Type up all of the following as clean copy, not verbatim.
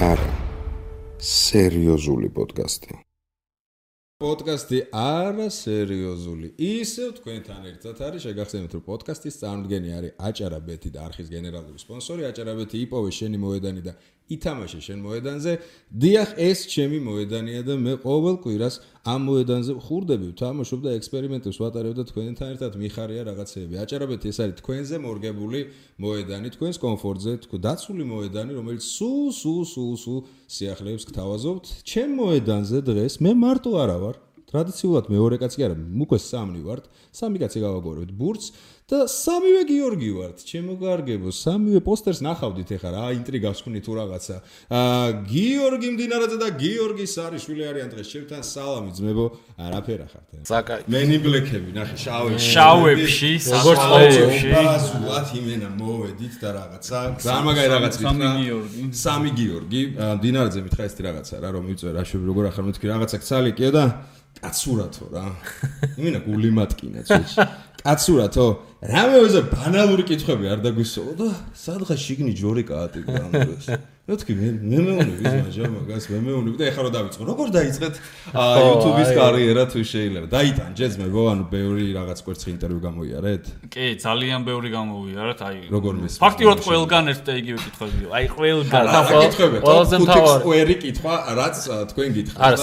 არა სერიოზული პოდკასტი. პოდკასტი არა სერიოზული. ისევ თქვენთან ერთად არის შეგახსენებთ, რომ პოდკასტის წარმოდგენი არის აჭარაბეთი და არხის გენერალური სპონსორი. აჭარაბეთი იპოვე შენი მოედანი და ითამაშე შენ მოედანზე. დიახ, ეს ჩემი მოედანია და მე ყოველ კვირას ამ მოედანზე ვხურდები, ვთამაშობ და ექსპერიმენტებს ვატარებ და თქვენთან ერთად მიხარია რაღაცეები. აჭარაბეთი ეს არის თქვენზე მორგებული მოედანი, თქვენს კომფორტზე, დაცული მოედანი, რომელიც სულ სიახლეებს გთავაზობთ. ჩემ მოედანზე დღეს მე მარტო არა ვარ. ტრადიციულად მეორე კაცი არა, უკვე სამი ვართ. სამი კაცი გავაგორებთ ბურთს და სამივე გიორგი ვართ. ჩემო კარგებო, სამივე პოსტერს ნახავდით ეხლა რა ინტრიგას ხვნით თუ რაღაცა. გიორგი მდინარაძე და გიორგი სარიშვილი არიან დღეს ჩემთან. სალამი ძმებო, არაფერა ხართ. მენი ბლექები, ნახე, შავებში, როგორც ყოველში. ბაზულად იმენა მოვედით და რაღაცა. სამაგაი რაღაც ვიტყვა. სამი გიორგი. მდინარაძე მითხა ეს რაღაცა რა რომ მივწვე რა შეგვი როგორ ახლა მეთქი რაღაცა ცალიკიო და კაცურათო რა. იმენა გული მატკინა წუთში. კაცურათო, რამეზე ბანალური კითხვები არ დაგვისწავლო და სადღაც შიგნი ჯორი კაატი გამოდოს. მეთქი მე მეუნები მაჟა მაგას მე მეუნები და ეხლა რომ დავიწყო. როგორ დაიწყეთ YouTube-ის კარიერა თუ შეიძლება? დაიტანჯეთ ძმებო, ანუ ბევრი რაღაც კვერცხი ინტერვიუ გამოიარეთ? კი, ძალიან ბევრი გამოვიარეთ, აი. როგორ მის? ფაქტიურად ყველგან ერთ და იგივე კითხვებია. აი, ყველგან. ყველაზე მთავარი კითხვა, რაც თქვენ გითხრათ. არა,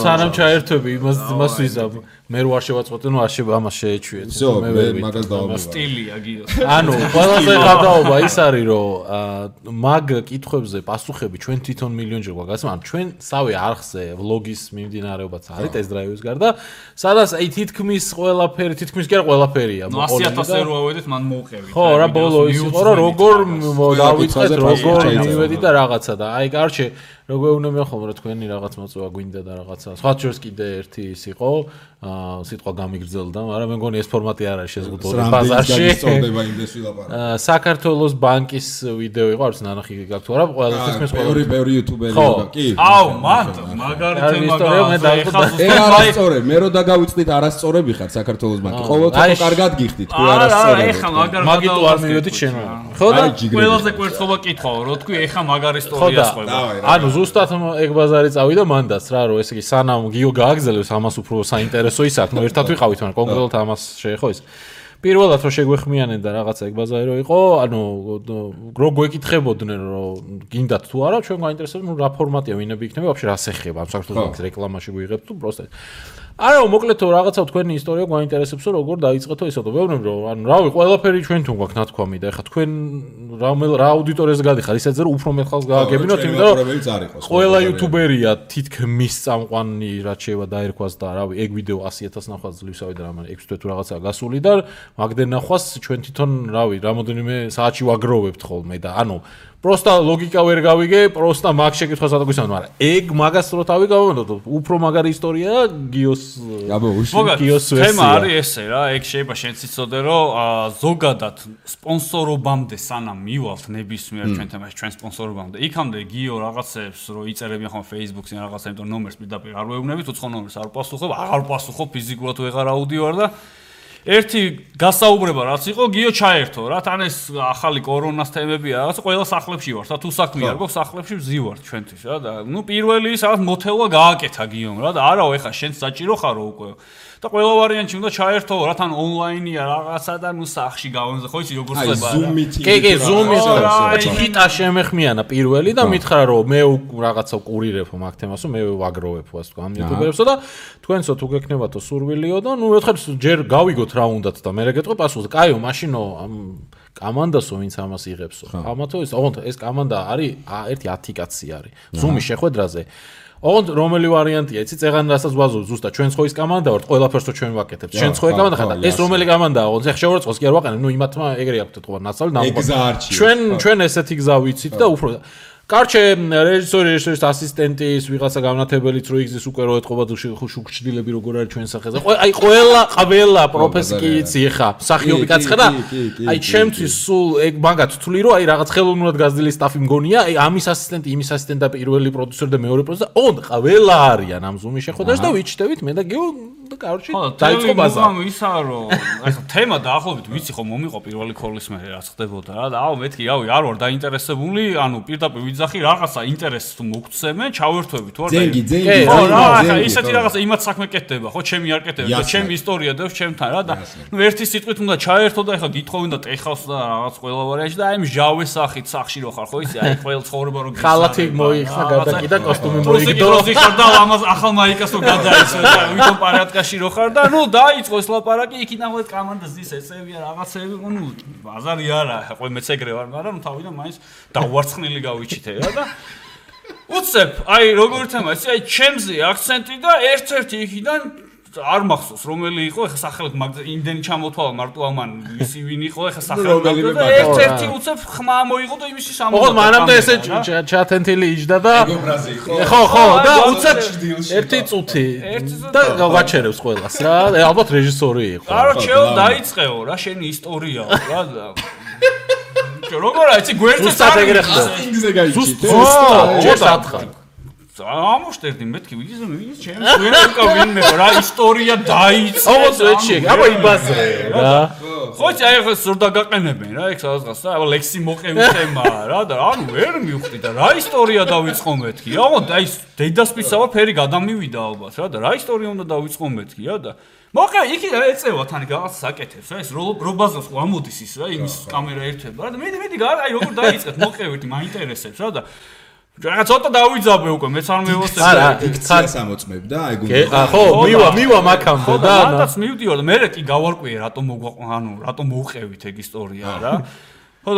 სანამ ჩაერთვები, იმას ვიზამ. მე რო არ შევაწყვეტე, ნუ არ შეიძლება ამას შეეჩვიეთ. მე მაგას დავამბობ. სტილია გიოს. ანუ ყველაზე გადაობა ის არის, რომ მაგ კითხვებზე პასუხები ჩვენ თვითონ მილიონჯერ გვაგაცნო. ანუ ჩვენ სავე არხზე ვლოგის მიმდინარეობაც არის ტესტ დრაივის გარდა, სადაც აი თითქმის ყველაფერი, თითქმის კი არა ყველაფერია. 100,000 რო ავედით, მან მოუყევით. ხო, რა ბოლო ის იყო, რომ როგორ დავიწყეთ, როგორ მივედი და რაღაცა და აი კარჩე როგორ უნდა ხოლმე თქვენი რაღაც მოწვევა გვინდა და რაღაცა. სხვა შორის კიდე ერთი ის იყო, სიტყვა გამიგრძელდა, მაგრამ მე მგონი ეს ფორმატი არ არის შეზღუდული ბაზარში. საქართველოს ბანკის ვიდეო იყო, არც ნანახი გაქვთ თუ არა, ყველა თითქმის ყველა ბევრი იუთუბერი იყო, კი. აუ, მაგარი თემა არასწორე, მე რო დაგავიწყდით არასწორები ხარ საქართველოს ბანკი. ყოველთვის კარგად გიხდით, თუ არასწორები. ეხა მაგარი მაგიტო არ მივედით შენ. ხო და ყველაზე კვერცხობა კითხავ, რო თქვი ეხა მაგარი ისტორია ხდება. ანუ ზუსტად ეგ ბაზარი წავიდა მანდაც რა, რომ ესე იგი სანამ გიო გააგზელებს ამას უფრო საინტერესო ის აქვს, ნუ ერთად ვიყავით, მაგრამ კონკრეტულად ამას შეეხო ის. პირველად რომ შეგვეხმიანენ და რაღაცა ეგ ბაზარი რო იყო, ანუ რო გვეკითხებოდნენ რომ გინდათ თუ არა, ჩვენ გაინტერესებდა, ნუ რა ფორმატია, ვინები იქნება, ვაფშე რას ეხება, ამ საქართველოს ბანკის რეკლამაში გვიღებთ თუ პროსტა. არა, მოკლედ რაღაცა თქვენი ისტორია გვაინტერესებსო, როგორ დაიწყეთო ისო და ვეუბნები რომ ანუ რავი, ყველაფერი ჩვენთვან გვაქვს ნათქვამი და ეხა თქვენ რა აუდიტორიაზე გადიხარ, ისედაც რომ უფრო მეტ ხალხს გააგებინოთ, იმიტომ რომ ყველა იუთუბერია თითქმის წამყვანი რაც შეიძლება დაერქვას და რავი, ეგ ვიდეო 100,000 ნახვას ძლივსავი და რამე 6 თვე თუ რაღაცაა გასული და მაგდენ ნახვას ჩვენ თვითონ რავი, რამოდენიმე საათში ვაგროვებთ ხოლმე და ანუ პროსტა ლოგიკა ვერ გავიგე, პროსტა მაგ შეკითხვას ადაგგვისმენთ, მაგრამ ეგ მაგას რო თავი გავამონდო, უფრო მაგარი ისტორია გიოს გიოს თემა არის ესე რა, ეგ შეიძლება შენც იცოდე, რომ ზოგადად სპონსორობამდე სანამ მივალთ ნებისმიერ ჩვენ თემაში, ჩვენ სპონსორობამდე, იქამდე გიო რაღაცებს რო იწერებიან ხოლმე Facebook-ზე რაღაცა, იმიტომ ნომერს პირდაპირ არ ვეუბნებით, უცხო ნომერს არ პასუხობ, აღარ პასუხობ ფიზიკურად ვეღარ აუდიო და ერთი გასაუბრება რაც იყო გიო ჩაერთო რა თან ეს ახალი კორონას თემებია რაღაც ყველა სახლებში ვართ და თუ საქმე არ გვაქვს სახლებში ვზივართ ჩვენთვის რა და ნუ პირველი რაღაც მოთელვა გააკეთა გიომ რა და არაო ეხა შენ საჭირო ხარო უკვე და ყველა ვარიანტი უნდა ჩაერთო რა თან ონლაინია რაღაცა და ნუ სახში გავონზე ხო იცი როგორ ხდება კი ზუმის ჰიტა შემეხმიანა პირველი და მითხრა რომ მე რაღაცა კურირებ მაგ თემასო მე ვაგროვებ ასე თქვა ამ იუტუბერებსო და თქვენსო თუ გექნებათო სურვილიო და ნუ ერთხელ ჯერ გავიგოთ რა უნდათ და მე რეგეთყვი პასუხს კაიო მაშინო ამ კამანდასო ვინც ამას იღებსო ამათო ეს კამანდა არის ერთი 10 კაცი არის ზუმის შეხვედრაზე ოღონდ რომელი ვარიანტია იცი წეღან რასაც ვაზობ ზუსტად ჩვენც ხო ის კამანდა ვართ ყველაფერსო ჩვენ ვაკეთებთ ჩვენც ხო კამანდა ხარ და ეს რომელი კამანდაა ოღონდ ეხ შეურაცხოს კი არ ვაყენებ ნუ იმათმა ეგრე აქვთ თქო ნაცალი ნამოყვა ჩვენ ესეთი გზა ვიცით და უფრო კარჩე რეჟისორის ასისტენტის ვიღაცა განათებელიც რო იგზის უკვე რო ეთყობა შუქჩდილები როგორ არის ჩვენ სახეზე აი ყველა პროფესი კი იცი ხა მსახიობი კაცი ხარ და აი ჩემთვის სულ ეგ მაგათ თვლი რომ აი რაღაც ხელოვნურად გაზრდილი სტაფი მგონია აი ამის ასისტენტი იმის ასისტენტი და პირველი პროდიუსერი და მეორე პროდიუსერი ოღონდ ყველა არიან ამ ზუმის შეხვედრაში და ვიჩნდებით მე და გიო კაროჩი დაიწყო ბაზარი. ისა რომ ახლა თემა დაახლოებით ვიცი ხო მომიყო პირველი ქოლის მე რაც ხდებოდა რა და მეთქი არ ვარ დაინტერესებული, პირდაპირ ვიძახი რაღაცა ინტერესს თუ მოგცემენ, ჩავერთვები თუ არა. ზენგი. ხო რა, ახლა ისეთი რაღაცა იმათ საქმე კეთდება, ხო, ჩემი არ კეთდება და ჩემი ისტორია დევს ჩემთან რა და ერთი სიტყვით უნდა ჩაერთო და ახლა გითხოვენ და ტეხავს და რაღაც ყველა ვარიანტი და აი მჟავე სახით სახში რო ხარ ხო იცი აი ყველა ცხოვრება რო ხალათი მოიხსნა გადაკიდა კოსტუმი მოიგდო ხარ და ამას ახალ მაიკას რო გადაიცვა და ვითომ პარატკაში რო ხარ და ნუ დაიწყო ეს ლაპარაკი იქიდან მოეთ კომანდას ის ეცებია რაღაცები ნუ ბაზარი არა ხო მეც ეგრე ვარ მაგრამ ნუ თავიდან მაინც დავარცხნილი გავიჩითე რა და უცებ აი როგორ თემა ისი აი ჩემზე აქცენტი და ერთ-ერთი იქიდან არ მახსოვს რომელი იყო ეხა სახელით იმდენი ჩამოთვალა მარტო ამან ისი ვინ იყო ეხა სახელით და ერთ-ერთი უცებ ხმა მოიღო და იმისი სამოვა ოღონდ მანამდე ესე ჩათენთილი იჯდა და ხო და უცებ ერთი წუთი და გავაჩერებს ყველას რა ალბათ რეჟისორი იყო კაროჩეო დაიწყეო რა შენი ისტორიაო რა და როგორ აიცი გვერდზე სატეგრე ხდა ზუსტად ხარ ამოშტერდი მეთქი ის ჩემს ვერაკა ვინმე რა ისტორია დაიწყე ოღონდ ეჩი აბა იბაზრე რა ხო აი ხო სულ დაგაყენებენ რა ეგ სადღაც და ლექსი მოყევი თემაა რა და ანუ ვერ მივხვდი და რა ისტორია დავიწყო მეთქი ოღონდ აი დედასპისავა ფერი გადამივიდა ალბათ რა და რა ისტორია უნდა დავიწყო მეთქი რა და მოყევი იქ ეწევა თან რაღაც საკეთებს რა ეს რობაზოს ხო ამოდის ის რა იმის კამერა ერთება რა და მე აი როგორ დაიწყეთ მოყევი მაინტერესებს რა და რა ცოტა დავიძაბე უკვე მეც არ მევოსებ არა იქ ციას ამოწმებდა აი გუნდა ხო მივა მაქამდე და მანდაც მივდიოდა მე კი გავარკვიე რატომ მოუყევით ეგ ისტორია რა ხო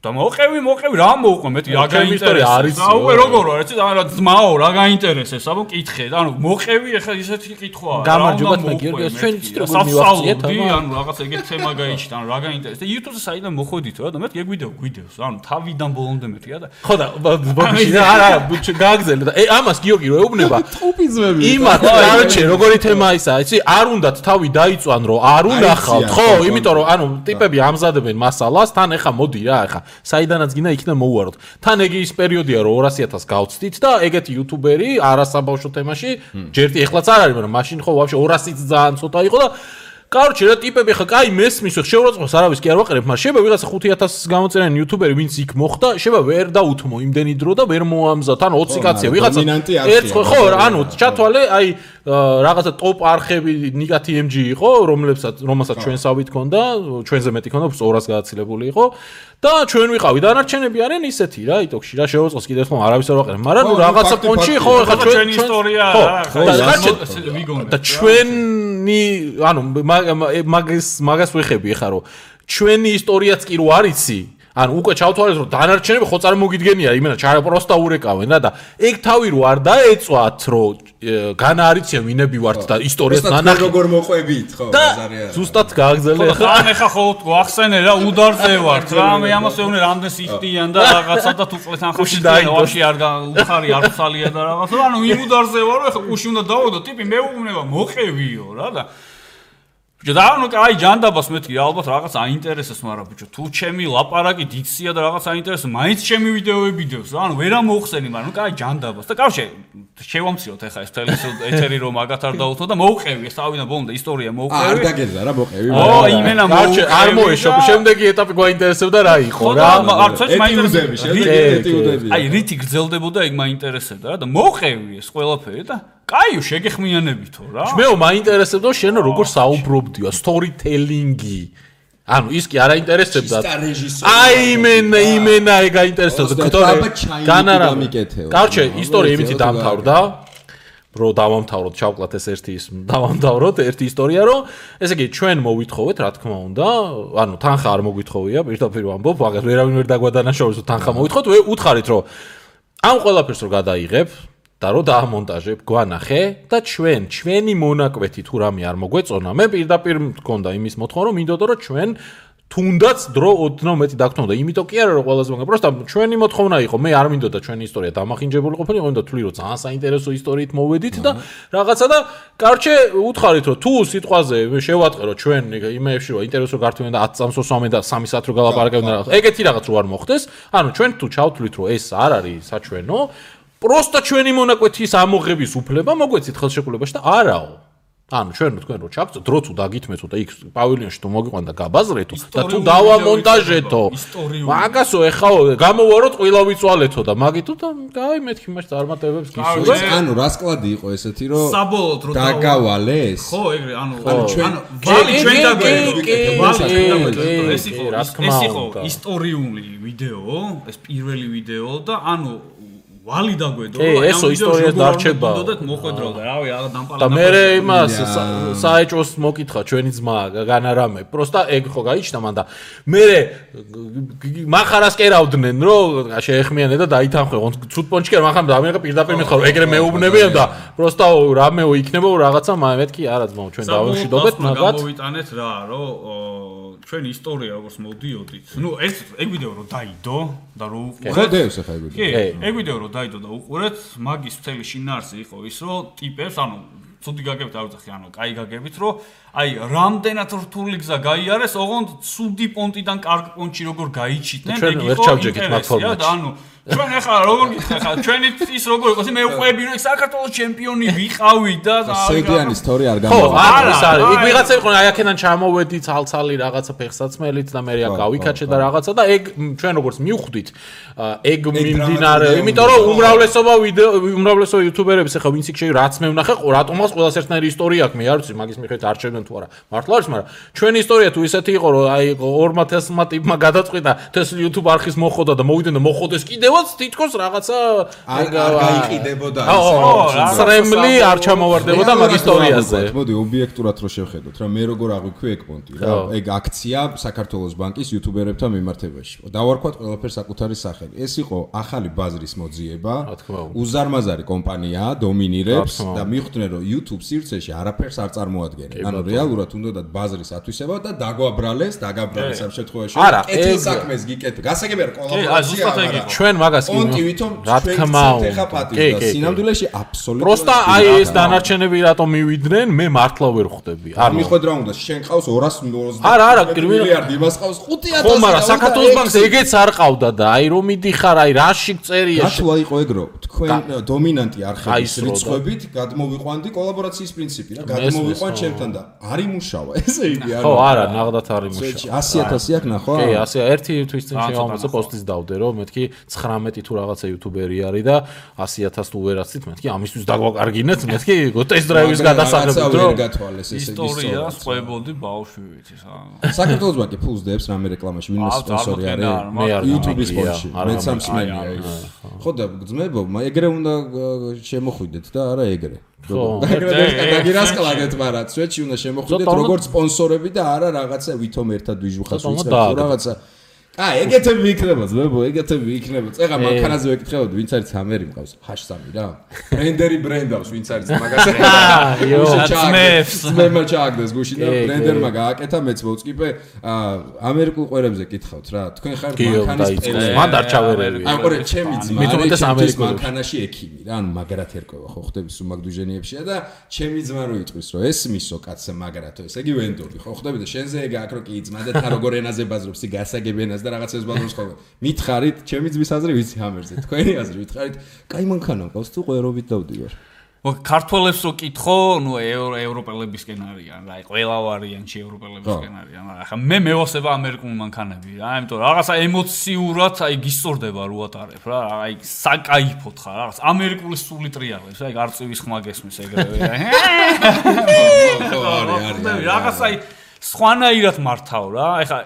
და მოყევი რა მოუყვა მე რა გაინტერესებს და უკვე როგორ ვარ ეცი რა ძმაო რა გაინტერესებს აბა მკითხე და ანუ მოყევი ახლა ისეთი კითხვაა გამარჯობათ მე გიორგი ჩვენ იცით როგორ მივახციეთ ანუ რაღაც ეგეთ თემა გაიჩით ანუ რა გაინტერესებს და YouTube-ზე საიდან მოხვედით რა და მე გვიდეოს ანუ თავიდან ბოლომდე მეთქი რა და ხო და ბოქში არა გააგზელე და ამას გიორგი რო ეუბნება ტუპიზმები იმათ კაროჩე როგორი თემა ისა იცი არ უნდათ თავი დაიწვან რომ არ უნახავთ ხო იმიტომ რომ ანუ ტიპები ამზადებენ მასალას თან ეხა მოდი რა ეხა საიდანაც გინდა იქიდან მოუვაროთ. თან ეგ ის პერიოდია რომ 200.000 გავცდით და ეგეთი იუთუბერი არასაბავშვო თემაში ჯერტი ეხლაც არ არის, მაგრამ მაშინ ხო ვაფშე 200-იც ძალიან ცოტა იყო და კაროჩე რა ტიპები ხა კაი მესმის შეურაცხყოფს არავის კი არ ვაყრებ, მაგრამ შეიძლება ვიღაცა 5,000 გამოწერენ იუთუბერი ვინც იქ მოხდა, შეიძლება ვერ დაუთმო იმდენი დრო და ვერ მოამზად, ან 20 კაცია ვიღაცა ერთ ხო ანუ ჩათვალე აი რაღაცა ტოპ არხები ნიკა TMG იყო, რომელსაც ჩვენსავით ქონდა, ჩვენზე მეტი ქონდა, 200 გადაცილებული იყო და ჩვენ ვიყავი დანარჩენები არიან ისეთი რა, იტოქში რა შეურაცხყოფს კიდევ ხომ არავის არ ვაყრებ, მაგრამ რაღაცა პონჩი ხო ხა ჩვენი ისტორია რა, და ჩვენი ანუ მაგას ვეხები ხა რომ ჩვენი ისტორიაც კი რო არიცი ანუ უკვე ჩავთვალეთ რომ დანარჩენები ხო წარმოგიდგენია იმენა ჩარა პროსტა ურეკავენ რა და ეგ თავი რო არ დაეწვათ რომ განა არიციან ვინები ვართ და ისტორიას ნანახი როგორ მოყვებით ხო ბაზარი არა ზუსტად გააგზელე ხა ხო ახსენე რა უდარზე ვართ რა მე ამას ეუბნე რამდენს იხდიან და რაღაცა და თუ წლეთ ანხაში დაიწყოში არ უხარი არ ხალია და რაღაცა ანუ იმ უდარზე ვარო ხა კუში უნდა დავოდო ტიპი მეუბნება მოყევიო რა და და ანუ კაი ჯანდაბას მეთქი ალბათ რაღაც აინტერესებს მაგრამ ბიჭო თუ ჩემი ლაპარაკი დიქცია და რაღაც აინტერესებს მაინც ჩემი ვიდეოები დევს რა ანუ ვერა მოხსენი მაგრამ კაი ჯანდაბას და კავშირი შევამციოთ ახლა ეს ეთერი რომ მაგათ არ დაუთო და მოუყევი ეს თავიდან ბოლომდე ისტორია მოუყევი არ დაგეძა რა მოყევი ო იმენა მოუყევი არ მოეშო შემდეგი ეტაპი გვაინტერესებდა რა იყო რა არც მაინტერესებდა აი რითი გრძელდებოდა ეგ მაინტერესებდა რა და მოუყევი ეს ყველაფერი და კაიო შეგეხმიანებითო რა მეო მაინტერესებდა შენ როგორ საუბრობდიო სტორიტელინგი ანუ ის კი არ აინტერესებდა აი იმენა ეგ აინტერესებდა განარა კარჩე ისტორია იმითი დამთავრდა რო დავამთავროთ ჩავკლათ ეს ერთი ის დავამთავროთ ერთი ისტორია რომ ესე იგი ჩვენ მოვითხოვეთ რა თქმა უნდა ანუ თანხა არ მოგვითხოვია პირდაპირ ვამბობ მაგას ვერავინ ვერ დაგვადანაშაულებს რომ თანხა მოვითხოვოთ უთხარით რომ ამ ყველაფერს რო გადაიღებ და რო დაამონტაჟებ გვანახე და ჩვენი მონაკვეთი თუ რამე არ მოგვეწონა მე პირდაპირ მქონდა იმის მოთხოვნა რომ მინდოდა რომ ჩვენ თუნდაც დრო ოდნავ მეტი დაგთმოდა იმიტომ კი არა რომ ყველაზე მაგარი პროსტა ჩვენი მოთხოვნა იყო მე არ მინდოდა ჩვენი ისტორია დამახინჯებული ყოფილიყო მინდოდა თვლი რომ ძალიან საინტერესო ისტორიით მოვედით და რაღაცა და კარჩე უთხარით რომ თუ სიტყვაზე შევატყე რომ ჩვენ იმეებში რომ ინტერესო გართვენ და 10 წამს ოსვამენ და 3 საათ რო გალაპარაკებენ და ეგეთი რაღაც რო არ მოხდეს ანუ ჩვენ თუ ჩავთვლით რომ ეს არ არის საჩვენო პროსტა ჩვენი მონაკვეთის ამოღების უფლება მოგვეცით ხელშეკრულებაში და არაო ანუ ჩვენ თქვენ რო ჩაგწოთ, დრო თუ დაგითმეთო და იქ პავილიონში თუ მოგიყვანდა გაბაზრეთო და თუ დავამონტაჟეთო. მაგასო ეხა გამოვაროთ ყველა ვიწვალეთო და მაგითო და აი მეთქი მას წარმატებებს გისურვებ. ანუ რას კლადი იყო ესეთი რომ საბოლოოდ რო დაგავალეს? ხო, ეგრე, ანუ ვალი ჩვენ დაგვედგეთ. ეს იყო ისტორიული ვიდეო, ეს პირველი ვიდეო და ანუ ვალი დაგვედო რომ ესო ისტორიას დარჩება და მოხვედრო და რავი რა დამპალატა და მე იმას საეჭოს მოკითხა ჩვენი ძმა განარამე პროსტა ეგ ხო გაიჩნდა მან და მე მახარას კერავდნენ რომ შეეხმიანე და დაითანხმე ცუდ პონჩკერ მახარ და ამერიკა პირდაპირ მეთქვა რომ ეგრე მეუბნებიან და პროსტა რამეო იქნება რაღაცა მეთქი არა ძმაო ჩვენ დავუშვიდობთ მაგათ გამოვიტანეთ რა რომ ჩვენი ისტორია როგორც მოდიოდით ნუ ეგ ვიდეო რომ დაიდო და რო უყურეთ ხო დევს ახლა ეგ ვიდეო კი ეგ ვიდეო რომ დაიდო და უყურეთ მაგის მთელი შინაარსი იყო ის რომ ტიპებს ანუ ცუდი გაგებით არ ვწახი ანუ კაი გაგებით რომ აი რამდენად რთული გზა გაიარეს ოღონდ ცუდი პონტიდან კარგ პონტში როგორ გაიჩიტნენ ეგ იყო ინტერესია და ანუ ჩვენ ახლა როგორ გითხარ ხა ჩვენი ის როგორ იყოს მე უყვები რომ საქართველოს ჩემპიონი ვიყავი და სეგიანი ისტორია არ გამოვიდა ხო არის იქ ვიღაცა იყო აი აქედან ჩამოვედი ცალცალი რაღაცა ფეხსაცმელით და მე რა გავიქაჩე და რაღაცა და ეგ ჩვენ როგორც მივხვდით ეგ მიმდინარე იმიტომ რომ უმრავლესობა იუთუბერების ახლა ვინც იქ შეიძლება რაც მე ვნახე რატომაც ყველას ერთნაირი ისტორია აქვს მე არ ვიცი მაგის მიხედვით არჩევდნენ თუ არა მართლა არის მაგრამ ჩვენი ისტორია თუ ისეთი იყო რომ აი 2000-მა ტიპმა გადაწყვიტა ეს YouTube არხის მოხოდა და მოვიდნენ და მოხოდეს კიდევაც თითქოს რაღაცა არ გაიყიდებოდა ის სრემლი არ ჩამოვარდებოდა მაგ ისტორიაზე მოდი ობიექტურად რო შევხედოთ რა მე როგორ აღვიქვი ეგ პონტი რა ეგ აქცია საქართველოს ბანკის იუთუბერებთან მიმართებაში დავარქვათ ყველაფერს საკუთარი სახელი ეს იყო ახალი ბაზრის მოძიება უზარმაზარი კომპანია დომინირებს და მიხვდნენ რომ YouTube სივრცეში არაფერს არ წარმოადგენენ ანუ რეალურად უნდათ ბაზრის ათვისება და დაგაბრალეს ამ შემთხვევაში კეთილ საქმეს გიკეთე გასაგებია კოლაბორაცია ჩვენ მაგას პონტი ვითომ რა თქმა უნდა და სინამდვილეში აბსოლუტურად პროსტა აი ეს დანარჩენები რატომ მივიდნენ მე მართლა ვერ ხვდები არ მიხვედრა უნდა შენ ყავს 220 არა მილიარდი იმას ყავს 5000 ხო მაგრამ საქართველოს ბანკს ეგეც არ ყავდა და აი რომ მიდიხარ აი რაში წერია რატო იყო ეგ რომ თქვენ დომინანტი არხების რიცხვებით გადმოვიყვანდი კოლაბორაციის პრინციპი რა გადმოვიყვან ჩემთან და არ იმუშავა ესე იგი არა ხო არა ნაღდათ არ იმუშავა 100000 აქ ნახო კი 100 ერთი თვის წინ შევამოწე პოსტის დავდე რომ მეთქი 19 თუ რაღაცა იუთუბერი არის და 100000 თუ ვერაცით მეთქი ამისთვის დაგვაკარგინეთ მეთქი ტესტ დრაივის გადასაღებით რომ გათვალეს ესე ისტორია სწვებოდი ბავშვივით საქართველოს ბანკი ფულს დებს რამე რეკლამაში ვინმე სპონსორი არის მე არ YouTube-ის სპონსორი მე სამსმენია ხო და ძმებო ეგრე უნდა შემოხვიდეთ და არა ეგრე ხო დაგირასკლაგეთ მაგრამ სვეტში უნდა შემოხვიდეთ როგორც სპონსორები და არა რაღაცა ვითომ ერთად ვიჟუხას ვიწყებთ რაღაცა აი ეგეთები იქნება ძმებო ეგეთები იქნება წეღა მანქანაზე ვეკითხებოდი ვინც არის ამერი მყავს #3 რა ბრენდერი ბრენდავს ვინც არის მაგას მე ჩააგდეს გუში და ბრენდერმა გააკეთა მეც მოვწკიპე ამერიკულ ყვერებზე კითხავთ რა თქვენ ხარ მანქანის პელე მან დარჩავერები აი ყურე ჩემი ძმა მithumetes ამერიკულ მანქანაში ექიმი რა ანუ მაგრად ერკვევა ხო ხდები სუმაგდუჟენიებშია და ჩემი ძმა რო იტყვის რომ ეს მისო კაცე მაგრათო ესე იგი ვენდორი ხო ხდები და შენზე ეგ აქ რო კი ძმა და თან როგორ ენაზე ბაზრობს ი გასაგებენას და რაღაცებს ბაზრობს ხოლმე მითხარით ჩემი ძმის აზრი ვიცი ამერზე თქვენი აზრი მითხარით კაი მანქანა მყავს თუ ყვერობით დავდივარ ქართველებს რო კითხო ნუ ევროპელებისკენ არიან რა ყველა ვარიანტი ევროპელებისკენ არიან ახლა მე მევასება ამერიკულ მანქანები რა იმიტომ რაღაცა ემოციურად აი გისწორდება რო ატარებ რა აი საკაიფოთ ხარ რაღაც ამერიკული სული ტრიალებს აი არწივის ხმა გესმის ეგრევე რაღაცა აი სხვანაირად მართავ რა ეხლა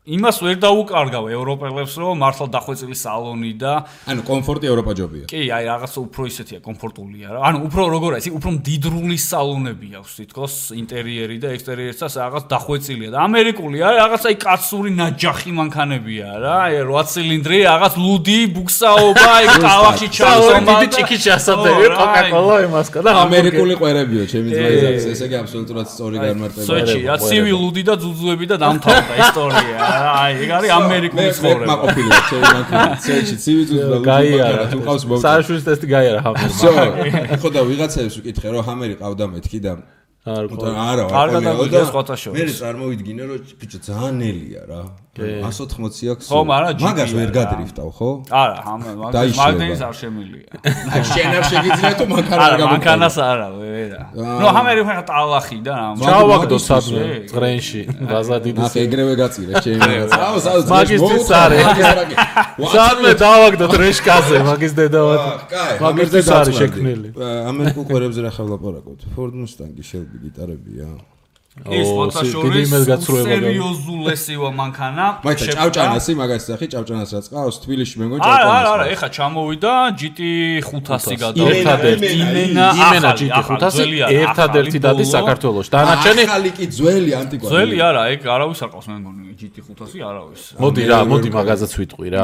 იმას ვერ დაუკარგავ ევროპელებს რომ მართლა დახვეწილი სალონი და ანუ კომფორტი ევროპაჯობია. კი, აი რაღაცა უფრო ისეთია, კომფორტულია რა. ანუ უფრო როგორ არის, უფრო მდიდრული სალონები აქვს თითქოს ინტერიერი და ექსტერიერიც რაღაც დახვეწილია და ამერიკული არის რაღაცა აი კაცური ნაჯახი მანქანებია რა. აი 8 ცილინდრი, რაღაც ლუდი, ბუქსაობა, აი კალახი ჩასომა, დიდი ჭიქი ჩასადები, კოკაკოლა იმასკა და ამერიკული ყვერებიო, ჩემი ძმაიც, ესე იგი აბსოლუტურად სწორი განმარტებაა. სოჩი, რა ცივი ლუდი და ძუძუები და დამთავრდა ისტორია. აი, ეგ არის ამერიკული ცხოვრება. მე ყოფილი ვარ, ჩემი მანქანა. სოჩი, ცივი ძუძუ და გაიარა. თუ ყავს მოვიდა. სარშულის ტესტი გაიარა ჰამერი. ხო და ვიღაცებს ვკითხე რომ ჰამერი ყავდა მეთქი და არა, კარგად აღიარა სხვათა შორის. მე წარმოვიდგინე რომ ბიჭო ძალიან ნელია რა. 180 აქვს. ხო, მაგრამ მაგას ვერ გადრიფტავ, ხო? არა, მაგდენის არ შემილია. აი შენ არ შეგიძლია თუ მანქანა არ გამოგწევ. მანქანას არა, ვერა. ნუ ამერი ხა ტალახი და რა. ჩავაგდო სადმე წრენში, ბაზა დიდი. ახ ეგრევე გაწირე, ჩემი. მაგისტრის არი. სადმე დავაგდო ტრეშკაზე, მაგის დედავად. მაგისტრის არი შექმნილი. ამერიკულ ყურებზე რა ხალაპარაკობთ? Ford Mustang, Shelby გიტარებია. ის ფოტოშოპის სერიოზულესიო მანქანა. მაიცა ჭავჭანასი მაგას სახი ჭავჭანას რაც ყავს თბილისში მე მგონი ჭავჭანას. არა, ეხა ჩამოვიდა GT500 გადავიდა. იმენა GT500 ერთადერთი დადის საქართველოში. დანარჩენი ახალი კი ძველი ანტიკვარი. ძველი არა, ეგ არავის არ ყავს მე მგონი GT500 არავის. მოდი მაგაზაც ვიტყვი რა,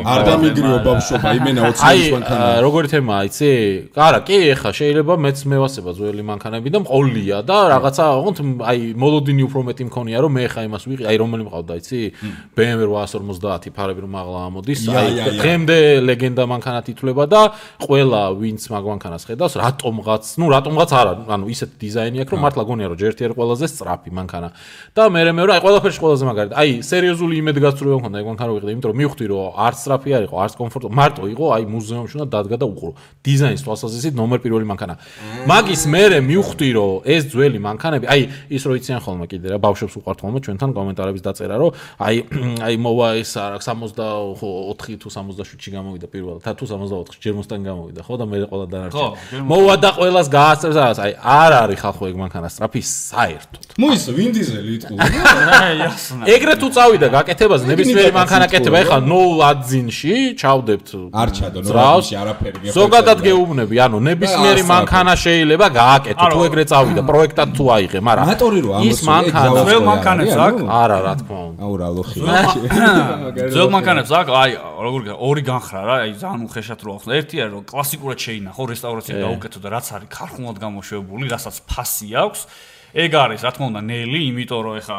არ დამიგრიო ბავშვობა, იმენა 20 წლის მანქანა. აი, როგორი თემაა, იცი? არა, კი, ეხა შეიძლება მეც მევასება ძველი მანქანები და მყოლია და რაღაცა, ოღონდ აი მოლოდინი უფრო მეტი მქონია რომ მე ხა იმას ვიყი აი რომელი მყავდა იცი BMW 850 ფარები რომ მაღლა ამოდის აი დღემდე ლეგენდა მანქანად ითვლება და ყველა ვინც მაგ მანქანას ხედავს რატომღაც არა ანუ ისეთ დიზაინი აქვს რომ მართლა გონია რომ ჯერთი არ ყველაზე სწრაფი მანქანა და მე აი ყველაფერში ყველაზე მაგარი აი სერიოზული იმედგაცრუება მქონდა ეგ მანქანა ვიყიდე იმიტომ რომ მივხვდი რომ არც სწრაფი არ იყო არც კომფორტო მარტო იყო აი მუზეუმში უნდა დადგა და უყურო დიზაინის თვალსაზრისით ნომერ პირველი მანქანა მაგის მე მივხვდი რომ ეს ძველი მანქანები აი ის რო იციან ხოლმე კიდე რა ბავშვებს უყვართ ხოლმე ჩვენთან კომენტარების დაწერა რომ აი მოვა ეს არა 64 თუ 67-ში გამოვიდა პირველად თუ 64-ში ჯერ Mustang გამოვიდა ხო და მე ყველა დანარჩენი მოვა და ყველას გაასწრებს რაღაც აი არ არის ხალხო ეგ მანქანა სწრაფი საერთოდ მოისა ვინ დიზელი იტყუდა ეგრე თუ წავიდა გაკეთებაზე ნებისმიერი მანქანა კეთება ეხლა 0 აძინში ჩავდებთ არ ჩადო 0 აძინში არაფერი გეხება ზოგადად გეუბნები ანუ ნებისმიერი მანქანა შეიძლება გააკეთო თუ ეგრე წავიდა პროექტად თუ აიღე მაგრამ მატორი რო ამოს ის მანქანა ძველ მანქანებს აქვს არა რა თქმა უნდა აუ რა ლოხი ძველ მანქანებს აქვს აი როგორ ორი განხრა რა აი ძალიან უხეშად რო ახსნა ერთი არის რომ კლასიკურად შეინახო რესტავრაცია გაუკეთო და რაც არის ქარხნულად გამოშვებული რასაც ფასი აქვს ეგ არის რა თქმა უნდა ნელი იმიტომ რომ ეხა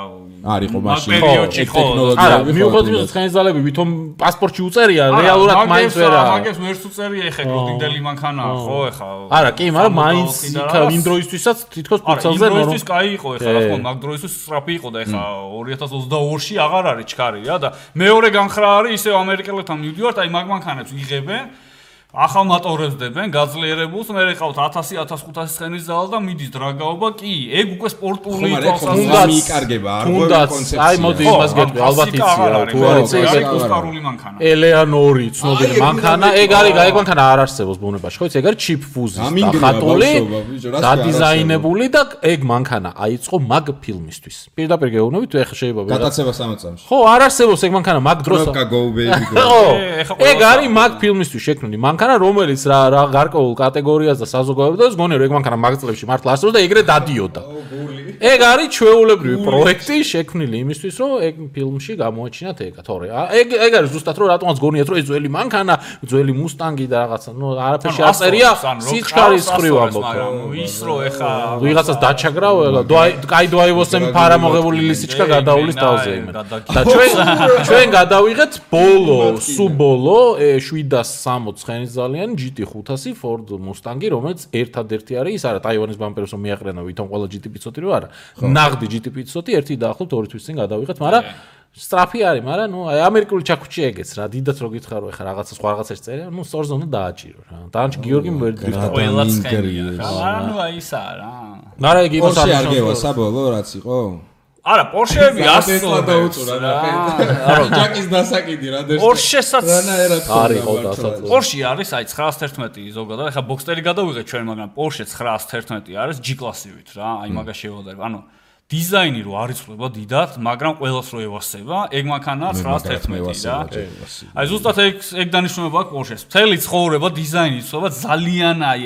არისო მაშინ პერიოდში ხო არა მიუხედავად იმისა ცხენისძალები ვითომ პასპორტში უწერია რეალურად მაინც ვერა მაგას ვერც უწერია ეხა გოდინდელი მანქანაა ხო ეხა არა კი მაგრამ მაინც იქა იმ დროისთვისაც თითქოს პროცესზე იმ დროისთვის კაი იყო ეხა რა თქმა უნდა მაგ დროისთვის სწრაფი იყო და ეხა 2022-ში აღარ არის ჩქარი რა და მეორე განხრა არის ისევ ამერიკელებთან მივდივართ აი მაგ მანქანებს იღებენ ახალ მატორებს დებენ გაძლიერებულს მე ყავთ 1000-1500 ცხენის ზალა და მიდის დრაგაობა კი ეგ უკვე სპორტული თუნდაც მიიკარგება არ გქონდა კონცეფცია აი მოდი იმას გეტყვი ალბათ იცი თუ არ იცი ეგ ოსკარული მანქანა ელეანორი ცნობილი მანქანა ეგ მანქანა არ არსებობს ბუნებაში ხო იცი ეგ არის ჩიპ ფუზის ხატული დადიზაინებული და ეგ მანქანა აიწყო მაგ ფილმისთვის პირდაპირ გეუბნებით ეხა შეიძლება გადაცემა 3 წამში ხო არ არსებობს ეგ მანქანა მაგ დროს ეგ არის მაგ ფილმისთვის შექმნილი მანქანა რომელიც რა გარკვეულ კატეგორიას და საზოგადოებას გონია რომ ეგ მანქანა მაგწლებში მართლა არსებობს და ეგრე დადიოდა. ეგ არის ჩვეულებრივი პროექტი შექმნილი იმისთვის რომ ეგ ფილმში გამოაჩინათ ეგა თორე ეგ არის ზუსტად რომ რატომაც გონიათ რომ ეს ძველი მანქანა ძველი Mustang-ი და რაღაცა ნუ არაფერში აწერია სიჩქარის ხრივ ამბობ ის რო ეხა ვიღაცას დაჩაგრავ კაი დოაივოსემ ფარამოღებული ლისიჩკა გადაულის თავზე იმენ და ჩვენ გადავიღეთ ბოლო სუბოლო 760 ცხენის ძალიან GT500 Ford Mustang-ი რომელიც ერთადერთი არის ის არა ტაივანის ბამპერს რომ მიაყრენა ვითომ ყველა GT500 რო არა ნაღდი GT500 ერთი დაახლოებით 2 თვის წინ გადავიღეთ მაგრამ სტრაფი არის მაგრამ ნუ აი ამერიკული ჩაქუჩი ეგეც რა დიდაც რო გითხარო ეხა რაღაცა სხვა რაღაცას წერია ნუ სწორ ზონდა დააჭირო რა დანჩ გიორგი ვერ გიხდა ყველა ცხენია რა ნუ აი ისა რა მაგრამ იგი იმას არ გევა საბოლოო რაც იყო არა პორშეები ასწორდა დაუწურა რა არა ჯაკის დასაკიდი რა დერს პორშესაც არის ხო დასაწურა პორში არის აი 911 ზოგადად ეხა ბოქსტერი გადავიღეთ ჩვენ მაგრამ პორშე 911 არის G კლასივით რა აი მაგას შევადარებ ანუ დიზაინი რო არ იცვლება დიდად, მაგრამ ყველას რო ევასება, ეგ მანქანა 911 რა. აი ზუსტად ეგ დანიშნულება აქვს Porsche-ს. მთელი ცხოვრება დიზაინი იცვლება ძალიან აი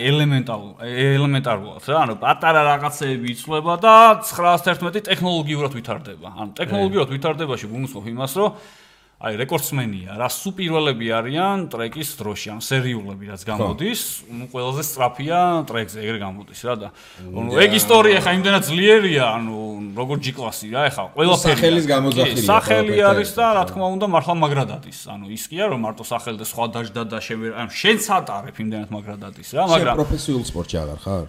ელემენტარულად რა. ანუ პატარა რაღაცეები იცვლება და 911 ტექნოლოგიურად ვითარდება. ანუ ტექნოლოგიურად ვითარდებაში გულისხმობ იმას, რომ აი რეკორდსმენია რა სუპირველები არიან ტრეკის დროში ან სერიულები რაც გამოდის ნუ ყველაზე სწრაფია ტრეკზე ეგრე გამოდის რა და ნუ ეგ ისტორია ხა იმდენად ძლიერია ანუ როგორ G კლასი რა ეხა ყველაფერი სახელის გამოძახილია სახელი არის და რა თქმა უნდა მართლა მაგრადადის ანუ ის კი არა რომ მარტო სახელი და სხვა დაждდა და ან შენც ატარებ იმდენად მაგრადადის რა მაგრამ პროფესიულ სპორტში აღარ ხარ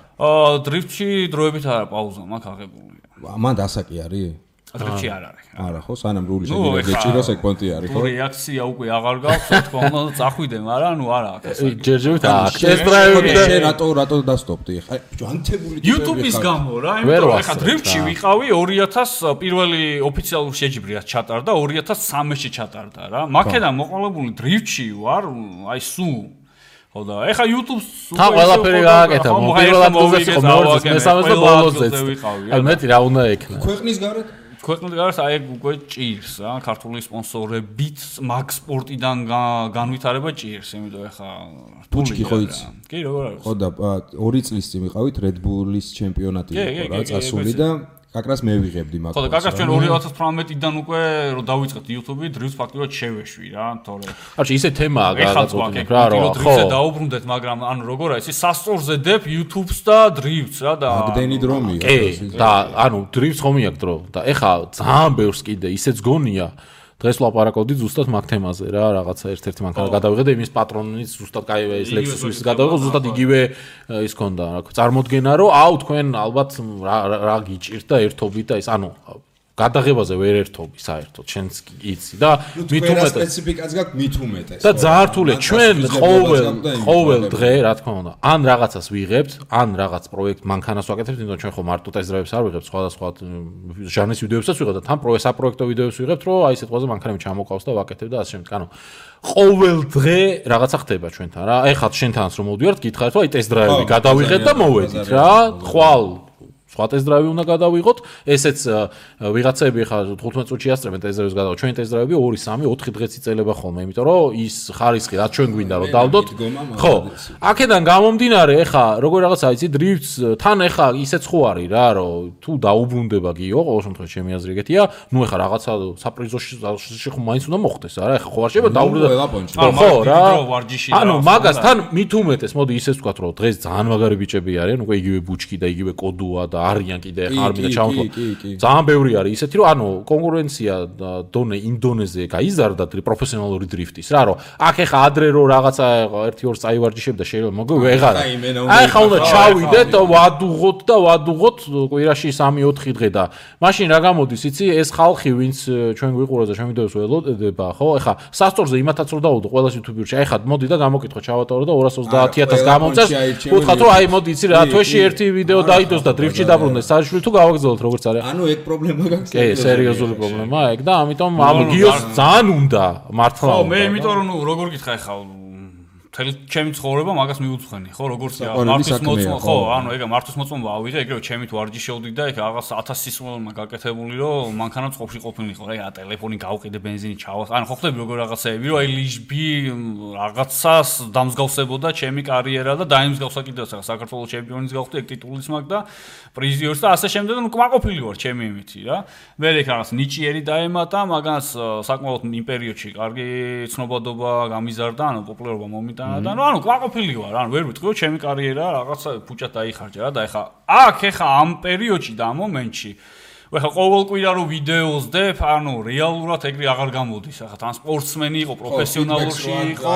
დრიფტში დროებით არა პაუზა მაქვს აღებული მან დასაკი არის დრიფტში არ არის. არა ხო, სანამ რული შეგიძლია გეჭიროს ეგ პონტი არის ხო? რეაქცია უკვე აღარ გაქვს, თქო, უნდა წახვიდე, მაგრამ არა აქ ეს. ჯერჯერობით აქ ტესტ დრაივი და შენ რატო დასტოპდი? ხა ანთებული ტიპები YouTube-ის გამო რა, იმიტომ რომ ხა დრიფტში ვიყავი 2000 პირველი ოფიციალური შეჯიბრიაც ჩატარდა 2013-ში ჩატარდა რა. მაქედან მოყოლებული დრიფტში ვარ, აი სულ ხო და ეხა YouTube-ს თან ყველაფერი გააკეთა, პირველად გულზეც იყო მეორე მესამეს და ბოლოსეც. აი მეტი რა უნდა ექნა. ქვეყნის გარეთ ქვეყნის გარეთ აი უკვე ჭირს რა, ქართული სპონსორებით მაგ სპორტიდან განვითარება ჭირს, იმიტომ ეხა ბუჩკი ხო იცი? კი, როგორ არის? ხო და 2 წლის წინ ვიყავით Red Bull-ის ჩემპიონატი იყო რა, წასული და კაკრას მე ვიღებდი მაგას. ხო და კაკრას ჩვენ 2018-დან უკვე რომ დავიწყეთ YouTube-ი, დრიფტს ფაქტიურად შევეშვი რა, თორე. არჩი ისე თემაა გადაწყვეტილი რა, რომ ხო. დრიფტზე დაუბრუნდეთ, მაგრამ ანუ როგორ არის, ის სასწორზე დებ YouTube-ს და დრიფტს რა და ამდენი დრომია. კი, და ანუ დრიფტს ხომ იაკ დრო და ეხა ძალიან ბევრს კიდე ისეც გონია. დღეს ვლაპარაკობდი ზუსტად მაგ თემაზე რა, რაღაცა ერთ-ერთი მანქანა გადავიღე და იმის პატრონის ზუსტად კაი ეს Lexus-ის გადავიღე, ზუსტად იგივე ის ქონდა რა, წარმოდგენა რომ აუ თქვენ ალბათ რა გიჭირთ და ერთობით და ის ანუ გადაღებაზე ვერ ერთობი საერთოდ შენც იცი და მით უმეტეს სპეციფიკაც გაქვს მით უმეტეს და ძართულე ჩვენ ყოველ დღე რა თქმა უნდა ან რაღაცას ვიღებთ ან რაღაც პროექტ მანქანას ვაკეთებთ იმიტომ ჩვენ ხო მარტო ტესტ-დრაივებს არ ვიღებთ სხვადასხვა ჟანრის ვიდეოებსაც ვიღებთ და თან საპროექტო ვიდეოებს ვიღებთ რომ აი სიტყვაზე მანქანები ჩამოყავს და ვაკეთებ და ასე შემდეგ ანუ ყოველ დღე რაღაცა ხდება ჩვენთან რა ეხლა შენთანაც რომ მოვდივართ გითხარით რომ აი ტესტ-დრაივი გადავიღეთ და მოვედით რა ხვალ სხვა ტესტ-დრაივი უნდა გადავიღოთ, ესეც ვიღაცები ხა 15 წუთში ასწრებენ ტესტ-დრაივს გადავიღოთ. ჩვენი ტესტ-დრაივები 2, 3, 4 დღეც იწელება ხოლმე, იმიტომ რომ ის ხარისხი რაც ჩვენ გვინდა რომ დავდოთ. ხო. აქედან გამომდინარე, ხა როგორ რაღაცა იცი, დრიფტს თან ხა ისეც ხო არის რა, რომ თუ დაუბრუნდება გიო, ყოველ შემთხვევაში ჩემი აზრი ეგეთია, ნუ ხა რაღაცა საპრიზოში ხო მაინც უნდა მოხდეს, არა? ხა ხო არ შეიძლება დაუბრუნდება. ხო რა. ანუ მაგას თან მით უმეტეს, მოდი ისეც ვთქვათ, რომ დღეს ძალიან მაგარი ბიჭები არიან, უკვე იგივე ბუჩკი და იგივე კოდუა და არიან კიდე ხარ მინდა ჩავთვალო. ძალიან ბევრი არის ისეთი რომ ანუ კონკურენცია დონე ინდონეზია გაიზარდა პროფესიონალური დრიფტის რა რომ აქ ეხა ადრე რომ რაღაცა 1-2 წაივარჯიშებ და შეიძლება მოგო ვეღარა. აი ხა უნდა ჩავიდეთ და ვადუღოთ კვირაში 3-4 დღე და მაშინ რა გამოდის იცი ეს ხალხი ვინც ჩვენ გვიყურებს და ჩვენ ვიდეოს ველოდება ხო ეხა სასწორზე იმათაც რომ დავუდო ყველას YouTube-ში აი ხა მოდი და გამოკითხო ჩავატარო და 230,000 გამომწეს ვუთხრათ რომ აი მოდი იცი რა თვეში ერთი ვიდეო დაიდოს და დრიფტში დაბრუნდეს საერთოდ თუ გავაგრძელოთ როგორც არის ანუ ეგ პრობლემა გაქვს კი სერიოზული პრობლემაა ეგ და ამიტომ ამ გიოს ძალიან უნდა მართლა ხო მე იმიტომ რომ ნუ როგორ გითხა ხა თელი ჩემი ცხოვრება მაგას მიუძღვენი ხო როგორც მართვის მოწმობა ხო ანუ ეგა მართვის მოწმობა ავიღე ეგრევე ჩემით ვარჯიშობდი და ეგ რაღაც 1000 სისხლმა გაკეთებული რომ მანქანა წყობაში ყოფილიყო რა ეგა ტელეფონი გავყიდე ბენზინი ჩავა ანუ ხო ხდები როგორ რაღაცეები რომ აი ლიშბი რაღაცას დამსგავსებოდა ჩემი კარიერა და დაიმსგავსა კიდევ საქართველოს ჩემპიონის გავხდი ეგ ტიტულის მაგ და პრიზიორს და ასე შემდეგ ნუ კმაყოფილი ვარ ჩემი იმითი რა მე ეგ რაღაც ნიჭიერი დაემატა მაგას საკმაოდ იმ პერიოდში კარგი ცნობადობა გამიზარდა ანუ პოპულარობა მომიტა და ანუ კმაყოფილი ვარ ანუ ვერ ვიტყვი ჩემი კარიერა რაღაცა ფუჭად დაიხარჯა რა და ეხა აქ ეხა ამ პერიოდში და ამ მომენტში ეხა ყოველ კვირა რო ვიდეოს დებ ანუ რეალურად ეგრე აღარ გამოდის ეხა თან სპორტსმენი იყო პროფესიონალურში იყო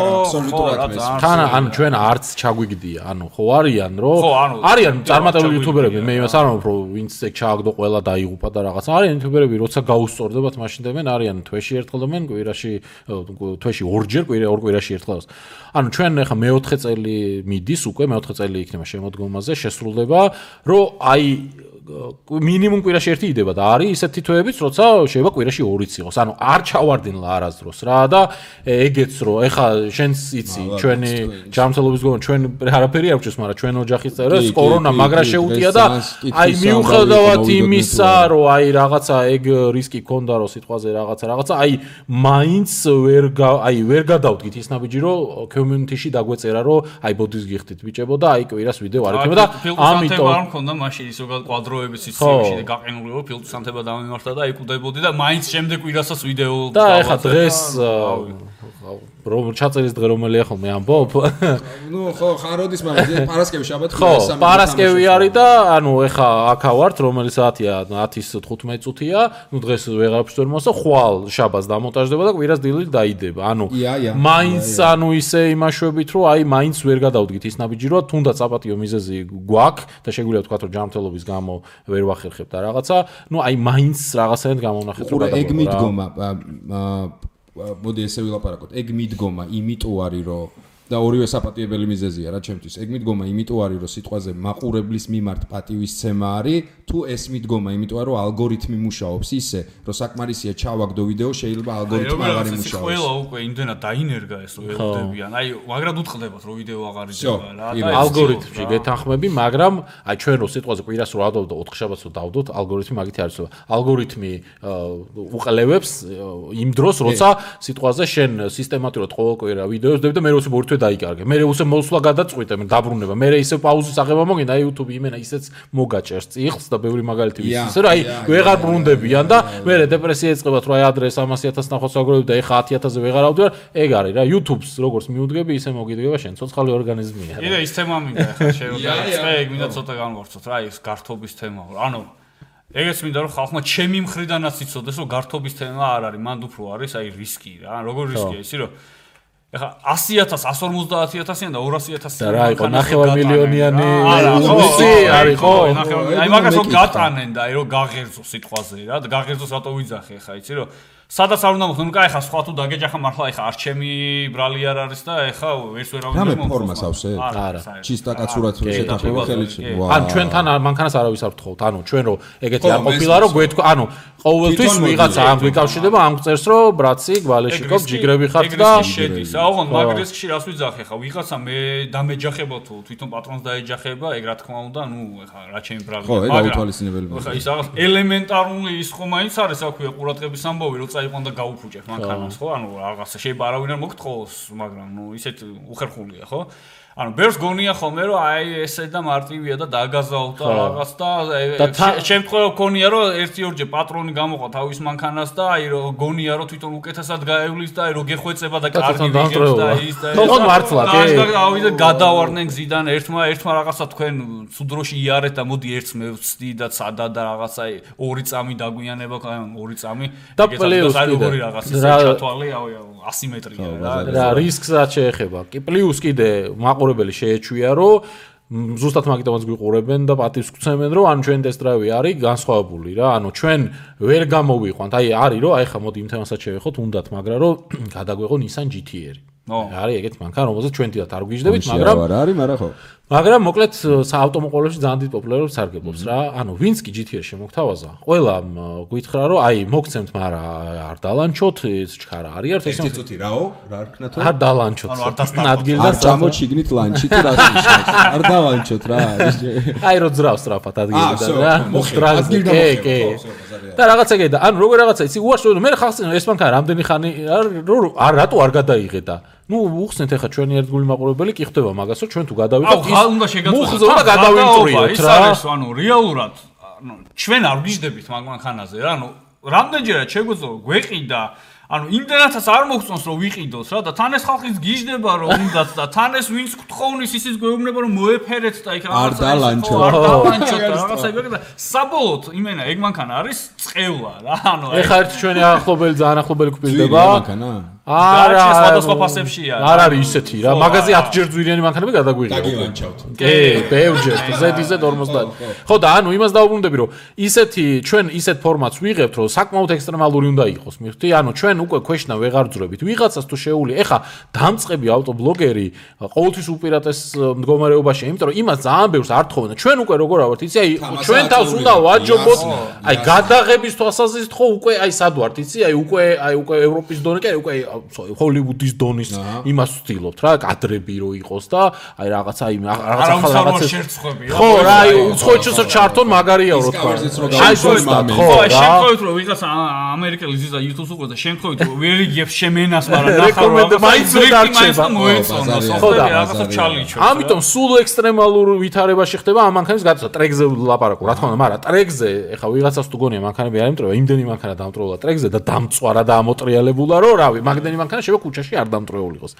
თან ანუ ჩვენ არც ჩაგვიგდია ანუ ხო არიან რომ არიან წარმატებული იუთუბერები მე იმას არ ვამბობ რომ ვინც ეგ ჩააგდო ყველა დაიღუპა და რაღაცა არიან იუთუბერები როცა გაუსწორდებათ მაშინ დებენ არიან თვეში ერთხელ დებენ კვირაში თვეში ორჯერ ორ კვირაში ერთხელ ანუ ჩვენ ეხა მე-4 წელი მიდის უკვე მე-4 წელი იქნება შემოდგომაზე შესრულდება რომ აი მინიმუმ კვირაში ერთი იდება და არის ისეთი თვეებიც, როცა შეიძლება კვირაში 2-იც იყოს. ანუ არ ჩავარდნილა არასდროს რა და ეგეც რომ ეხა შენს იცი ჩვენი ჯანმრთელობის გონო ჩვენ არაფერი არ გვჭირს, მაგრამ ჩვენ ოჯახის წევრებს კორონა მაგრა შეუტია და აი მიუხედავად იმისა, რომ აი რაღაცა ეგ რისკი ქონდა რომ სიტყვაზე რაღაცა აი მაინც ვერ გადავდგით ის ნაბიჯი რომ community-ში დაგვეწერა რომ აი ბოდის გიხდით ბიჭებო და აი კვირას ვიდეო არ იქნება და ამიტომ არ მქონდა მაშინ ისო კვადროების სისტემაში და გაყინული რომ ფილტვის ანთება დამემართა და იკუდებოდი და მაინც შემდეგ კვირასაც ვიდეო და ეხა დღეს რომ ჩაწერის დღე რომელია ხოლმე ამბობ? ნუ ხო, ხაროდის მაგრამ პარასკევი შაბათი ხო, პარასკევი არის და ანუ ეხა აქა ვართ, რომელი საათია 10:15 წუთია, ნუ დღეს ვეღარაფერს ვერ მოსა, ხვალ შაბათს დამონტაჟდება და კვირას დილით დაიდება. ანუ მაინც ანუ ისე იმაშვებით, რომ აი მაინც ვერ გადავდგით ის ნაბიჯი, რომ თუნდაც საპატიო მიზეზი გვაქვს და შეგვიძლია ვთქვა, რომ ჯანმრთელობის გამო ვერ ვახერხებთ და რაღაცა, ნუ აი მაინც რაღაცაერთ გამოვნახეთ რომ გადავდგეთ. ეგ მიდგომა მოდი ესე ვილაპარაკოთ. ეგ მიდგომა იმიტომ არის, რომ და ორივე საპატიებელი მიზეზია რა ჩემთვის. ეგ მიდგომა იმიტომ არის, რომ სიტყვაზე მაყურებლის მიმართ პატივისცემა არის, თუ ეს მიდგომა იმიტომ არის, რომ ალგორითმი მუშაობს ისე, რომ საკმარისია ჩავაგდო ვიდეო, შეიძლება ალგორითმი აღარ იმუშაოს. ყველა უკვე იმდენად დაინერგა ეს რომ ელოდებიან. აი, მაგრად უთხრდებათ, რომ ვიდეო აღარ იდება რა. ალგორითმში გეთანხმები, მაგრამ აი ჩვენ რო სიტყვაზე კვირას რო ავდოთ და 4 შაბათს რო დავდოთ, ალგორითმი მაგითი არის. ალგორითმი უყალევებს იმ დროს, როცა სიტყვაზე შენ სისტემატურად ყოველ კვირა ვიდეოს დებ და მე როცა ბორთვე დაიკარგე. მე usე მოსვლა გადაწყვიტე, მე დაბრუნება. მე ისე პაუზის აღება მოგინდა, აი YouTube იმენა ისეც მოგაჭერს წიხლს და ბევრი მაგალითი ვის. ისე რომ აი ვეღარ ბრუნდებიან და მე დეპრესია ეწყებათ, რომ აი ადრე 300,000 ნახოს აგროვებ და ეხა 10,000-ზე ვეღარ ავდივარ. ეგ არის რა, YouTube-ს როგორც მიუდგები, ისე მოგიდგება შენ ცოცხალი ორგანიზმია. კიდე ის თემა მინდა ეხა შევიდე, ეგ მინდა ცოტა განვარცოთ რა, ის გართობის თემა. ანუ ეგეც მინდა რომ ხალხმა ჩემი მხრიდანაც იცოდეს, რომ გართობის თემა არ არის, მანდ უფრო არის აი რისკი რა. როგორ რისკია ისი რომ ეხა 100,000, 150,000 და 200,000 და რა იყო 9 მილიონიანი უსი არის ხო? აი მაგას რომ გატანენ და აი რომ გაღერძო სიტყვაზე რა და გაღერძოს რატო ვიძახე ხა იცი რომ სადაც არ უნდა მოხდე ნუ კაი ხა სხვა თუ დაგეჯახა მართლა ეხა არ ჩემი ბრალი არ არის და ეხა ვერც ვერავინ რა მე ფორმას ავსე? არა. ჩისტა კაცურად შეთანხმება ხელში. ან ჩვენთან მანქანას არავის არ ვთხოვთ. ანუ ჩვენ რო ეგეთი არ ყოფილა რომ გვეთქვა, ანუ ყოველთვის ვიღაცა ამ გვიკავშირდება, ამ წერს რომ ბრაცი, გვალეშიკობ, ჯიგრები ხართ და შედის. აუღონ მაგ რისკში რას ვიძახე ხა ვიღაცა მე დამეჯახება თუ თვითონ პატრონს დაეჯახება, ეგ რა თქმა უნდა, ნუ ეხა რა ჩემი ბრალი. ხო, ეგ აუთვალისწინებელი. ხა ის რაღაც ელემენტარული ის ხომ მაინც არის აქვია ყურადღების ამბავი რომ წაიყვან და გაუფუჭებ მანქანას ხო? ანუ რაღაცა შეიძლება არავინ არ მოგთხოვოს, მაგრამ ნუ ისეთ უხერხულია ხო? ანუ ბერს გონია ხოლმე რომ აი ესე და მარტივია და დაგაზავ და რაღაც და შემთხვევა გონია რომ 1-2 პატრონი გამოყვა თავის მანქანას და აი რომ გონია რომ თვითონ უკეთესად გაევლის და აი რომ გეხვეწება და კარგი ვიღებს და ის და თქო მართლა კი და გადავარდნენ გზიდან ერთმა რაღაცა თქვენ სუდროში იარეთ და მოდი ერთს მე ვცდი და სადა და რაღაცა 2 წამი დაგვიანება აი 2 წამი და პლუს როგორი რაღაც ისე ჩათვალე აი ასიმეტრია რა რისკსაც შეეხება კი პლუს კიდე მაყურებელი შეეჩვია რომ ზუსტად მაგიტომაც გვიყურებენ და პატივს გვცემენ რომ ანუ ჩვენ ტესტ დრაივი არის განსხვავებული რა ანუ ჩვენ ვერ გამოვიყვანთ აი არის რომ აი ხა მოდი იმ თემასაც შევეხოთ უნდათ მაგრამ რომ გადაგვეღო Nissan GT-ი არის ეგეთ მანქანა რომელზეც ჩვენ თვითონ არ გვიждდებით მაგრამ არ არის მაგრამ ხო მაგრამ მოკლედ საავტომობილებში ძალიან დიდ პოპულარობას სარგებლობს რა ანუ ვინც კი GT-ს შემოგთავაზა ყველა გვითხრა რომ აი მოგცემთ მაგრამ არ დალანჩოთ ეს ჩქარა არის ერთ ეს წუთი რაო რა რქნა თუ არ დალანჩოთ ადგილზე არ ჩამოჩიგნით ლანჩი თუ რა არ დალანჩოთ რა აი რო ძრავს სწრაფად ადგილიდან რა მოხდრაზე კი და რაღაცა კი და ანუ როგორ რაღაცა იცი უარს მე ხალხს ეს მანქანა რამდენი ხანი არ რატო არ გადაიღედა ნუ უხსნეთ ახლა ჩვენი ერთგული მაყურებელი კი ხდება მაგას რომ ჩვენ თუ გადავიდეთ მუხზე უნდა გადავიმწრიოთ რა ანუ რეალურად ანუ ჩვენ არ ვიждდებით მაგ მანქანაზე რა ანუ რამდენჯერაც შეგვეძლო გვეყიდა ანუ იმდენაცაც არ მოგწონს რომ ვიყიდოს რა და თან ეს ხალხის გიждდება რომ უნდათ და თან ეს ვინც გთხოვნის ისიც გვეუბნება რომ მოეფერეთ და იქ არ დალანჩოთ რაღაცა ეგ და საბოლოოდ იმენა ეგ მანქანა არის წყევლა რა ანუ ეხა ერთ ჩვენი ახლობელი ძალიან ახლობელი გვპირდება მანქანა არა სხვადასხვა ფასებშია არ არის ისეთი რა მაგაზი 10 ჯერ ძვირიანი მანქანები გადაგვიღება დაგილანჩავთ კი ბევრჯერ Z50 ხო და ანუ იმას დაუბრუნდები რომ ისეთი ჩვენ ისეთ ფორმატს ვიღებთ რომ საკმაოდ ექსტრემალური უნდა იყოს მიხდი ანუ ჩვენ უკვე ქვეშნა ვეღარ ძრებით ვიღაცას თუ შეეული ეხა დამწყები ავტობლოგერი ყოველთვის უპირატეს მდგომარეობაში იმიტომ რომ იმას ძალიან ბევრს არ თხოვენ ჩვენ უკვე როგორ ავართ იცი აი ჩვენ თავს უნდა ვაჯობოთ აი გადაღების თვალსაზრისით ხო უკვე აი სად ვართ იცი აი უკვე ევროპის დონე კი უკვე ჰოლივუდის დონის იმას ვცდილობთ რა კადრები რო იყოს და აი რაღაცა იმ რაღაცა ხო რა აი უცხოეთშიც ჩართონ მაგარია რო თქვა აი ზუსტად ხო აი შემთხვევით რომ ვიღაც ამერიკელი ზიზა YouTube-ს უყურებს და შემთხვევით ვერ იგებს შემენას მაგრამ რეკომენდ მაინც დარჩება მოეწონა სოფტვერი რაღაცა ჩალიჩო ამიტომ სულ ექსტრემალურ ვითარებაში ხდება ამ მანქანის გადაცემა ტრეკზე ლაპარაკო რა თქმა უნდა მაგრამ ტრეკზე ეხა ვიღაცას თუ გონია მანქანები არ იმტრევა იმდენი მანქანა დამტროლა ტრეკზე და დამწვარა და ამოტრიალებულა რომ რავი მაგ მოედანი მანქანა შეიძლება ქუჩაში არ დამტრეული იყოს.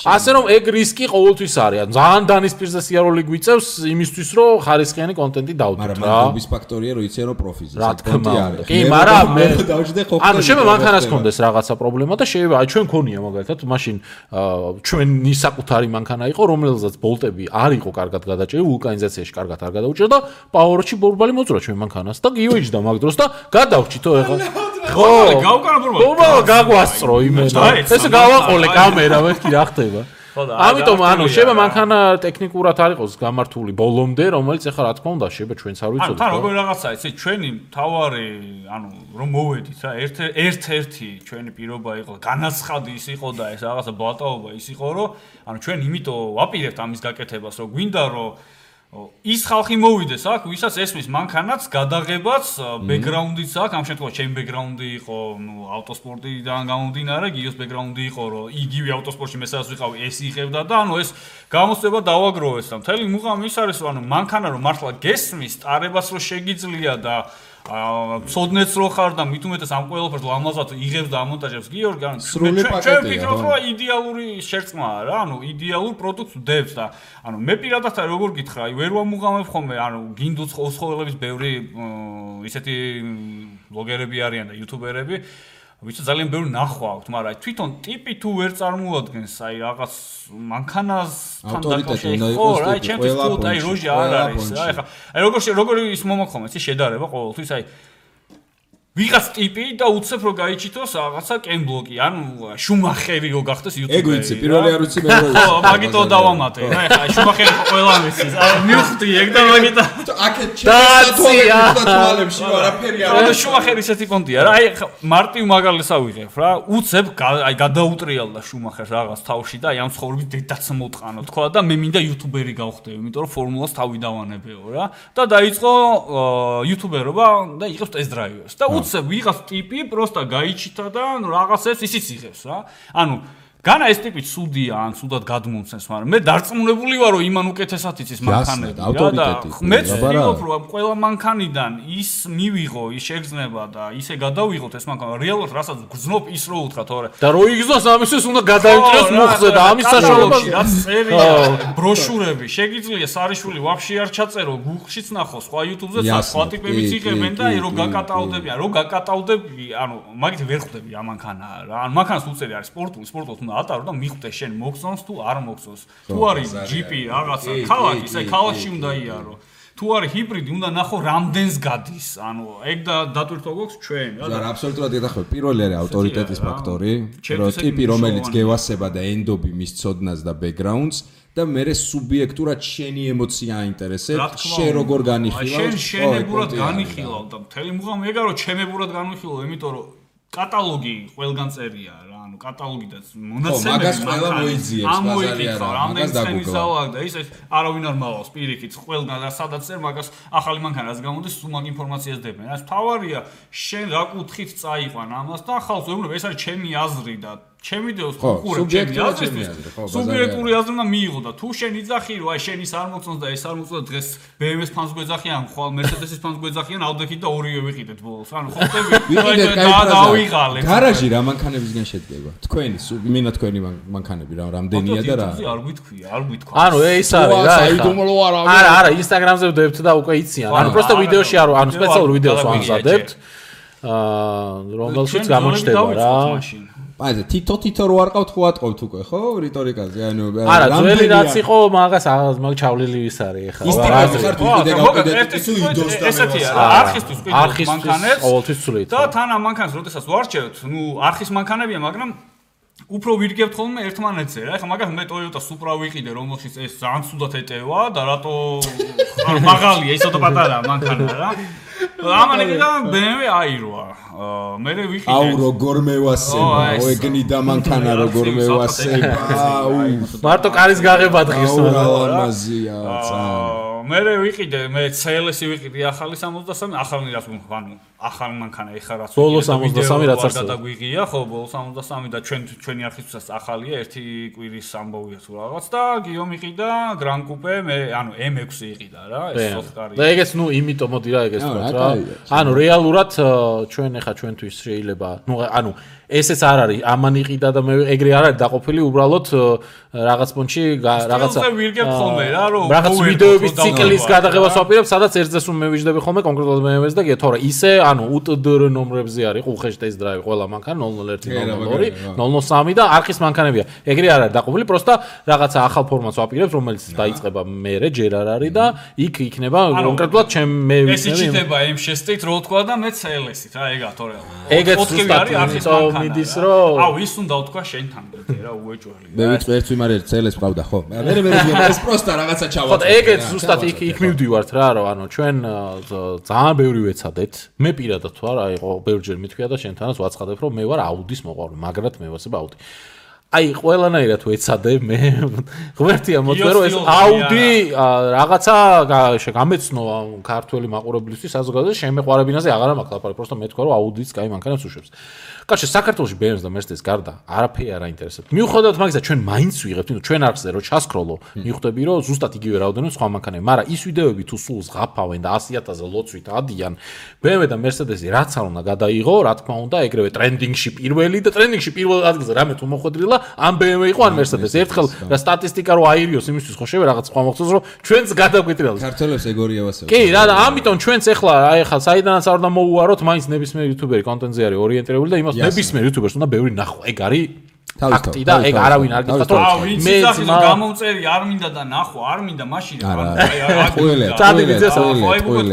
ასე რომ ეგ რისკი ყოველთვის არის. ძალიან დანისპირზე სიარული გვიწევს იმისთვის რომ ხარისხიანი კონტენტი დავდოთ რა. მაგრამ მის ფაქტორია რომ იციან რომ პროფიზი კონტენტი არის. კი, მაგრამ მე ანუ შეიძლება მანქანას კონდეს რაღაცა პრობლემა და შეიძლება ჩვენ ქონია მაგალითად მაშინ ჩვენი საკუთარი მანქანა იყო რომელსაც ბოლტები არ იყო კარგად გადაჭრილი ვულკანიზაციაში კარგად არ გადაუჭრა და პაუერში ბორბალი მოძრა ჩვენ მანქანას და გიოიჯდა მაგ დროს და გადავჭითო ეხლა ხო გავკანა ბორბალი გაგვასწრო იმენა ესე გავაყოლე კამერა მეთქი რა ხდება ამიტომ ანუ შეიძლება მანქანა ტექნიკურად არ იყოს გამართული ბოლომდე რომელიც ეხლა რა თქმა უნდა შეიძლება ჩვენც არ ვიცოდეთ თან როგორი რაღაცაა იცი ჩვენი თავარი ანუ რომ მოვედით რა ერთ-ერთი ჩვენი პირობა იყო განაცხადი ის იყო და ეს რაღაცა ბლატაობა ის იყო რომ ანუ ჩვენ იმიტომ ვაპირებთ ამის გაკეთებას რომ გვინდა რომ ის ხალხი მოვიდეს აქ, ვისაც ესმის მანქანაც, გადაღებაც, ბექგრაუნდიც აქვს, ამ შემთხვევაში ჩემი ბექგრაუნდი იყო, ავტოსპორტიდან გამომდინარე, გიოს ბექგრაუნდი იყო, რომ იგივე ავტოსპორტში მე სადაც ვიყავი, ეს იღებდა და ანუ ეს გამოსწრება დავაგროვეს და მთელი მუღამი ის არის, რომ ანუ მანქანა რომ მართლა გესმის, ტარებას რო შეგიძლია და ცოდნეც რო ხარ და მით უმეტეს ამ ყველაფერს ლამაზად იღებს და ამონტაჟებს გიორგი ანუ ჩვენ ვფიქრობ რომ ისდიალური შერწყმაა რა ანუ იდეალურ პროდუქტს ვდებს და ანუ მე პირადად როგორ გითხრა აი ვერ ვამუღამებ ხოლმე ანუ გინდუც ოსხოველების ბევრი ისეთი ბლოგერები არიან და იუთუბერები ვიცი ძალიან ბევრი ნახვა აქვს მაგრამ აი თვითონ ტიპი თუ ვერ წარმოადგენს აი რაღაც მანქანას თან დაკავშირებით ხო რა ჩემთვის თუ აი როჟი არ არის რა ეხა აი როგორი ის მომოხმო იცი შედარება ყოველთვის აი ვიღაც ტიპი და უცებ რო გაიჩითოს რაღაცა კენბლოკი ანუ შუმახერი რო გახდეს იუთუბერი ეგ ვიცი პირველი არ ვიცი მე რო ხო მაგითო დავამატე რა ეხა შუმახერი ყველა ვიცის მივხვდი ეგ და მაგიტო აქეთ ჩემს თვალებში არაფერი არ არის შუმახერი ისეთი პონტია რა აი მარტივ მაგალითს ავიღებ რა უცებ აი გადაუტრიალდა შუმახერს რაღაც თავში და აი ამ ცხოვრების დედაც მოტყანო თქვა და მე მინდა იუთუბერი გავხდები იმიტომ რომ ფორმულას თავი დავანებეო რა და დაიწყო იუთუბერობა და იღებს ტესტ-დრაივებს და ვიღაც ტიპი პროსტა გაიჩითა და რაღაცებს ისიც იღებს რა. ანუ განა ეს ტიპი ცუდია ან ცუდად გადმომცემს, მაგრამ მე დარწმუნებული ვარ რომ იმან უკეთესად იცის მანქანები და მეც ვფიქრობ რომ ყველა მანქანიდან ის მივიღო, ის შეგრძნება და ისე გადავიღოთ ეს მანქანა რეალურად რასაც გრძნობ ის რო უთხრა თორე და რო იგზნოს ამისთვის უნდა გადაიჭროს მუხზე და ამის საშუალებას რაც წერია ბროშურები შეგიძლია სარიშვილი ვაფშე არ ჩაწერო გუგლშიც ნახო სხვა YouTube-ზე სხვა ტიპებიც იღებენ და რო გაკატავდებიან რო გაკატავდები ანუ მაგით ვერ ხვდები ამ მანქანა რა ანუ მანქანას უწერი არის სპორტული უნდა ატარო და მიხვდე შენ მოგწონს თუ არ მოგწონს თუ არის ჯიპი რაღაცა ქალაქი ისე ქალაქში უნდა იარო თუ არის ჰიბრიდი უნდა ნახო რამდენს გადის ანუ ეგ და დატვირთვა გვაქვს ჩვენ რა აბსოლუტურად ედახებ პირველი არის ავტორიტეტის ფაქტორი რომ ტიპი რომელიც გევასება და ენდობი მის ცოდნას და ბექგრაუნდს და მე სუბიექტურად შენი ემოცია აინტერესებს შენ როგორ განიხილავ შენებურად განიხილავ და მთელი მუღამი ეგა რომ ჩემებურად განვიხილავ იმიტომ რომ კატალოგი ყველგან წერია რა ანუ კატალოგი და მონაცემები მაგას ყველა მოიძიებს ბაზარი არა მაგას დაგუგლა და ის არავინ არ მალავს პირიქით ყველგან და სადაც წერ მაგას ახალი მანქანას გამოდის სულ მაგ ინფორმაციას დებენ რა თავარია შენ რა კუთხით წაიყვან ამას და ხალხს ვეუბნებ ეს არის ჩემი აზრი და ჩემი დეოს უყურებ ჩემი აზრისთვის სუბიექტური აზრი უნდა მიიღო და თუ შენ იძახი რომ აი შენ ის არ მოწონს და ეს არ მოწონს დღეს BMW-ს ფანს გვეძახიან ხვალ Mercedes-ის ფანს გვეძახიან ავდექით და ორივე ვიყიდეთ ბოლოს ანუ ხოხტები დავიღალე გარაჟი რა მანქანებისგან შედგება თქვენი მინა თქვენი მანქანები რა რამდენია და რა არ გითქვია არ გითქვა ანუ ეს არის რა არა Instagram-ზე ვდებთ და უკვე იციან ანუ პროსტო ვიდეოში არ ანუ სპეციალურ ვიდეოს ვამზადებთ რომელშიც გამოჩნდება რა აი თითო რო არ ყავთ ხო ატყობთ უკვე ხო რიტორიკაზე ანუ არა ძველი რაც იყო მაგას მაგ ჩავლილი ვის არის ახლა ესეთია არხისტვის ყიდულობის მანქანებს ყოველთვის ცვლით და თან ამ მანქანას როდესაც ვარჩევთ ნუ არხის მანქანებია მაგრამ უფრო ვირგებთ ხოლმე ერთმანეთზე რა ეხლა მაგას მე Toyota Supra ვიყიდე რომელშიც ეს ძალიან ცუდად ეტევა და რატო მაღალია ისოთა პატარა მანქანა რა ამან ეკიდა BMW აიროა მე ვიყიდე აუ როგორ მევასება ეგნიდა მანქანა როგორ მევასება მარტო კარის გაღება დღის ლამაზია მე ვიყიდე მე CLS-ი ვიყიდე ახალი 63 ახალი რაც ანუ ახალი მანქანა ეხა რაც ბოლო 63 რაც არის გადაგვიღია ხო ბოლო 63 და ჩვენი არხისთვისაც ახალია ერთი კვირის ამბავია თუ რაღაც და გიო მიყიდა Gran Coupe მე ანუ M6 იყიდა რა ეს სოხკარი და ეგეც ნუ იმიტომ მოდი რა ეგეც რა ანუ რეალურად ჩვენ ეხა ჩვენთვის შეიძლება ნუ ანუ ესეც არ არის ამან იყიდა და მე ეგრე არ არის დაყოფილი უბრალოდ რაღაც პონჩი რაღაცა რაღაც ვიდეოების ციკლის გადაღებას ვაპირებ სადაც ერთზეს რომ მევიჯდები ხოლმე კონკრეტულად BMW-ს და თორე ისე ანუ UTDR ნომრებზე არის უხეშ ტესტ დრაივი ყველა მანქანა 001 002 003 და არხის მანქანებია ეგრე არ არის დაყოფილი პროსტა რაღაცა ახალ ფორმატს ვაპირებ რომელიც დაიწყება მერე ჯერ არ არის და იქ იქნება კონკრეტულად ჩემ მე ვიცი ეს იჩება M6-ით რო თქვა და მე CLS-ით რა ეგა თორე ეგეც ზუსტად მიდის რომ აუ ის უნდა თქვა შენთან რა უეჭველი მე ვიცი ერთ ვიმარ ერთ CLS ყავდა ხო მე ეს პროსტა რაღაცა ჩავაწყო ხო ეგეც ზუსტად იქ მივდივართ რა რომ ანუ ჩვენ ძალიან ბევრი ვეცადეთ მე პირადად თუ არა აიყო ბევრჯერ მithქვია და შენთანაც ვაცხადებ რომ მე ვარ აუდის მოყვარული მაგრად მე ვასებ აუდი აი ყველანაირად ვეცადე მე ღმერთია მოწვე რომ ეს აუდი რაღაცა გამეცნო ქართველი მაყურებლისთვის საზოგადოებაში შემეყვარებინაზე აღარა მაქვს ლაპარაკი просто მე თქვა რომ აუდიც კაი მანქანებს უშვებს კაცი საქართველოში BMW და Mercedes გარდა არაფერი არ აინტერესებს მიუხედავად მაგისა ჩვენ მაინც ვიღებთ ნუ ჩვენ არხზე რომ ჩასკროლო მიხვდები რომ ზუსტად იგივე რაოდენობა სხვა მანქანები მაგრამ ის ვიდეოები თუ სულ ზღაფავენ და 100,000-ზე ლოცვით ადიან BMW და Mercedes-ი რაც არ უნდა გადაიღო რა თქმა უნდა ეგრევე ტრენდინგში პირველი და ტრენდინგში პირველ ადგილზე რამე თუ მოხვედრილა ამ BMW იყო ან Mercedes ერთხელ რა სტატისტიკა რო აირიოს იმისთვის ხო შევე რაღაც სხვა მოხდეს რომ ჩვენც გადაგვიტრიალოს ქართველებს ეგორია ვასწავლე კი რა და ამიტომ ჩვენც ახლა აი ახლა საიდანაც არ უნდა მოუაროთ მაინც ნებისმიერ იუთუბერი კონტენტზე არის ორიენტირებული და იმას ნებისმიერ იუთუბერს უნდა ბევრი ნახო ეგ არის ფაქტი და ეგ არავინ არ გითხრათ რომ მე გამომწერი არ მინდა და ნახო არ მინდა მაშინ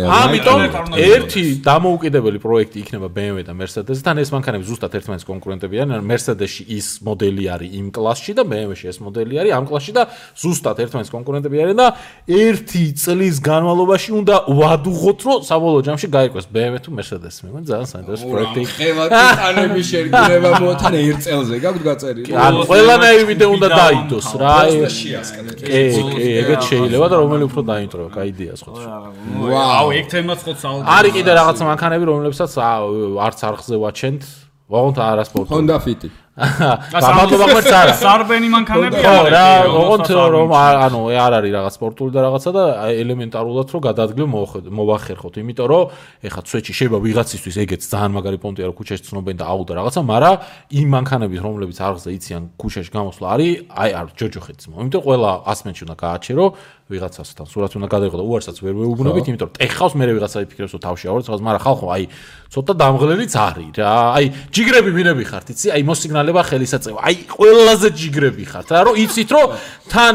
ამიტომ ერთი დამოუკიდებელი პროექტი იქნება BMW და Mercedes-თან ეს მანქანები ზუსტად ერთმანეთის კონკურენტები არიან Mercedes-ში ის მოდელი არის იმ კლასში და BMW-ში ეს მოდელი არის ამ კლასში და ზუსტად ერთმანეთის კონკურენტები არიან და ერთი წლის განმავლობაში უნდა ვადუღოთ რომ საბოლოო ჯამში გაიყვეს BMW თუ Mercedes მე მგონი ძალიან საინტერესო პროექტი ხევა ტიტანების შერგება მოთან ერთ წელზე გაგვთ გაწერილი ან ყველანაირი ვიდეო უნდა დაიდოს რა ეგეც შეიძლება და რომელი უფრო დაინტროა კაი იდეა სხვა ვაუ ეგ თემაც ხო საუბარი არის კიდე რაღაც მანქანები რომლებსაც არც არხზე ვაჩენთ ვაღონთ არასპორტი Honda Fit გამადლობა ღმერთს არა სარბენი მანქანები ხო რა ოღონდ რომ ანუ არ არის რაღაც სპორტული და რაღაცა და ელემენტარულად რომ გადაადგილო მოვახერხოთ იმიტომ რომ ეხა ცვეჩი შეიძლება ვიღაცისთვის ეგეც ძალიან მაგარი პონტია რომ ქუჩაში ცნობენ და აუდა რაღაცა მაგრამ იმ მანქანების რომლებიც არხზე იციან ქუჩაში გამოსვლა არის აი არ ჯოჯოხეთს მო იმიტომ ყველა 100 მეტრში უნდა გააჩერო ვიღაცასთან სურათი უნდა გადაიღო და უარსაც ვერ ვეუბნებით იმიტომ რომ ტეხავს მე ვიღაცა იფიქრებს რომ თავში ავარ რაღაც მაგრამ ხალხო აი ცოტა დამღლელიც არის რა აი ჯიგრები ვინები ხართ იცი აი მოსიგნალება ხელისაწევა აი ყველაზე ჯიგრები ხართ რა რომ იცით რომ თან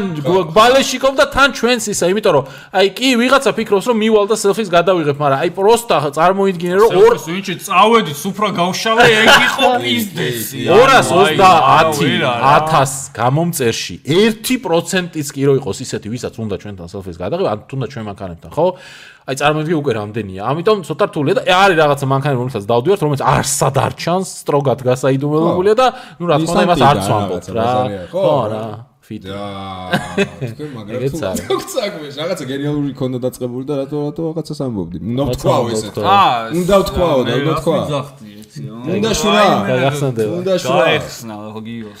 ბალეშიკով და თან ჩვენს ისა იმიტომ რომ აი კი ვიღაცა ფიქრობს რომ მივალ და სელფის გადავიღებ მაგრამ აი პროსტა წარმოიდგინე რომ ვინჩი წავედი სუფრა გავშალე ეგ იყო პიზდესი 230,000 გამომწერში 1%-იც კი რო იყოს ისეთი ვისაც უნდა ჩვენთან სელფის გადაღება ან თუნდაც ჩვენ მანქანებთან ხო აი წარმოიდგინე უკვე რამდენია ამიტომ ცოტა რთულია და არის რაღაცა მანქანები რომელსაც დავდივართ რომელიც არსად არ ჩანს სტროგად გასაიდუმლოებულია და ნუ რა თქმა უნდა იმას არც ვამბობ რა ხო რა ფიტ თქვენ მაგრამ თუ გწაგვეს რაღაცა გენიალური ქონდა დაწყებული და რატო რაღაცას ამბობდი უნდა ვთქვაო ესეთ უნდა ვთქვაო და უნდა ვთქვა უნდა შურა უნდა შურა ეხსნა ხო გიოს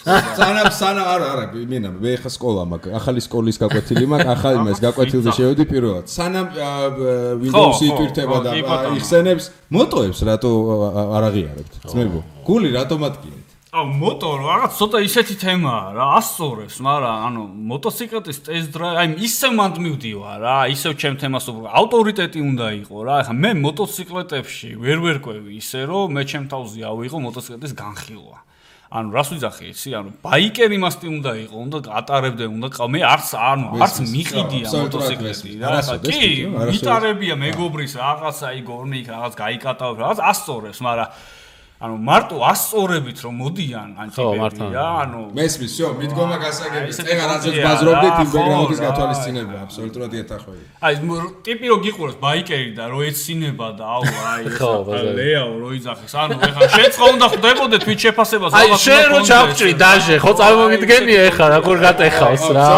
სანა არა მე ხა სკოლა მაქვს ახალი სკოლის გაკვეთილი მაქვს ახალი მას გაკვეთილზე შევედი პირველად სანამ ვიდეოს იტვირთება და იხსენებს მოტოებს რატო არ აღიარებთ ძმებო გული რატომ ატკინეთ აუ მოტო რაღაც ცოტა ისეთი თემაა რა ასწორებს მაგრამ ანუ მოტოციკლეთის ტესტ დრაივი აი ისევ მანდ მივდივარ რა ისევ ჩემ თემას ავტორიტეტი უნდა იყოს რა ეხა მე მოტოციკლეტებში ვერ ყვევი ისე რომ მე ჩემ თავზე ავიღო მოტოციკლეთის განხილვა ანუ რას ვიძახი იცი ანუ ბაიკერი მასტი უნდა იყოს უნდა ატარებდე უნდა მე არც მიყიდია მოტოციკლეტი რა კი მიტარებია მეგობრის რაღაცა აი გორნიკ რაღაც გაიკატავ რაღაც ასწორებს მაგრამ ანუ მარტო ასწორებით რომ მოდიან ანტიპები რა ანუ მესმის всё მიდგომა გასაგები წეგა რაზეც ბაზრობდით იმ ბექგრაუნდის გათვალისწინება აბსოლუტურად ეთახვევი აი ტიპი რო გიყურებს ბაიკერი და რო ეცინება და აუ აი ლეაო რო იძახეს ანუ ეხლა შეწყო უნდა ხდებოდე თვით შეფასებას აი შენ რო ჩავჭრი დაჟე ხო წარმოგიდგენია ეხლა რა გორ გატეხავს რა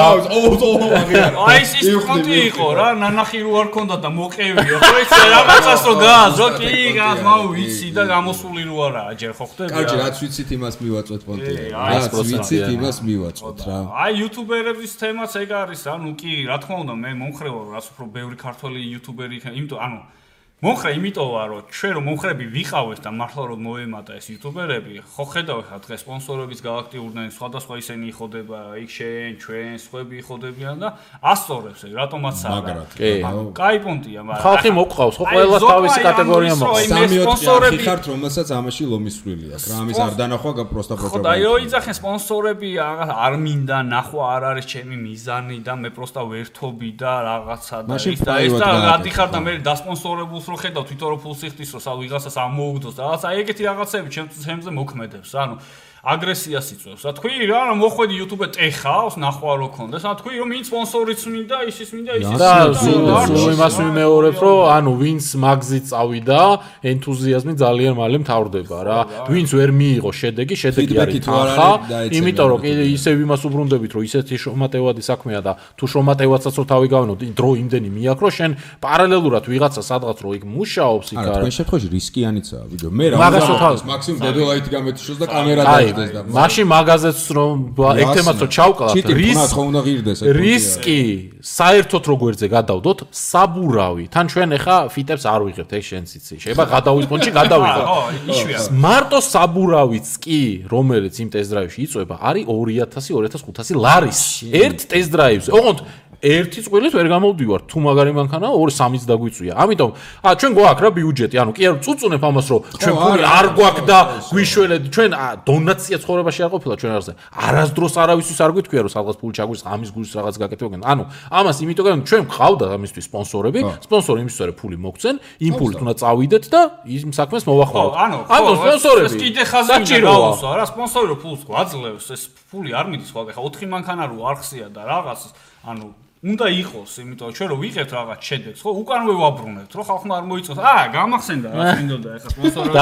აი ის კონტი იყო რა ნანახი რო არ ქონდა და მოყევია ხო ეს რაღაცას რო გააზრო კი გას მაუ ვიცი და გამოსული რო აჯერ ხო ხდება? კარგი, რაც ვიცით იმას მივაწვეთ პონტი. რაც ვიცით იმას მივაწვეთ რა. აი იუთუბერების თემაც ეგ არის, ანუ კი, რა თქმა უნდა, მე მომხრევა, რაც უფრო ბევრი ქართველი იუთუბერი იქნება, იმიტომ ანუ მომხრე იმიტომ ვარ რომ ჩვენ რომ მომხრები ვიყავეს და მართლა რომ მოემატა ეს იუთუბერები ხო ხედავ ხა დღეს სპონსორების გააქტიურდნენ სხვადასხვა ისინი იხოდება იქ შენ ჩვენ სხვები იხოდებიან და ასწორებს ეგ რატომაც არა კაი პონტია მაგრამ ხალხი მოყავს ხო ყველა თავისი კატეგორია მოყავს სპონსორები ხართ რომელსაც ამაში ლომისვლილი აქვს რა ამის არ დანახვა პროსტა პროპაგანდა ხო და იო იძახენ სპონსორები არ მინდა ნახვა არ არის ჩემი მიზანი და მე პროსტა ვერთობი და რაღაცა და ის და რადი ხარ და მე დასპონსორებულს რო ხედავ თვითონ რო ფულს იხდის რო სა ვიღაცას ამოუგდოს და რაღაცა ეგეთი რაღაცები ჩემზე მოქმედებს ანუ აგრესიას იწვევს. რა თქვი რა მოხვედი YouTube-ე ტეხავს ნახვა რო კონდეს. რა თქვი რომ ვინც სპონსორიც მინდა, ისიც მინდა, ისიც მინდა. და იმას ვიმეორებ რომ ანუ ვინც მაგზით წავიდა, ენთუზიაზმი ძალიან მალე მთავრდება რა. ვინც ვერ მიიღო შედეგი არის თანხა, იმიტომ რომ ისევ იმას უბრუნდებით რომ ისეთი შრომატევადი საქმეა და თუ შრომატევაცაც რო თავი გავენო, დრო იმდენი მიაქრო შენ პარალელურად ვიღაცა სადღაც რო იქ მუშაობს იქ არა. თქვენ შემთხვევაში რისკიანიცაა ვიდეო. მე რა მაქსიმუმ დედოლაიტი გამეთიშოს და კამერა მაშინ მაგაზეც რომ ეგ თემაც რო ჩავკლავთ რისკი საერთოდ როგვერზე გადავდოთ საბურავი თან ჩვენ ახლა ფიტებს არ ვიღებთ ეს შენც იცი შეიძლება გადავიდეთ პონჩი გადავიღოთ მარტო საბურავიც კი რომელიც იმ ტესტ-დრაივში იწვება არის 2000-2500 ლარის ერთ ტესტ-დრაივზე ოღონდ ერთი წვილით ვერ გამოვდივარ თუ მაგარი მანქანაა 2-3-იც დაგვიწვია ამიტომ ჩვენ გვაქვს რა ბიუჯეტი ანუ კი არ წუწუნებ ამას რომ ჩვენ ფული არ გვაქვს და გვიშველეთ ჩვენ დონაცია ცხოვრებაში არ ყოფილა ჩვენ არზე არასდროს არავისთვის არ გითქვია რომ სადღაც ფული ჩაგვის ამის გულს რაღაც გაკეთებენ ანუ ამას იმიტომ რომ ჩვენ გვყავდა ამისთვის სპონსორები სპონსორი იმისთვის რომ ფული მოგცენ იმ ფულით უნდა წავიდეთ და იმ საქმეს მოვახმაროთ ანუ სპონსორები ეს კიდე ხაზი გაუსვა რა სპონსორი რო ფულს გვაძლევს ეს ფული არ მიდის ხო ახლა 4 მანქანა რო არხსია და რაღაც ანუ უნდა იყოს, იმიტომ რომ ჩვენ რო ვიღებთ რაღაც შედეგს, ხო, უკანვე ვაბრუნებთ, რომ ხალხმა არ მოიწოს. გამახსენდა რა მინდოდა ახლა სპონსორები.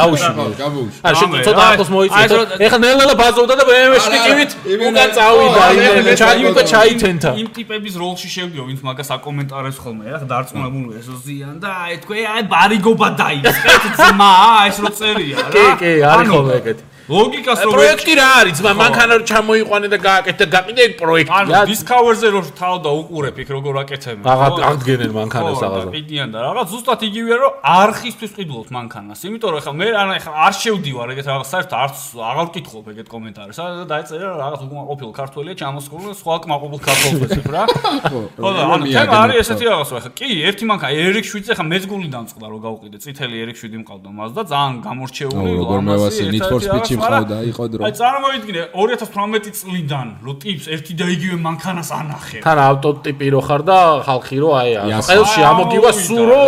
გავუშვი. შენ ცოტა ახლოს მოიწეს. ახლა ნელ-ნელა ბაზოვდა და BMW-ში ტივით უკან წავიდა, იმენა ჩაითენთა. იმ ტიპების როლში შევდიო, ვინც მაგას აკომენტარებს ხოლმე, ახლა დარწმუნებული ესო ზიან და თქვენ ბარიგობა დაიწყეთ ძმა, ეს რო წერია რა. კი, არის ხოლმე ეგეთი. ლოგიკას რო პროექტი რა არის ძმა მანქანა რო ჩამოიყვანე და გააკეთე და გაყიდე პროექტი ანუ Discover-ზე რო თავდა უყურებ იქ როგორ აკეთებენ აღდგენენ მანქანას რაღაცა ყიდიან და რაღაც ზუსტად იგივეა რომ არხისთვის ყიდულობთ მანქანას იმიტომ რომ ახლა მე ახლა არ შევდივარ ეგეთ რაღაც საერთოდ არც აღარ ვკითხულობ ეგეთ კომენტარებს და დაეწერა რაღაც უკმაყოფილ ქართველია ჩამოსხული სხვა უკმაყოფილ ქართველებს იქ რა ხო და ანუ თემა არის ესეთი რაღაცა ახლა კი ერთი მანქანა RX-7-ზე ახლა მეც გული დამწყდა რომ გავყიდე წითელი RX-7 მყავდა მას და ძალიან გამორჩეული ამასი ხავდა იყო დრო. აი წარმოიდგინე 2018 წლიდან რო ტიპს ერთი და იგივე მანქანას ანახე. თან ავტოტიპი რო ხარ და ხალხი რო აი ყელში ამოგივა სულ რო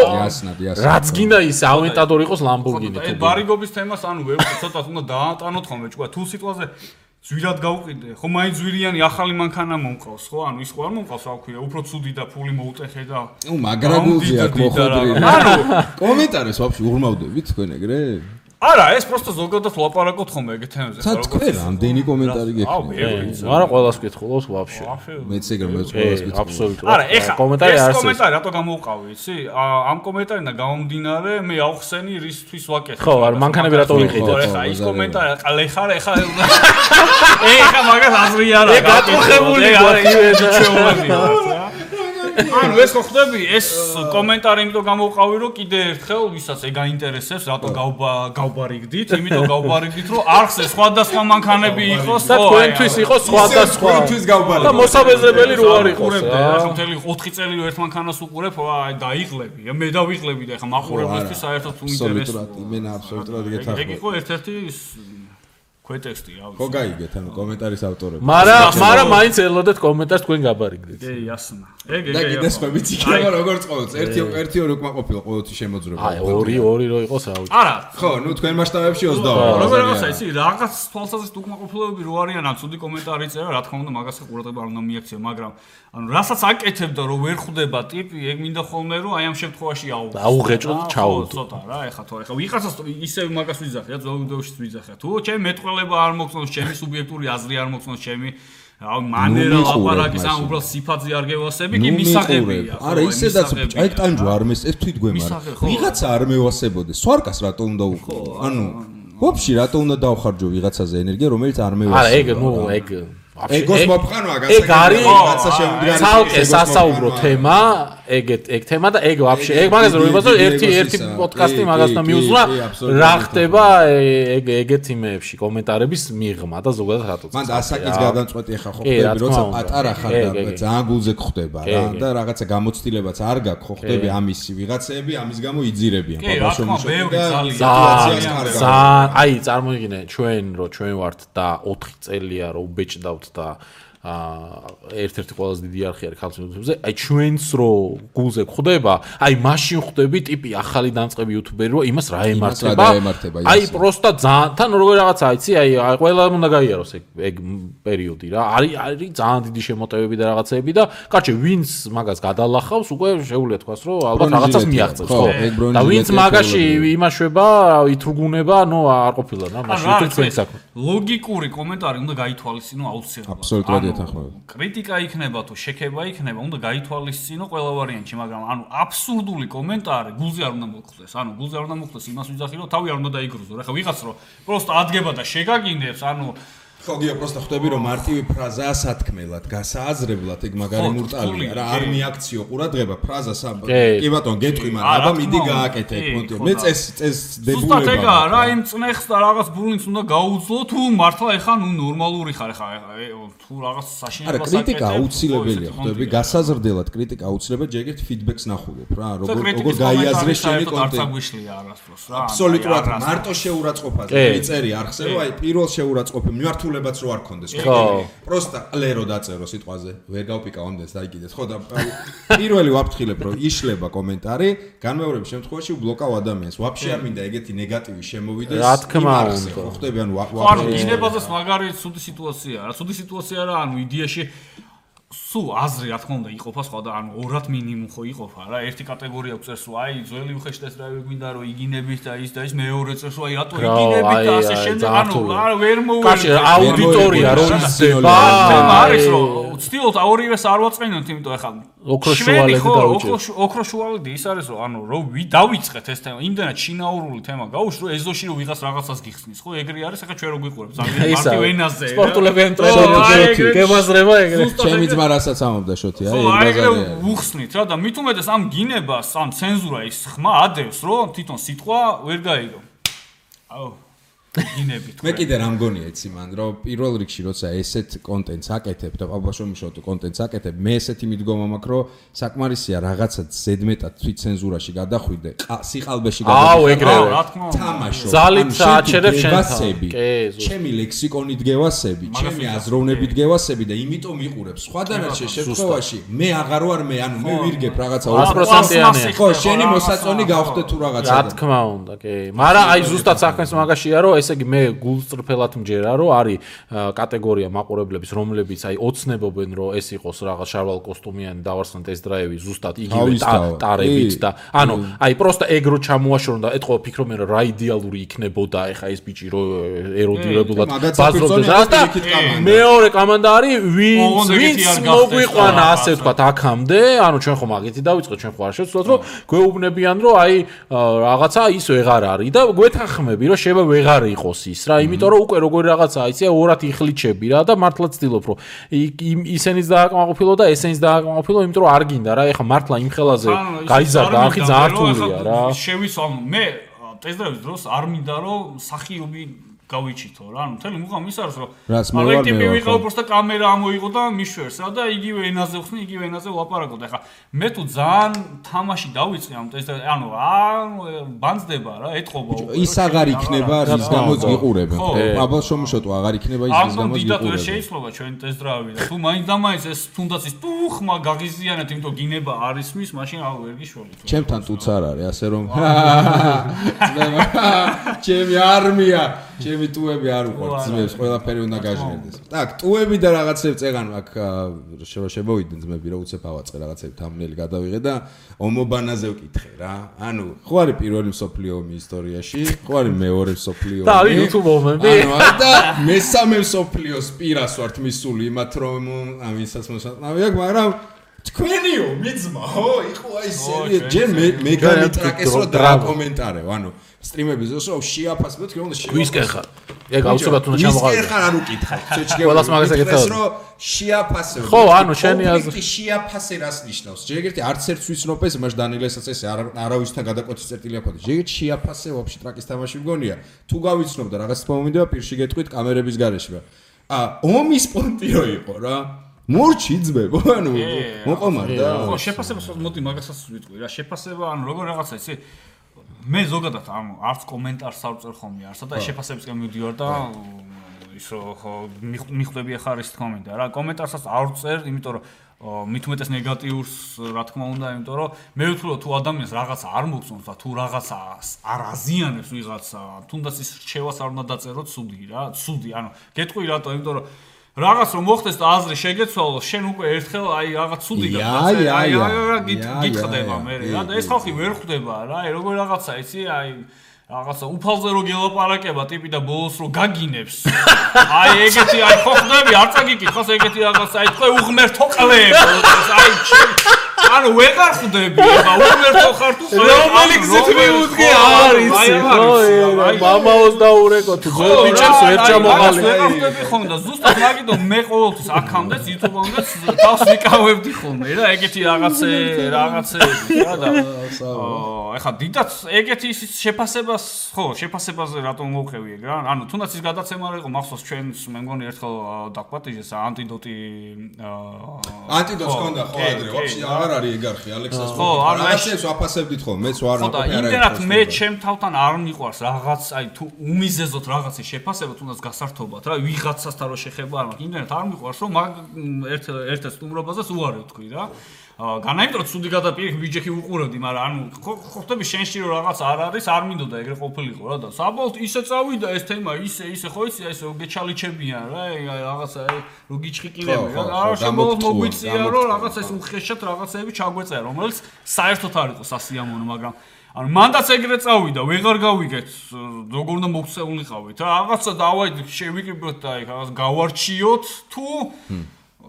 რაც გინდა ის ავენტადორი იყოს Lamborghini თუ. აი ბარიგობის თემას ანუ ვერ ცოტა უნდა დაატანოთ ხოლმე ჭკუა თუ სიტყვაზე ზვირად გავყიდე. ხო მაინც ზვირიანი ახალი მანქანა მომყავს ხო? ანუ ის ხო არ მომყავს რა ვქვია, უფრო ცუდი და ფული მოუტეხე და მაგრაგულზე აქ მოხვედრი. ანუ კომენტარებს ვაფშე ურმავდებით თქვენ ეგრე? არა, ეს просто ზოგადად ლაპარაკობთ ხოლმე ეგეთ თემებზე, როგორ რამდენი კომენტარი გექნება? არა, ყველას კითხულობს ვაფშე. მეც ეგრე მეც ყველას კითხულობს. აბსოლუტურად. არა, ეხა კომენტარი არის. ეს კომენტარი რატო გამოვყავი, იცი? ამ კომენტარიდან გამომდინარე, მე ავხსენი რისთვის ვაკეთებ. ხო, არა, მანქანები რატო ვიყიდეთ? ეხა ის კომენტარი, ეხა მაგას აზრი არა. ეგ გატუხებული გვაქვს. ანუ ეს ხო ხდები ეს კომენტარი იმიტომ გამოვყავი რომ კიდე ერთხელ ვისაც ეგ აინტერესებს რატო გავბარიგდით იმიტომ გავბარიგდით რომ არხზე სხვადასხვა მანქანები იყოს და თქვენთვის იყოს სხვადასხვა და მოსაბეზრებელი რო არ იყოს ახლა მთელი 4 წელი რო ერთ მანქანას უყურებ აი დაიღლები მე დავიღლები და ახლა მაყურებელთვის საერთოდ უინტერესოა მე აბსოლუტურად გეთახმები ეგ იყო ერთ-ერთი ქვეტექსტი რა ვიცი. ხო გაიგეთ ანუ კომენტარის ავტორები. მაგრამ მაინც ელოდეთ კომენტარს თქვენ გაბარიგდით. კი, ასნა. ეგ. და კიდე სხვაებიც იქნება როგორც ყოველთვის. ერთი ორი უკმაყოფილო ყოველთვის შემოძრება. აი, ორი რო იყოს რა ვიცი. არა. ხო, ნუ თქვენ მასშტაბებში 20. როგორ რაღაცა იცი, რაღაც თვალსაზრისით უკმაყოფილოები რო არიან, ან ცუდი კომენტარი წერა, რა თქმა უნდა, მაგას ყურადღება არ უნდა მიაქცია, მაგრამ ანუ რასაც აკეთებდა რომ ვერ ხვდება ტიპი, ეგ მინდა ხოლმე რომ აი ამ შემთხვევაში აუღეჭო და ჩაუდო. ცოტა რა, ეხა თუ ეხა ვიღაცას ისე მაგას ვიძახია, ძველ ვიდეოშიც ვიძახია. თუ ჩემ მეტყველება არ მოგწონს, ჩემი სუბიექტური აზრი არ მოგწონს, ჩემი მანერა ლაპარაკის ან უბრალოდ სიფაძე არ გევასები, კი მისაღებია. არა, ისედაც აი ტანჯვა არ ეს თვითგვემარ. ვიღაცა არ მევასებოდეს. სვარკას რატო უნდა უყო? ანუ ვაფშე რატო უნდა დავხარჯო ვიღაცაზე ენერგია, რომელიც არ მევასება? არა, ეგ ნუ ეგ ეგოს მოფხანვა გასაგებია რაღაცა შემდგარი ცალკე სასაუბრო თემა ეგ თემა და ეგ вообще ეგ მაგას რომ ვიბაზო ერთი პოდკასტი მაგასთან მიუძღვნა რა ხდება ეგეთ იმეებში კომენტარების მიღმა და ზოგადად რატოც მან ასაკის გადამწყვეტი ხა ხო ხდები როცა პატარა ხარ და ძალიან გულზე გხვდება რა და რაღაცა გამოცდილებაც არ გაქვს ხო ხდები ამისი ვიღაცები ამის გამო იძირებიან ბაბაშო ძალიან აი წარმოგიდგინე ჩვენ ვართ და 4 წელია რომ ბეჭდავთ და ერთ-ერთი ყველაზე დიდი არხი არის ქართულ YouTube-ზე. აი ჩვენს რო გულზე ხდება, აი მაშინ ხდები ტიპი ახალი დამწყები YouTuber-ი რო იმას რა ემართება. აი პროსტა ძალიან თან როგორ რაღაცა იცი, აი ყველა უნდა გაიაროს ეგ პერიოდი რა. არის ძალიან დიდი შემოტევები და რაღაცეები და კარჩე ვინც მაგას გადალახავს, უკვე შეუძლია თქვას რომ ალბათ რაღაცას მიაღწევს, ხო? და ვინც მაგაში იმაშვება, ითრუგუნება, ნუ არ ყოფილა რა, მაშინ YouTube-ს საქმე. ლოგიკური კომენტარი უნდა გაითვალისწინო აუცილებლად. აბსოლუტურად კრიტიკა იქნება თუ შექება იქნება, უნდა გაითვალისწინო ყველა ვარიანტში, მაგრამ ანუ აბსურდული კომენტარი გულზე არ უნდა მოხდეს. ანუ გულზე არ უნდა მოხდეს იმას ვიძახი, რომ თავი არ უნდა დაიგრუზო. რა ხა ვიღაც რომ პროსტა ადგება და შეგაგინდებს, ანუ ხო გიო პროსტა ხვდები რომ მარტივი ფრაზაა სათქმელად, გასააზრებლად ეგ მაგარი მურტალია რა, არ მიაქციო ყურადღება ფრაზას კი ბატონ გეტყვი, მაგრამ აბა მიდი გააკეთე ეგ მონტი. მე წეს დებულება. ზუსტად ეგა რა, იმ წნეხს და რაღაც ბურლინგს უნდა გაუძლო თუ მართლა ეხა ნუ ნორმალური ხარ ეხა თუ რაღაც საშინელებას აკეთებ. არა, კრიტიკა აუცილებელია, ხვდები, გასაზრდელად კრიტიკა აუცილებელი, ჯერ ერთ ფიდბექს ნახულობ რა, როგორ გაიაზრე შენი კონტენტი. არცაგვიშლია არასდროს რა. აბსოლუტურად მარტო შეურაცხყოფაზე მიწერი არხზე, რომ აი პირველ შეურაცხყოფი მიმართულებაც რო არ კონდეს, ხო? პროსტა ყლერო დაწერო სიტყვაზე, ვერ გავპიკავ ამდენს დაიგიდეთ, ხო და პირველი ვაფრთხილებ რომ იშლება კომენტარი, განმეორების შემთხვევაში უბლოკავ ადამიანს. ვაფშე არ მინდა ეგეთი ნეგატივი შემოვიდეს. რა თქმა უნდა, ხო ხდები ანუ ანუ გინებაზეს მაგარი ცუდი სიტუაციაა რა, ცუდი სიტუაცია რა, ანუ იდეაში სულ აზრი რა თქმა უნდა იყოფა სხვა და ანუ ორად მინიმუმ ხო იყოფა რა, ერთი კატეგორია წერს რომ აი ძველი უხეშტეს რა გვინდა რომ იგინებით და ის მეორე წერს რომ აი რატო იგინებით და ასე შემდეგ, ანუ ვერ კაში აუდიტორია რო ისდება არის რომ ვცდილობთ ორივეს არ ვაწყენოთ, იმიტომ ეხლა ოქროშუალედი დაუჭირს. ოქროშუალედი ის არის რომ ანუ რომ დავიწყეთ ეს თემა, იმდენად შინაურული თემა გაუშვ რომ ეზოში რომ ვიღას რაღაცას გიხსნის, ხო ეგრე არის, ეხლა ჩვენ რო გვიყურებს ძალიან მარტივ ენაზე. სპორტულებიან ტრენერები გემაზრება ეგრე. ჩემი ძმა რასაც ამობდა შოთი, აი ეგ ბაზარია. უხსნით რა და მით უმეტეს ამ გინებას, ამ ცენზურა ის ხმა ადევს, რომ თვითონ სიტყვა ვერ გაიგო. აუ გინებით. მე კიდე რა მგონია იცი მან, რომ პირველ რიგში როცა ესეთ კონტენტს აკეთებ და პაბაშომიშოთო კონტენტს აკეთებ, მე ესეთი მიდგომა მაქვს, რომ საკმარისია რაღაცა ზედმეტად თვით ცენზურაში გადახვიდე, სიყალბეში გადახვიდე. აუ ეგრევე. თამაშო. ზალით საჩერებ შენთან. ჩემი ლექსიკონი დგევასები, ჩემი აზროვნები დგევასები და იმიტომ მიყურებს. სხვა დანარჩენ შემთხვევაში მე აღარ ვარ მე, ანუ მე ვირგებ რაღაცა 100%-იანი. ხო, შენი მოსაწონი გავხდე თუ რაღაცა. რა თქმა უნდა, კი. მაგრამ აი ზუსტად საქმეს მაგაშია, რომ ესე იგი მე გულწრფელად მჯერა რომ არის კატეგორია მაყურებლების რომლებიც აი ოცნებობენ რომ ეს იყოს რაღაც შარვალ კოსტუმიანი დავარსნათ ეს დრაივი ზუსტად იგივე ტარებით და ანუ აი პროსტა ეგრო ჩამოაშორონ და ეთქო ფიქრობენ რომ რა იდეალური იქნებოდა ეხა ეს ბიჭი რომ ეროდირებულად ბაზრობდეს და მეორე კომანდა არის ვინც მოგვიყვანა ასე ვთქვათ აქამდე ანუ ჩვენ ხომ აგეთი დავიწყეთ ჩვენ ხო არ შევცვლოთ რომ გვეუბნებიან რომ აი რაღაცა ის ვეღარ არის და გვეთანხმები რომ შევა ვეღარ იყოს ის რა, იმიტომ რომ უკვე როგორი რაღაცაა, იცი, ორად იხლიჩები რა და მართლა ცდილობ რომ ისენიც დააკმაყოფილო და ესენიც დააკმაყოფილო, იმიტომ რომ არ გინდა რა, ეხა მართლა იმ ხელაზე გაიზარდა არხი ძალიან რთულია რა. შევისვამ მე ტესტების დროს არ მინდა რომ სახიობი გავიჩითო რა, ანუ მთელი მუღამი ის არის რომ აი ტიპი ვიყავ просто კამერა ამოიღო და მიშვერს რა და იგივე ენაზე ვხსნი, იგივე ენაზე ვლაპარაკობ და ეხა მე თუ ძალიან თამაში დავიწყე ამ ტესტებს, ანუ ბანძდება რა, ეთყობა ის აღარ იქნება რის გამოც გიყურებენ, ხო? აბა შომშოტო აღარ იქნება ის რის გამოც გიყურებენ. შეიძლება ჩვენი ტესტდრავი და თუ მაინც და მაინც ეს თუნდაც ის ტუხმა გაღიზიანეთ, იმიტომ გინება არის მის, მაშინ აუ ვერ გიშველით. ჩემთან ტუც არ არის, ასე რომ ჩემი არმია ჩემი ტუები არ უყვართ ძმებს, ყველაფერი უნდა გაჟღერდეს. Так, ტუები და რაღაცებს წეგან აქ შემოვიდნენ ძმები, რომ უცებ ავაწყე რაღაცები თამბნელი გადავიღე და ომობანაზე ვკითხე რა. ანუ ხო არის პირველი მსოფლიო ომი ისტორიაში, ხო არის მეორე მსოფლიო ომი. და არის YouTube ომები. ანუ და მესამე მსოფლიოს პირას ვართ მისული იმათ რომ ამისაც მოსაწყნავი აქვს, მაგრამ თქვენიო მიძმაო იყო აი სერია ჯერ მე გამიტრაკეს რომ დააკომენტარეო ანუ სტრიმების დროს რომ შეაფასებთ თქვენ უნდა ვისკენ ხარ ეგ აუცილებლად უნდა ჩამოყალიბო ვისკენ ხარ არ უკითხავ ყველას მაგას ეკითხავ რომ შეაფასებთ ხო ანუ შენი აზრი შეაფასე რას ნიშნავს ჯერ ერთი არც ერთ ვიცნობ ეს მაშ დანილესაც ეს არავისთან გადაკვეთის წერტილი აქვს ჯერ შეაფასე ვაფშე ტრაკის თამაში მგონია თუ გავიცნობ და რაღაც თქმა მინდა პირში გეტყვით კამერების გარეშე ომის პონტიო იყო რა მორჩი ძმებო ანუ მოყომარდა ხო შეფასებას მოდი მაგასაც ვიტყვი რა შეფასება ანუ როგორ რაღაცა იცი მე ზოგადად ანუ არც კომენტარს არ წერ ხოლმე არსა და შეფასებისკენ მივდივარ და ის რომ მიხვდები ახლა ის თქმა მინდა რა კომენტარსაც არ წერ იმიტომ რომ მით უმეტეს ნეგატიურს რა თქმა უნდა იმიტომ რომ მე ვთქვი თუ ადამიანს რაღაცა არ მოგწონს და თუ რაღაცა არ აზიანებს ვიღაცა თუნდაც ის რჩევას არ უნდა დაწერო ცუდი ანუ გეტყვი რატო იმიტომ რომ რაღაც რომ მოხდეს და აზრი შეგეცვალო შენ უკვე ერთხელ აი რაღაც ცუდი გითხდება მე რა და ეს ხალხი ვერ ხვდება რა აი როგორ რაღაცა იცი აი რაღაცა უფალზე რო გელაპარაკება ტიპი და ბოლოს რო გაგინებს აი ეგეთი აი ხო ხდები არ წაგიკითხოს ეგეთი რაღაცა აი თქვენ უღმერთო ყლებ აი ანუ ვეღარ ხვდები აბა უღმერთო ხარ თუ რომელი გზით მიუდგე არის ხო მამაოს დაურეკო თუ ძველ ბიჭებს ვერ ჩამოყალიბე ვეღარ ხვდები ხომ და ზუსტად მაგითო მე ყოველთვის აქამდეც YouTube-ამდეც თავს ვიკავებდი ხოლმე რა ეგეთი რაღაცეები რა და ეხა დიდაც ეგეთი ის შეფასებას ხო შეფასებაზე რატომ მოვხევი ეგ რა ანუ თუნდაც ის გადაცემა იყო მახსოვს ჩვენს მე მგონი ერთხელ დაგვატიჟეს ანტიდოტს ჰქონდა ხო ადრე ვაფშე აღარ არის ეგ არხი ალექსას ხო რაღაცებს ვაფასებდით ხო მეც ვარ ნაყოფი არა იმდენად მე ჩემ თავთან არ მიყვარს რაღაც აი თუ უმიზეზოთ რაღაცის შეფასება თუნდაც გასართობად რა ვიღაცასთან რო შეხება არ მაქვს იმდენად არ მიყვარს რომ ერთ სტუმრობაზეც უარი თქვი რა განაიმტრო ცუდი გადაპირ ბიჯექი უყურებდი მაგრამ ანუ ხო ხტები შენში რომ რაღაც არ არის არ მინდოდა ეგრე ყოფილიყო რა და საბოლოოდ ისე წავიდა ეს თემა ისე ხო იცი აი ესე გეჩალიჩებიან რა რაღაცა რო გიჩხიკინები რა არა შემოვლ მოგვიწია რომ რაღაცა ეს უხეშად რაღაცეები ჩაგვეწერა რომელიც საერთოდ არ იყო სასიამოვნო მაგრამ ანუ მანდაც ეგრე წავიდა ვეღარ გავიგეთ როგორ უნდა მოქცეულიყავით რა რაღაცა დავაიდით შევიკრიბოთ და აი რაღაც გავარჩიოთ თუ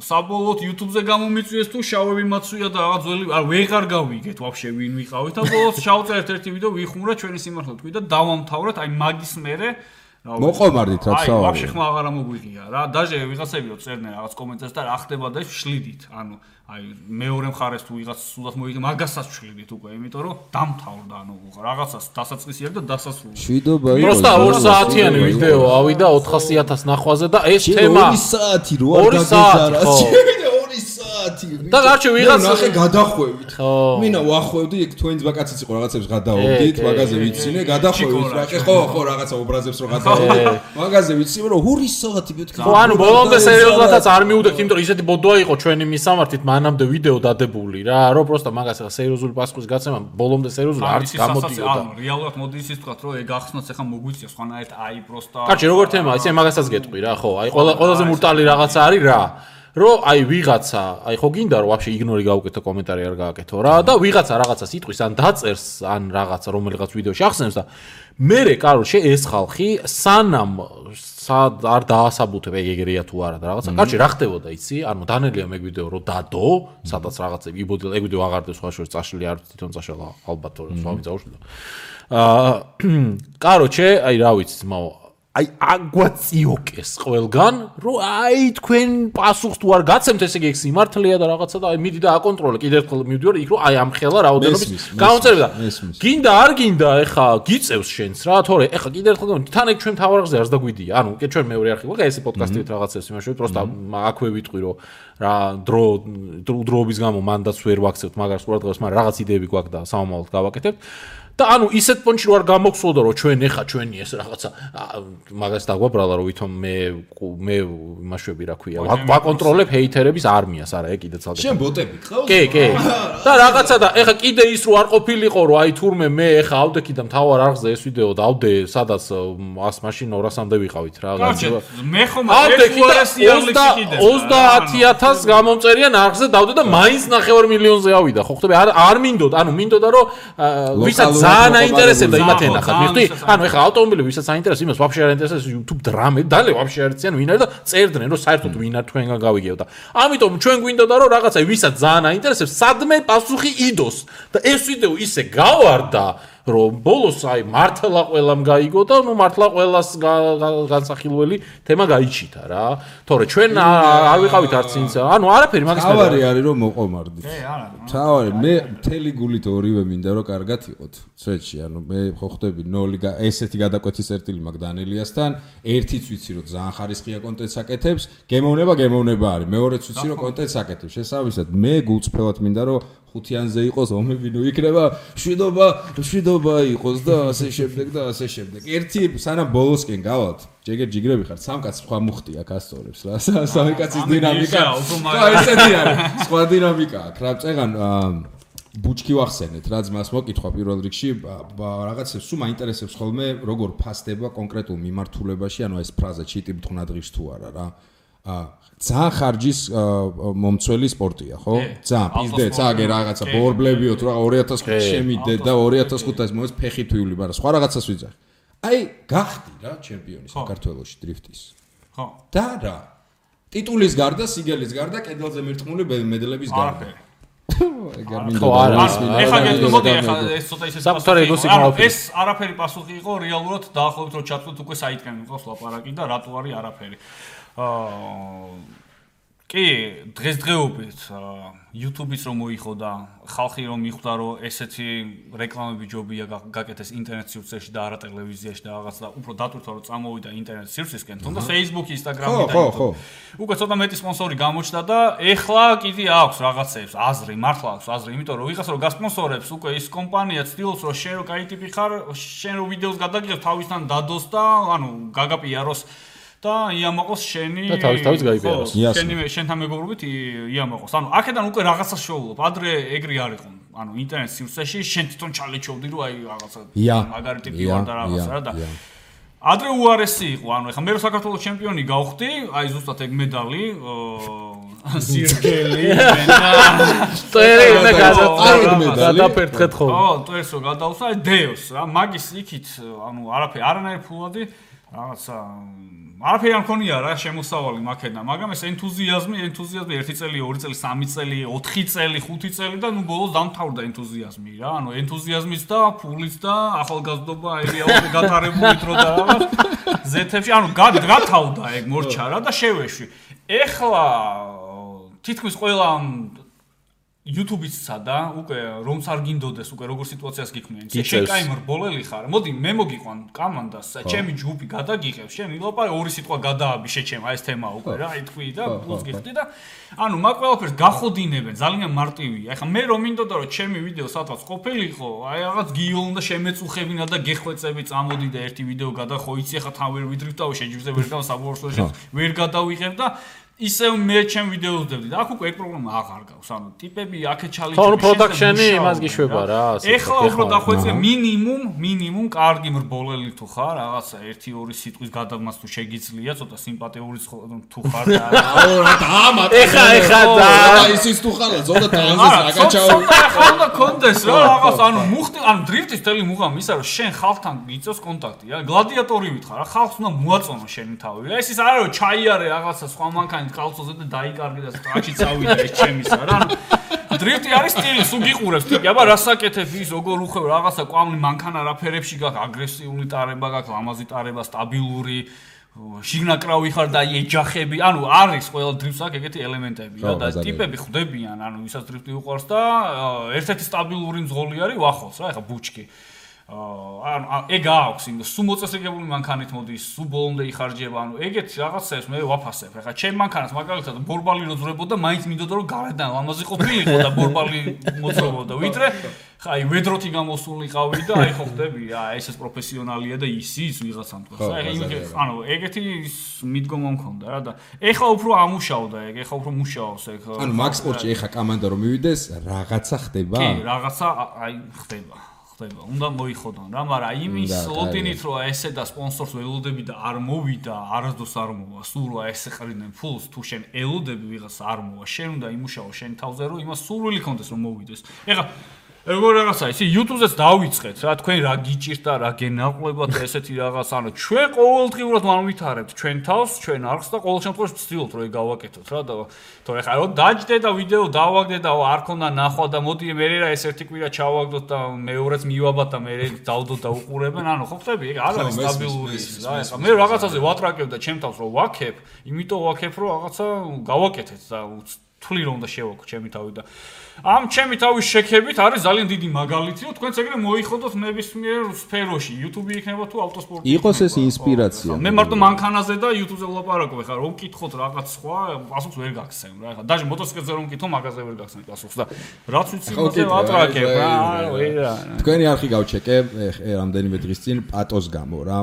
საბოლოოდ YouTube-ზე გამომიწვიეს თუ შავები მაცვია და რაღაც ძველი არ ვეღარ გავიგეთ ვაფშე ვინ ვიყავით და ბოლოს ჩავწერეთ ერთი ვიდეო ვიხმურა ჩვენი სიმართლე თქვი და დავამთავრეთ აი მაგის მერე მოყომარდით რა საუბარი ვაფშე ხმა აღარა მოგვიღია რა დაჟე ვიღაცებიო წერდნენ რაღაც კომენტებს და რა ხდება და შლიდით ანუ აი მეორე მხარეს თუ ვიღაც სულად მოიგე მაგასაც შლიდით უკვე იმიტომ რომ დამთავრდა ანუ რაღაცას დასაწყისი აქვს და დასასრული შვიდობა იყო პროსტა 2 საათიანი ვიდეო ავიდა 400.000 ნახვაზე და ეს თემა 2 საათი რო არ გაგეზარა და გარჩე ვიღაც ნახე გადახვევით მინა ვახვევდი ეგ თქვენს ბაკაციც იყო რაღაცებს გადაობდით მაგაზე ვიცინე გადახვევით რა ხო რაღაცა ობრაზებს რო გადაობდით მაგაზე ვიცინე რომ 2 საათი მეთქი ხო ანუ ბოლომდე სერიოზულადაც არ მიუდგეთ იმიტომ რომ ისეთი ბოდოა იყო ჩვენი მისამართით მანამდე ვიდეო დადებული რა რომ პროსტა მაგას ახლა სერიოზული პასუხის გაცემა ბოლომდე სერიოზული არც გამოდიოდა ანუ რეალურად მოდი ისიც თქვა რომ ეგ ახსნაც ახლა მოგვიწია სხვანაირად აი პროსტა კარჩი როგორ თემა ისე მაგასაც გეტყვი რა ხო აი ყველაზე მურტალი რაღაცა არის რა რომ აი ვიღაცა აი ხო გინდა რომ ვაფშე იგნორი გავუკეთო კომენტარი არ გააკეთო რა და ვიღაცა რაღაცას იტყვის ან დაწერს ან რაღაცა რომელიღაც ვიდეოში ახსენებს და მერე კაროლში ეს ხალხი სანამ არ დაასაბუთებ ეგრეა თუ არა და რაღაცა კარჩი რა ხდებოდა იცი ანუ დანელია მე ვიდეო რომ დადო სადაც რაღაცები იბოდილ ეგ ვიდეო აღარდეს სხვა შორის წაშლილი არ თვითონ წაშლა ალბათ რომ სხვა მიწაუშლა კაროჩე აი რა ვიცი ძმაო აი აგვაწიოკეს ყველგან რომ აი თქვენ პასუხს თუ არ გაცემთ ესე იგი სიმართლეა და რაღაცა და აი მიდი და აკონტროლე კიდევ ერთხელ მივდივარ იქ რომ აი ამ ხელა რაოდენობის გაუწერდა გინდა არ გინდა ეხა გიწევს შენს რა თორე ეხა კიდევ ერთხელ თან ეგ ჩვენ თავარაღზე არს დაგვიდია ანუ კი ჩვენ მეორე არხი ვარ ესე პოდკასტით რაღაცებს იმაშოვით პროსტა აქვე ვიტყვი რომ რა დროობის გამო მანდაც ვერ ვაქცევთ მაგას ყურადღებას მაგრამ რაღაც იდეები გვაქვს და სამომავლოდ გავაკეთებთ და ანუ ისეთ პონჩი რო არ გამოგსვლოდა რომ ჩვენ ეხა ჩვენი ეს რაღაცა მაგას დაგვაბრალა რომ ვითომ მე იმაშვები რა ქვია ვაკონტროლებ ჰეითერების არმიას არა ეგ კიდე ცალკე შენ ბოტები ყავს კი და რაღაცა და ეხა კიდე ის რო არ ყოფილიყო რომ აი თურმე მე ეხა ავდექი და მთავარ არხზე ეს ვიდეო დავდე სადაც 100 მაშინ 200-მდე ვიყავით რა მე ხომ ეს უარესი ალექსი კიდე 30000 გამომწერიან არხზე დავდე და მაინც 9 მილიონზე ავიდა ხო ხტები არ მინდოდა ანუ მინდოდა რომ ვისაც ძალიან აინტერესებდა იმათ ენახათ. მიხდი, ანუ ეხლა ავტომობილები ვისაც აინტერესებს, იმას ვაფშე არ აინტერესებს YouTube დრამები, დალე ვაფშე არ იციან ვინ არის და წერდნენ, რომ საერთოდ ვინ არ თქვენგან გავიგებთ და ამიტომ ჩვენ გვინდოდა რომ რაღაცა ვისაც ძალიან აინტერესებს, სადმე პასუხი იდოს და ეს ვიდეო ისე გავარდა რომ ბოლოს აი მართლა ყველამ გაიგო და ნუ მართლა ყველას განსახილველი თემა გაიჩიტა რა. თორე ჩვენ არ ვიყავით არც ინც. ანუ არაფერი მაგის მე. თავარი არის რომ მოყომარდით. თავარი მე მთელი გულით ორივე მინდა რომ კარგად იყოთ. სვეტში, ანუ მე ხო ხვდები 0 ესეთი გადაკვეთის წერტილი მაგ დანელიასთან, ერთიც ვიცი რომ ძალიან ხარისხია კონტენტს აკეთებს, გემოვნება არის. მეორეც ვიცი რომ კონტენტს აკეთებს. შესაბამისად მე გულწრფელად მინდა რომ ხუთიანზე იყოს ომები ნუ იქნება შვიდობა იყოს და ასე შემდეგ. ერთი სანამ ბოლოსკენ გავალთ, ჯიგრები ხართ, სამ კაცს სხვა მუხტი აქ ასწორებს რა. სამი კაცის დინამიკა. ხო, ესეთი არის. სხვა დინამიკა აქვს. რა წეგან ბუჩკი ვახსენეთ, რა ძმას მოკითხვა პირველ რიგში, რაღაცებს სულ მაინტერესებს ხოლმე როგორ ფასდება კონკრეტულ მიმართულებაში, ანუ ეს ფრაზა ჩიტი ბთხნა დღის თუ არა რა. ძალიან ხარჯის მომცველი სპორტია, ხო? ძალიან პიზდე, წაგე რაღაცა ბორბლებიოთ რა 2005 შემიდე და 2005-ას მოეც ფეხი თვილი, მაგრამ სხვა რაღაცას ვიძახი. აი, გახდი რა ჩემპიონი საქართველოში დრიფტის. ხო. და რა? ტიტულის გარდა, სიგელის გარდა, კედელზე მირთმული მედლების გარდა. ეგარ მინდა. ეხლა გეტყობოდი, ეხლა ეს ცოტა ისე ეს არაფერი პასუხი იყო რეალურად დაახლოებით რომ ჩატყვით უკვე საიტკენ მიყავს ლაპარაკი და რატო არის არაფერი. კი, დღესდღეობით YouTube-იც რომ მოიხო და ხალხი რომ მიხვდა რომ ესეთი რეკლამები ჯობია გაკეთეს ინტერნეტ სივრცეში და არა ტელევიზიაში და რაღაც და უფრო დატვირთვა რომ წამოვიდა ინტერნეტ სივრცისკენ, თუნდა Facebook-ი, Instagram-ი და YouTube. უკვე ცოტა მეტი სპონსორი გამოჩნდა და ეხლა კიდე აქვს რაღაცებს აზრი, მართლა აქვს აზრი, იმიტომ რომ ვიღაც რომ გასპონსორებს უკვე ის კომპანია ცდილობს რომ შენ რო კაი ტიპი ხარ, შენ რო ვიდეოს გადაგიღებ თავისთან დადოს და ანუ გაგაპიაროს და იამაყოს შენი და თავის გაიპიაროს. შენთან მეგობრობით იამაყოს. ანუ აქედან უკვე რაღაცა შოულობ. ადრე ეგრე არ იყო. ანუ ინტერნეტ სივრცეში შენ თვითონ ჩალეჩოვდი რომ აი რაღაცა მაგარი ტიპი ვარ და რაღაცა რა და ადრე უარესი იყო. ანუ ეხლა მე რო საქართველოს ჩემპიონი გავხდი, აი ზუსტად ეგ მედალი სირგელი გადაფერთხეთ ხო? ხო, ტვერსო გადავსა, აი დეოს რა, მაგის იქით, ანუ არაფერი, არანაირი ფულადი რაღაცა არაფერი არ მქონია რა შემოსავალი მაქედან, მაგრამ ეს ენთუზიაზმი 1 წელი, 2 წელი, 3 წელი, 4 წელი, 5 წელი და ნუ ბოლოს დამთავრდა ენთუზიაზმი რა. ანუ ენთუზიაზმის და ფულის და ახალგაზრდობა აირიაული გათარებული დრო და რაღაც ზეთებში, ანუ გათავდა ეგ მორჩა რა და შევეშვი. ეხლა თითქმის ყველა YouTube-ისა და უკვე რომც არ გინდოდეს უკვე როგორ სიტუაციას გიქმნიან. შენ კაი მრბოლელი ხარ. მოდი მე მოგიყვან კამანდას, ჩემი ჯგუფი გადაგიღებ, შენ ილაპარე ორი სიტყვა გადააბი შეჩემ, აი ეს თემა უკვე რა, აი თქვი და პლუს გიხდი და ანუ მაგ ყველაფერს გახოდინებენ, ძალიან მარტივია. ეხლა მე რომ მინდოდა რომ ჩემი ვიდეო სადღაც ყოფილიყო, აი რაღაც გიოლ და შემეწუხებინა და გეხვეწები წამოდი და ერთი ვიდეო გადახო, იცი ეხლა თან ვერ ვიდრიფტავ, შეჯიბრზე ვერ დავსაბორცოში, ვერ გადავიღებ და ისე მე ჩემ ვიდეოს ვდებდი და აქ უკვე ეგ პრობლემა აღარ გავს. ანუ ტიპები აქეთ ჩალიჩები. ხო, პროდაქშენი იმას გიშვება რა, ასე. ეხლა უფრო დახვეწე მინიმუმ კარგი მრბოლელი თუ ხარ, რაღაცა 1-2 სიტყვის გადამას თუ შეგიძლია, ცოტა სიმპათიური თუ ხარ და ეხა და ისიც თუ ხარ, ზონა ტრანზის აკაჩაო. ეხლა უნდა კონდეს რა, რაღაც ანუ მუხტი, ანუ დრიფტის თელი მუღამი ისა რომ შენ ხალხთან გიწევს კონტაქტი, რა, გლადიატორი ვითხარ, რა, ხალხს უნდა მოაწონო შენი თავი. ეს ის არა რომ ჩაიარე რაღაცა სხვა მანქანა კალცოზე და დაიკარგე და სტრაქში წავიდა ეს ჩემისა რა. დრიფტი არის სტილი, სულ გიყურებს ტიპი. აბა რასაკეთებ ის როგორ უხევ რაღაცა კვამლი მანქანა რაფერებში გაქვს, აგრესიული ტარება გაქვს, ლამაზი ტარება, სტაბილური შიგნაკრავი ხარ და ეჯახები. ანუ არის ყველა დრიფტს აქვს ეგეთი ელემენტები რა და ტიპები ხვდებიან, ანუ ვისაც დრიფტი უყვარს და ერთ-ერთი სტაბილური მძღოლი არის ვახოს რა, ეხა ბუჩკი. ანუ ეგ აქვს იმ სულ მოწესრიგებული მანქანით მოდის, სულ ბოლომდე იხარჯება, ანუ ეგეთ რაღაცებს მე ვაფასებ. ეხლა ჩემ მანქანას მაგალითად ბორბალი როძრებოდა, მაინც მინდოდა რომ გარედან ლამაზი ყოფილიყო და ბორბალი მოძრაობდა. ვიდრე აი ვედროთი გამოსულიყავი და აი ხო ხდები, ეს პროფესიონალია და ისიც ვიღაცამ თქვა. ანუ ეგეთი მიდგომა მქონდა რა და ეხლა უფრო ამუშავდა ეგ, ეხლა უფრო მუშაობს ეგ. ანუ მაგ სპორტში ეხლა კამანდა რომ მივიდეს, რაღაცა ხდება? კი, რაღაცა აი ხდება. უნდა მოიხოდონ რა, მაგრამ იმის ლოტინით რომ ესე და სპონსორს ველოდები და არ მოვიდა, არასდროს არ მოვა, სულ რა ესე ყრიდნენ ფულს, თუ შენ ელოდები ვიღას არ მოვა, შენ უნდა იმუშაო შენ თავზე რომ იმას სურვილი კონდეს რომ მოვიდეს. ეხლა როგორ რაღაცა ისი YouTube-ზეც დავიწყეთ რა თქვენ რა გიჭირდა რა გენაყლებათ ესეთი რაღაც ანუ ჩვენ ყოველდღიურად ვანვითარებთ ჩვენ თავს ჩვენ არხს და ყოველ შემთხვევაში ვცდილობთ რომ გავაკეთოთ რა და თორე ხა რომ დაჯდე და ვიდეო დავაგდე და არ ქონდა ნახვა და მოდი მე რა ეს ერთი კვირა ჩავაგდოთ და მეორეც მივაბათ და მე დავდოთ და უყურებენ ანუ ხო ხტები ეგ არ არის სტაბილური რა ეხა მე რაღაცაზე ვატრაკებ და ჩემ თავს რომ ვაქებ იმიტომ ვაქებ რომ რაღაცა გავაკეთეთ და თვლი რომ და შევაკო ჩემი თავი და ამ ჩემი თავის შექებით არის ძალიან დიდი მაგალითი რომ თქვენც ეგრე მოიხოდოთ ნებისმიერ სფეროში YouTube იქნება თუ ავტოსპორტი იყოს ეს ინსპირაცია მე მარტო მანქანაზე და YouTube-ზე ვლაპარაკობ ეხლა რომ ვკითხოთ რაღაც სხვა პასუხს ვერ გაგცემ რა ეხლა დაჟე მოტოციკლებზე რომ ვკითხო მაგაზე ვერ გაგცემ პასუხს და რაც ვიცი მასე ვატრაკებ რა ვერა თქვენი არხი გავჩეკე რამდენიმე დღის წინ პატოს გამო რა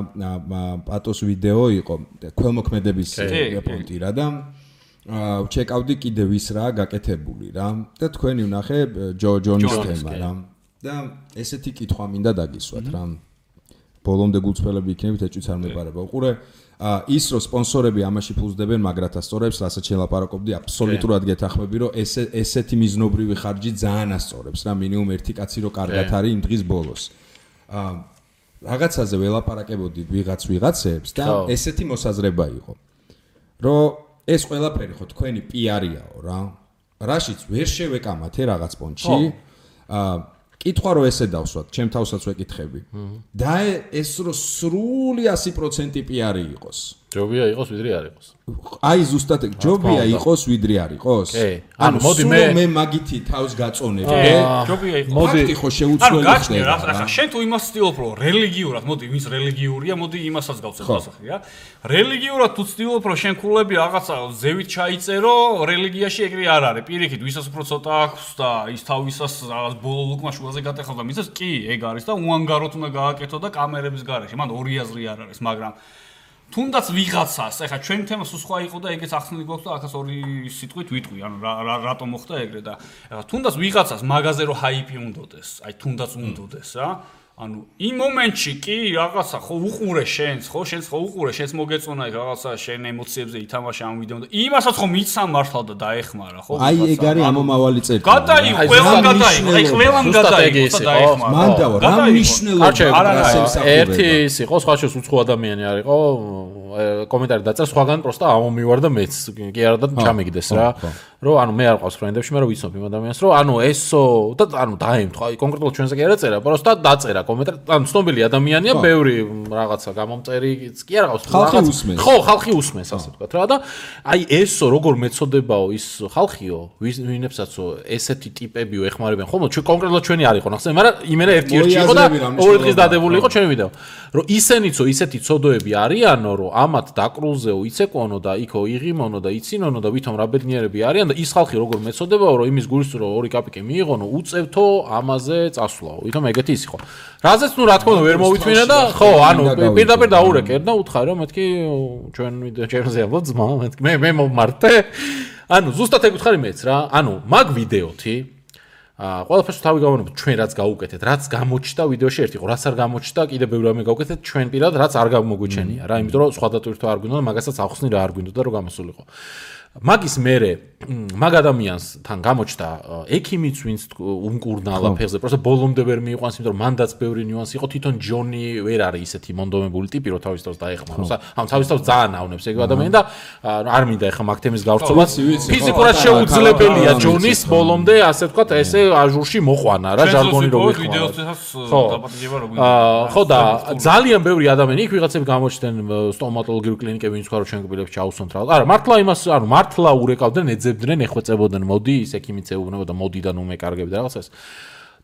პატოს ვიდეო იყო ქველმოქმედების პონტი რა და ჩეკავდი კიდე ვის რა გაკეთებული რა და თქვენი ვნახე ჯონის თემა რა და ესეთი კითხვა მინდა დაგისვათ რა ბოლომდე გულწრფელები იქნებით ეჭვიც არ მეპარება უყურე ის რომ სპონსორები ამაში ფულს დებენ მაგრათა სწორებს რასაც შელაპარაკობდი აბსოლუტურად გეთახმები რომ ესეთი მიზნობრივი ხარჯი ძალიან ასწორებს რა მინიმუმ ერთი კაცი რო კარგად არის იმ დღის ბოლოს რაღაცაზე ველაპარაკებოდი ვიღაცებს და ესეთი მოსაზრება იყო რომ ეს ყველაფერი ხო თქვენი პიარიაო რა. რაშიც ვერ შევეკამათე რაღაც პონჩი. კითხვა რომ ესე დავსვათ, ჩემ თავსაც ვეკითხები. და ეს რო სრული 100% პიარი იყოს. ჯობია იყოს ვიდრე არ იყოს. აი ზუსტად ჯობია იყოს ვიდრე არ იყოს. ანუ მოდი მე მაგითი თავს გაწონებ. ჯობია იყოს. მოდი ხო შეუცვლელი ხდება. ახლა შენ თუ იმას ცდილობ რომ რელიგიურად, მოდი ვინც რელიგიურია, მოდი იმასაც გავცეთ დასახი რა. რელიგიურად თუ ცდილობ რომ შენ ქულები რაღაცა ზევით ჩაიწერო, რელიგიაში ეგრე არ არის. პირიქით ვისაც უფრო ცოტა აქვს და ის თავისას რაღაც ბოლო ლუკმა შუაზე გატეხავდა, მისას კი ეგ არის და უანგაროთ უნდა გააკეთო და კამერების გარეშე. მან ორი აზრი არ არის, მაგრამ თუნდაც ვიღაცას, ეხლა ჩვენ თემა სულ სხვა იყო და ეგეც ახსნილი გვაქვს და ახაც ორი სიტყვით ვიტყვი, ანუ რატომ მოხდა ეგრე და ეხლა თუნდაც ვიღაცას მაგაზე რომ ჰაიპი უნდოდეს, აი თუნდაც უნდოდეს რა. ანუ იმ მომენტში კი რაღაცა ხო უყურე შენს, ხო შენს ხო უყურე, შენს მოგეწონა ეგ რაღაცა შენ ემოციებზე ითამაშე ამ ვიდეო და იმასაც ხო მიცამ მართლა და დაეხმარა, ხო? აი ეგ არის ამომავალი წერტილი. გადაიღო, ყველამ გადაიღო, აი ყველამ გადაიღო და დაეხმარა. მანდავა რა მნიშვნელობა არის ერთი ის იყო, სხვა შეს უცხო ადამიანი არისო, კომენტარი დაწერა სხვაგან პროსტა ამომივარ და მეც კი არა და ჩამიგდეს რა. რომ ანუ მე არ ყავს ფრენდებში, მე რომ ვიცნობ იმ ადამიანს, რომ ანუ ესო და ანუ დაემთხვა, აი კონკრეტულად ჩვენზე კი არ ეწერა, პროსტა დაწერა კომენტარი, ანუ ცნობილი ადამიანია, ბევრი რაღაცა გამომწერიც კი არ ყავს რაღაც. ხო, ხალხი უსმენს ასე ვთქვათ რა და აი ესო როგორ მეწოდებაო ის ხალხიო, ვინებსაცო ესეთი ტიპებიო ეხმარებიან. ხომ ჩვენ კონკრეტულად ჩვენი არ იყო ნახსენე, მაგრამ იმენა ერთ-ერთი იყო და ორი დღის დადებული იყო ჩვენი ვიდეო. რომ ისენიცო ისეთი ცოდოები არიანო, რომ ამათ დაკრულზეო იცეკონო და იქო იღიმონო და იცინონო და ვითომ რა ბედნიერები არიან და ის ხალხი როგორ მეწოდებაო, რომ იმის გულს რომ ორი კაპიკი მიიღონო, უწევთო ამაზე წასვლაო. ვითომ ეგეთი ის იყო. რაზეც ნუ რა თქმა უნდა ვერ მოვითმინე და ხო, ანუ პირდაპირ დაურეკერ და უთხარი რომ მეთქი ჩვენ ვიდეო ჩემზე ამბობ ძმა, მეთქი მე მომმართე. ანუ ზუსტად ეგ უთხარი მეც რა. ანუ მაგ ვიდეოთი ყველაფერს თავი გავანებოთ ჩვენ რაც გაუკეთეთ, რაც გამოჩნდა ვიდეოში ერთი იყო, რაც არ გამოჩნდა, კიდე ბევრი რამე გავუკეთეთ ჩვენ პირად, რაც არ გამოგვიჩენია რა, იმიტომ რომ სხვა დატვირთვა არ გვინდა და მაგასაც ახსნი რა არ გვინდა და რომ გამოსულიყო. მაგის მერე მაგ ადამიანსთან გამოჩნდა ექიმიც ვინც უმკურნალა ფეხზე, პროსტა ბოლომდე ვერ მიიყვანს, იმიტომ რომ მანდაც ბევრი ნიუანსი იყო, თვითონ ჯონი ვერ არის ისეთი მონდომებული ტიპი, რომ თავის თავს დაეხმაროს. ამ თავის თავს ძალიან ავნებს ეგ ადამიანი და არ მინდა ეხა მაგ თემის გავრცობა. ფიზიკურად შეუძლებელია ჯონის ბოლომდე, ასე ვთქვათ, ესე აჟურში მოყვანა რა, ჟარგონი რო ხო და ძალიან ბევრი ადამიანი იქ ვიღაცები გამოჩნდნენ სტომატოლოგიური კლინიკები, ვინც ხარო ჩვენ გბილებს ჩაუსვამთ რა. არა, მართლა იმას, ანუ მართლა ურეკავდნენ, ეძებდნენ, ეხვეწებოდნენ, მოდი, ის ექიმიც ეუბნებოდა, მოდი და ნუ მე კარგები და რაღაცას.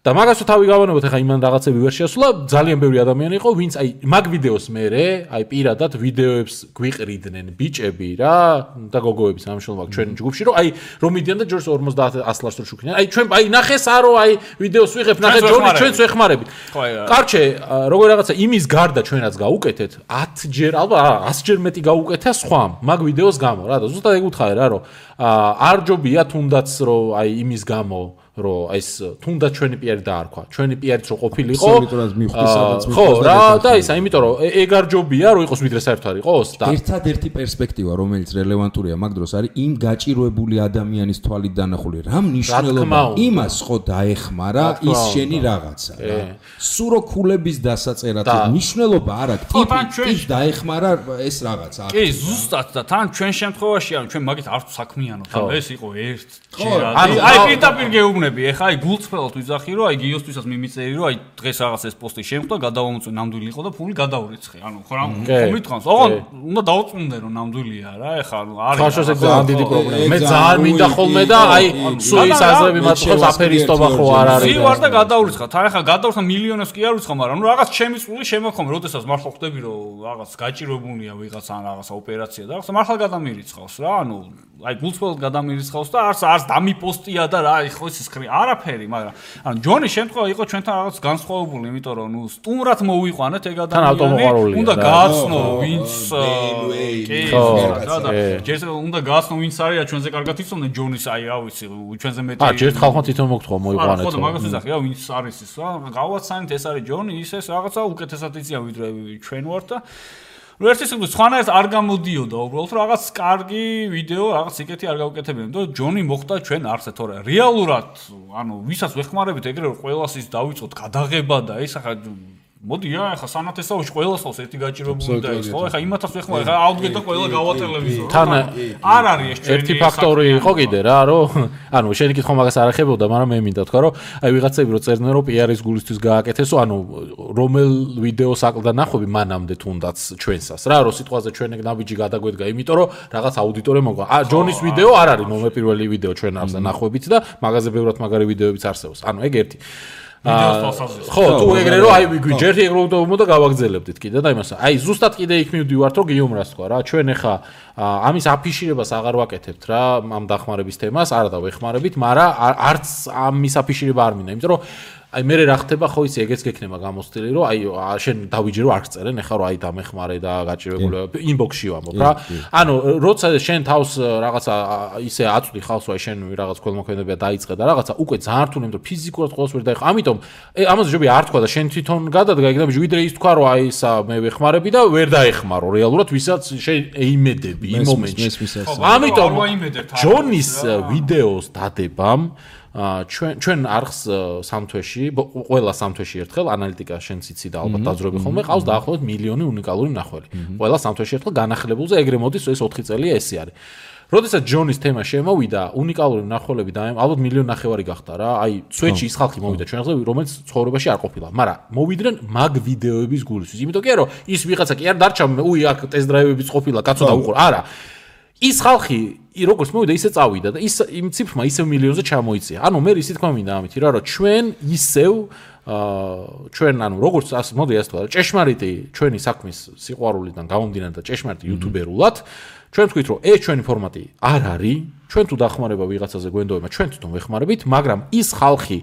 და მაგას თავი გავანებოთ, ეხა იმან რაღაცები ვერ შეასრულა, ძალიან ბევრი ადამიანი იყო, ვინც აი მაგ ვიდეოს მერე, აი პირადად ვიდეოებს გვიყრიდნენ ბიჭები რა და გოგოები სამშობლოა ჩვენ ჯგუფში, რომ აი რომ მიდიან და ჯორს 50 100 ლარს შუქნიან. აი ჩვენ აი ნახეს არო აი ვიდეოს ვიღებ, ნახე ჯონი ჩვენც ვეხმარებით. კარჩე, როგორ რაღაცა იმის გარდა ჩვენ რაც გაუკეთეთ, 10 ჯერ ალბათ 100 ჯერ მეტი გაუკეთა სხვამ მაგ ვიდეოს გამო რა და ზუსტად ეგ უთხარი რა, რომ არ ჯობია თუნდაც რომ აი იმის გამო რომ ეს თუნდაც ჩვენი პიარი დაარქვა. ჩვენი პიარიც რო ყოფილიყო. აბსოლუტურად მივხვდი სადაც ხო, რა და ისა, იმიტომ რომ ეგ არ ჯობია რომ იყოს ვიდრე საერთოდ არ იყოს და ერთადერთი პერსპექტივა რომელიც რელევანტურია მაგ დროს არის იმ გაჭირვებული ადამიანის თვალით დანახული რა მნიშვნელობა იმას ხო დაეხმარა ის შენი რაღაცა რა. სულ რო ქულების დასაწერად მნიშვნელობა არ აქვს ტიპის დაეხმარა ეს რაღაცა. კი, ზუსტად და თან ჩვენ შემთხვევაში ანუ ჩვენ მაგით არ საქმიანობთ. ანუ ეს იყო ერთ აი პირდაპირ გეუბნები, ეხა აი გულწრფელად ვიზახი რომ აი გიოსთვისაც მიმიწერი რომ აი დღეს რაღაც ეს პოსტი შემხვდა, გადავამოწვე ნამდვილი იყო და ფული გადაურიცხე. ანუ ხო რა მომიტყავს. ოღონდ უნდა დაუწუნდე რომ ნამდვილია რა, ეხა არის. ხაშოს ეგ ძალიან დიდი პრობლემა. მე ძალიან მინდა ხოლმე და აი სუის აზრები მაწყობს აფერისტობა ხო არ არის. ი ვარ და გადაურიცხა. თან ეხა გადაურიცხა მილიონებს კი არ ვიცხა, მაგრამ ნუ რაღაც ჩემი წული შემოხომ, როდესაც მართლა ხვდები რომ რაღაც გაჭირვებულია ვიღაცა ან რაღაცა ოპერაცია და რაღაცა მართლა გადამირიცხავს რა. ანუ აი გულწრფელად გადამირიცხავს და არც დამიპოსტია და რა ხო ის ხრი არაფერი, მაგრამ ანუ ჯონის შემთხვევა იყო ჩვენთან რაღაც განსხვავებული, იმიტომ რომ ნუ სტუმრად მოვიყვანეთ ეგ ადამიანი. უნდა გააცნო ვინც კი რა და ჯერ უნდა გააცნო ვინც არის და ჩვენზე კარგად იცოდნენ ჯონის აი რა ვიცი ჩვენზე მეტი. ჯერ ხალხმა თვითონ მოგთხოვა მოვიყვანეთ. ხო და მაგას ვიზახი რა ვინც არის ის რა გავაცანით ეს არის ჯონი ის ეს რაღაცა უკეთესად იციან ვიდრე ჩვენ ვართ და ნუ ერთი სიტყვით სხვანაირად არ გამოდიოდა უბრალოდ რაღაც კარგი ვიდეო რაღაც იკეთი არ გავუკეთებინა და ჯონი მოხდა ჩვენ არცე თორე რეალურად ანუ ვისაც ვეხმარებით ეგრე რომ ყველას ის დავიწყოთ გადაღება და ის ახლა მოდი ახლა სანათესაოში ყველას ხავს ერთი გაჭირვებული და ის ხო ახლა იმათაც ვეხმარ ახლა აუდგეთ და ყველა გავატელევიზორ თან არ არის ეს ერთი ფაქტორი იყო კიდე რა რომ ანუ შენი კითხვა მაგას არ ახებოდა მაგრამ მე მინდა თქვა რომ აი ვიღაცები რო წერდნენ რომ პიარის გულისთვის გააკეთესო ანუ რომელ ვიდეოს აკლდა ნახვები მანამდე თუნდაც ჩვენსას რა რომ სიტყვაზე ჩვენ ეგ ნაბიჯი გადაგვედგა იმიტომ რომ რაღაც აუდიტორია მოგვა ჯონის ვიდეო არ არის მომეპირველი ვიდეო ჩვენ არზე ნახვებით და მაგაზე ბევრად მაგარი ვიდეოებიც არსებობს ანუ ეგ ერთი ხო თუ ეგრე რომ აი ვიგვიჯერთ ეგ რომ და გავაგზელებდით კიდე და იმასა აი ზუსტად კიდე იქ მივდივართ რომ გიუმრას თქვა რა ჩვენ ახლა ამის აფიშირებას აღარ ვაკეთებთ რა ამ დახმარების თემას არა და ვეხმარებით მაგრამ არც ამის აფიშირება არ მინდა იმიტომ რომ აი მე რა ხდება ხო იცი ეგეც გექნება გამოსტილი რომ აი შენ დავიჯე რომ არ წერენ ეხლა რომ აი დამეხმარე და გაჭირებული ინბოქსში ვამბობ რა ანუ როცა შენ თავს რაღაცა ისე აწვდი ხალხს რომ აი შენ რაღაც ქველმოქმედებია დაიწყე და რაღაცა უკვე ძალიან რთული იმიტომ ფიზიკურად ყოველს ვერ დაიხო ამიტომ ამაზე ჯობია არ თქვა და შენ თვითონ გადადგა იქ და ვიდრე ის თქვა რომ აი ისა მე ვეხმარები და ვერ დაეხმარო რეალურად ვისაც შენ ეიმედები იმ მომენტში ამიტომ ჯონის ვიდეოს დადებამ ჩვენ არხს სამთვეში ყველა სამთვეში ერთხელ ანალიტიკა შენც იცი და ალბათ დაძრები ხოლმე ყავს დაახლოებით მილიონი უნიკალური მნახველი ყველა სამთვეში ერთხელ განახლებულზე ეგრე მოდის ეს 4 წელია ესე არის როდესაც ჯონის თემა შემოვიდა უნიკალური მნახველები და ალბათ მილიონი ნახევარი გახდა რა აი სვეჩი ის ხალხი მოვიდა ჩვენზე რომელიც ცხოვრებაში არ ყოფილა მაგრამ მოვიდნენ მაგ ვიდეოების გულისთვის იმიტომ კი რომ ის ვიღაცა კი არ დარჩა უი აქ ტესტ დრაივებიც ყოფილა კაცო და უყურ არა ის ხალხი როგორც მოვიდა ისე წავიდა და ის იმ ციფრმა ისევ მილიონზე ჩამოიწია. ანუ მე ისე თქვა მინდა ამით რა რომ ჩვენ ისევ ჩვენ ანუ როგორც ასე მოდი ასე თქვა ჭეშმარიტი ჩვენი საქმის სიყვარულიდან გამომდინარე და ჭეშმარიტი იუთუბერულად ჩვენ ვთქვით რომ ეს ჩვენი ფორმატი არ არის ჩვენ თუ დახმარება ვიღაცაზე გვენდოება ჩვენ თვითონ ვეხმარებით მაგრამ ის ხალხი